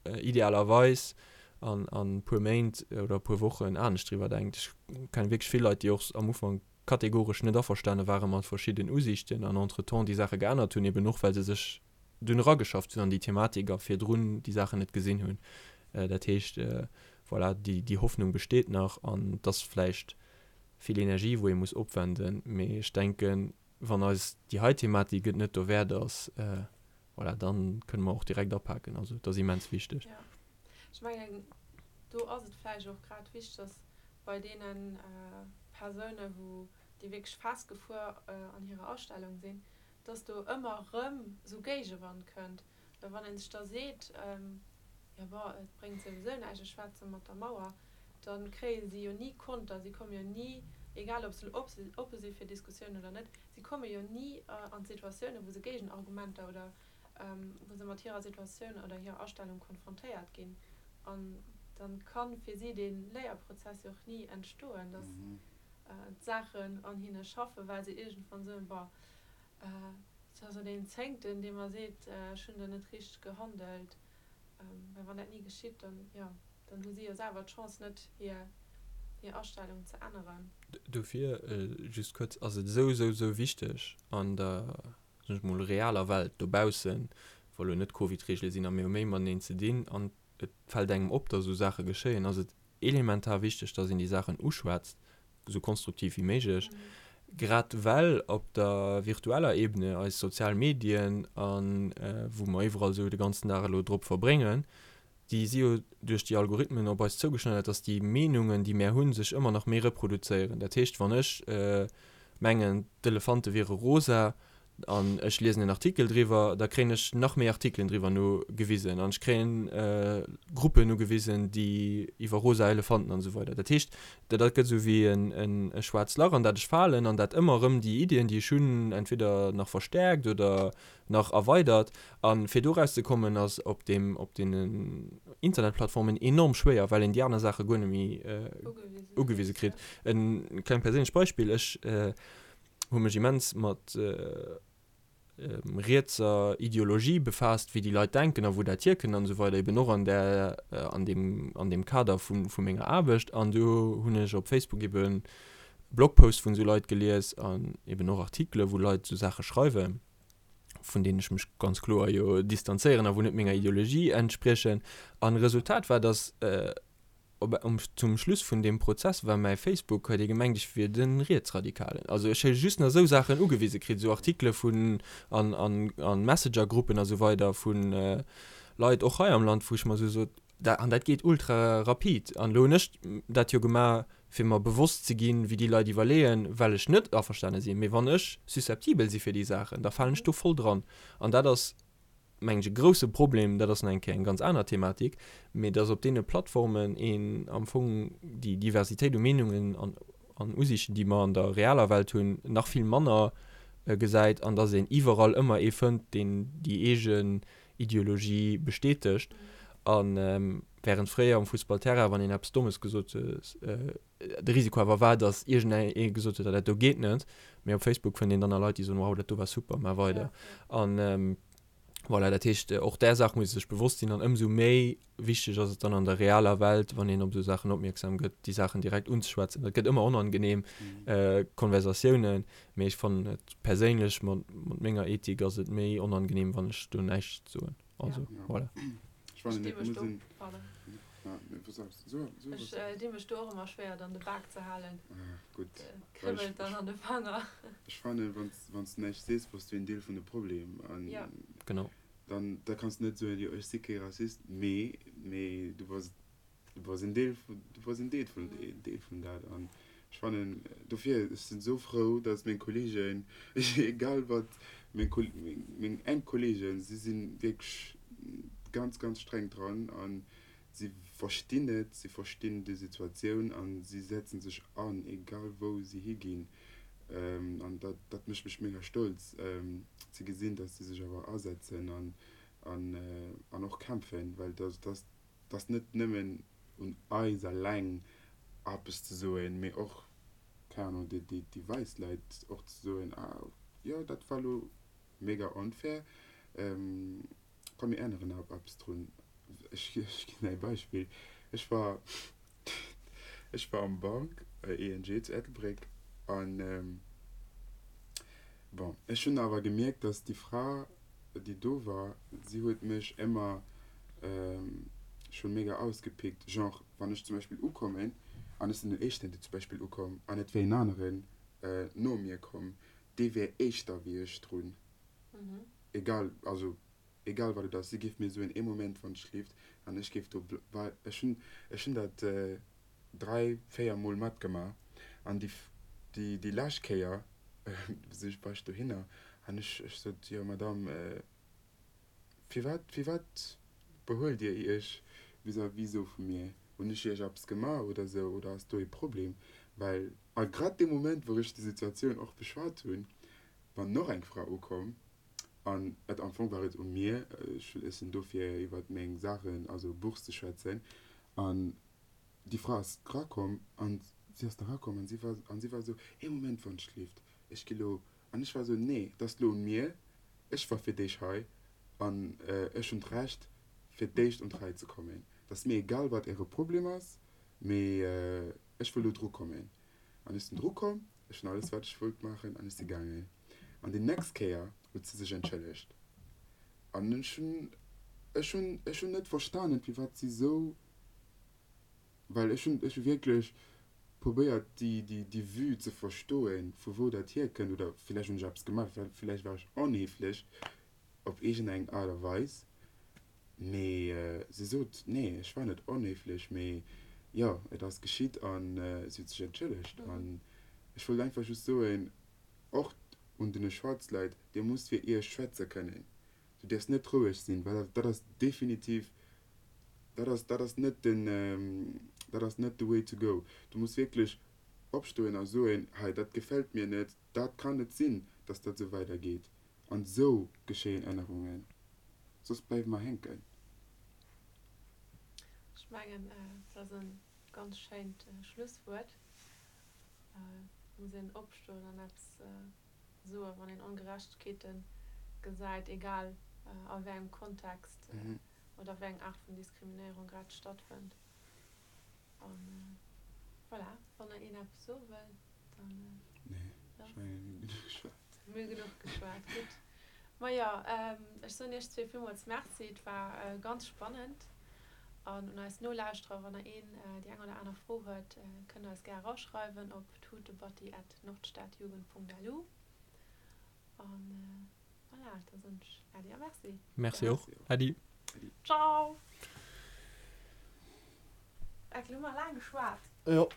idealerweis an e puer Méint oder e puer Wochen anescht driwwer denkt. Ech kenne wierklech vill Leit, déi och am Ufank kategoresch net averstane ware mat verschidden Usiichten an entretemps déi Saache geännert hunn, eben och well se sech dunn erageschafft hunn an déi Thematik a virdrun déi Saachen net gesinn hunn. Dat heescht, voilà, déi Hoffnung besteet nach an et ass vläicht vill Energie wou ee muss opwenden, mee ech denken, wann eis déi hei Thematik et net dowäert ass, voilà, da kënne mer och direkt apaken. Also et ass immens wichteg. Jo, ech mengen, do ass et vläicht och grad wichteg, dass bei deene Persounen, wou déi wierklech festgefuer an hirer Astellung sinn, dass do ëmmer erëm esou Géigewand kënnt. Well wann ee sech da seet, jo bon, et bréngt souwisou näischt, ech schwätze mat der Mauer, da kréie si jo ni Konter, si komme jo ni, egal ob se oppe si fir Diskussiounen oder net, si komme jo ni an d'Situatiounen, wou se Géigenargumenter oder wou se mat hirer Situatioun oder hirer Astellung konfrontéiert ginn. An da ka fir si dee Léierprozess jo och ni entstoen, dass d'Saachen an hinne schaffen, well se iergendwann soen, bon. Et ass esou deen Zéngten, dee mer seet, ech hunn do net richteg gehandelt. Well wann dat ni geschitt, dann, jo, dann hu si jo selwer d'Chance net, hir, hir Astellung ze änneren. Dofir, just kuerz, ass et esou, esou, esou wichteg an der, soen ech mol, realer Welt dobaussen, wa lo net Covid-Reegele sinn a mir hu méi mateneen ze dinn an et fält engem op, datt esou Saache geschéien, ass et elementar wichteg, datt een déi Saachen uschwätzt, esou konstruktiv wéi méiglech, grad well op der virtueller Ebene, eis sozial Medien a wou mer iwwerall esou de ganzen Dag elo drop verbréngen, déi si jo duerch déi Algorithmen op eis zougeschneidert, dass déi Meenungen, déi mär hunn, sech ëmmer nach méi reproduzéieren. Dat heescht, wann ech mengen, d'Elefante wiere rosa an ech liesen en Artikel driwwer, da kréien ech nach méi Artikelen driwwer nogewisen an ech kréien Gruppen ugewisen, déi iwwer rosa Elefanten an esou weider. Dat heescht, dat gëtt esou wéi e schwaarzt Lach, an dat ech falen an dat ëmmer erëm déi Iddien, déi ech hunn, entweder nach verstäerkt oder nach erweidert. A fir do erauszekommen ass op deem, op deenen Internetplattformen enorm schwéier, well een déi aner Saache guer net méi ugewise kritt. E klengt perséinlecht Beispill, Ech hu mech immens mat rietser Ideologie befaasst, wéi déi Leit denken a wou dat hierkënnt an esou weider, eben och an där, an deem, an deem Kader vu, vu menger Aarbecht. An do hunn ech op Facebook eben Blogposts vun esou Leit gelies an eben och Artikele wou Leit esou Saache schreiwen. vun deenen ech mech ganz kloer jo distanzéieren a wou net menger Ideologie entspriechen. An Resultat war, dass op um zum Schluss vun deem Prozess war mäi Facebook, huet ee gemengt ech wier de Rietsradikalen. Also ech hu just nach esou Saachen ugewise kritt, esou Artikele vun an an an Messenger-Gruppen a sou weider vu Leit och hei am Land, wou ech mer esou sot, Da, an dat geet ultra rapid. An elo hunn ech dat jo gemaach, fir mer bewosst ze ginn, wéi déi Leit iwwerleeën, well ech net averstane sinn. Mee wann ech susceptibel si fir déi Saachen, da falen ech do voll dran. An dat ass, mengen ech, e grouse Problem. Dat ass nach eng Kéier eng ganz aner Thematik. Mee dass op deene Plattformen een am Fong déi Diversitéit u Meenungen an, an Usiichten, déi mer an der realer Welt hunn, nach vill manner gesäit an dass een iwwerall ëmmer ee fënnt, deen déi eegen Ideologie bestätegt. A während fréier um Fussballterrain, wann een eppes Dommes gesot huet, de Risiko awer war, datt iergendee gesot huet, dat do geet net. Mee op Facebook fënnt een dann nach Leit, déi soen, wow, dat do war super, maach weider. An voilà, dat heescht, och där Saach muss ee sech bewosst sinn. An ëmsou méi wichteg ass et dann an der realer Welt, wann een op esou Saachen opmierksam gëtt, déi Saachen direkt unzeschwätzen. Dat gëtt ëmmer onangenehm Konversatiounen, mee ech fannen et perséinlech, mat menger Ethik ass et méi onangenehm, wann ech do näischt soen. Also voilà. Ech fannen et muss een. Ech di mech do och ëmmer schwéier dann de Bak ze halen. Gutt. Kribbelt dann an de Fanger. Ech fannen, wann s du näischt sees, bass du een Deel vun de Problem. Genau. Dann da kanns du net soen, jo ech si kee Rassist, mee mee du bass du bass en Deel vun du bass en Deel vun en Deel vun dat. An ech fannen dofir, ech sinn esou frou, datt meng Kolleegen, egal wat meng Kol meng meng enk Kolleegen, si si wierklech ganz ganz streng dran an si verstinn et, si verstinn déi Situatioun a si setzen sech an, egal wou si higinn. An dat, dat mécht mech mega stolz ze gesinn, datt si sech awer asetzen an, an, an och kämpfen, well dat, dat, dat ass net nëmmen un eis eleng eppes ze soen, mee och, keng Ahnung, déi, déi, déi wäiss Leit och ze soen, ah jo, dat war elo mega onfair, Komm mir änneren eppes drun. Ech ginn der ee Beispill, Ech war ech war am Bank, ING zu Ettelbréck an bon ech hunn awer gemierkt, datt déi Fra déi do war, si huet mech ëmmer scho mega ausgepickt, genre wann ech zum Beispill ukommen an ech sinn den éischten dee zum Beispill ukomm an et wär een aneren no mir komm, dee wär éischter wéi ech drun. Egal, also egal wat et ass, si géif mir soen, ee Moment wann et schleeft an ech géif do, well ech hunn, ech hunn dat 3, 4 mol matgemaach an déi, déi, déi lescht Kéier si ech, war ech dohinner an ech, ech sot, jo Madame, firwat, firwat behuelt Dir Iech vis-à-vis esou vu mir? Hunn ech Iech eppes gemaach oder esou oder ass do ee Problem? Well a grad dee Moment wou ech déi Situatioun och beschwat hunn, war noch eng Fra ukomm an et am Fong war et u mir, ech sinn do fir iwwert meng Saachen, also Bourse ze schwätzen an déi Fra ass erakomm an si ass da erakomm an si war an si war esou, ee Moment wann ech lift, ech gi lo an ech war esou, nee, et ass lo un mir. Ech war fir d'éischt hei an ech hunn d'Recht fir d'éischt un d'Rei ze kommen. Et ass mir egal wat äre Problem ass, mee ech wëll do dru kommen. An ech sinn dru komm, ech hunn alles wat ech wollt maachen an ech si gaangen. An déi nächst Kéier huet si sech entschëllegt. An ech hunn, ech hunn, ech hunn net verstanen firwat si sou, well ech hunn, ech hu wierklech probéiert déi, déi, déi Vue ze verstoen, vu wou dat hierkënnt oder villäicht hunn ech eppes gemaach, villäicht war ech onhéiflech op iergendeng Aart a Weis. Mee si sot, Nee, ech war net onhéiflech, mee jo, et ass geschitt a si huet sech entschëllegt. An ech wollt einfach just soen, och un den schwaarz Leit, Dir musst fir Iech schwätze kënnen. Du däerfs net roueg sinn, well dat ass definitiv, dat ass, dat ass net den, dat ass net the way to go. Du muss wierklech opstoen a soen, Hei, dat gefält mir net, dat kann net sinn, dass dat esou weidergeet. An esou geschéien Ännerungen, soss bleiwe mer hänken. Ech mengen, dat ass e ganz schéint Schlusswuert. Et muss een opstoen an eppes soen, wann een Ongerechtegkeete gesäit, egal a wéi engem Kontext oder wéi eng Aart vun Diskriminéierung grad stattfënnt. An voilà, wann nach een eppes soe wëll, dann. Nee, ech mengen, mir hunn genuch geschwat. Mir hu genuch geschwat, gutt. Majo, ech soen iech zwee villmools Merci, et war ganz spannend. An un eis Nolauschterer, wann der een déi eng oder aner Fro huet, kënnt der eis gär eraschreiwen op tutebatti at nordstadjugend.lu. An voilà, da soen ech Äddi a Merci. Merci och. Äddi. Ciao! Eck, lo hu mer laang geschwat. Jo.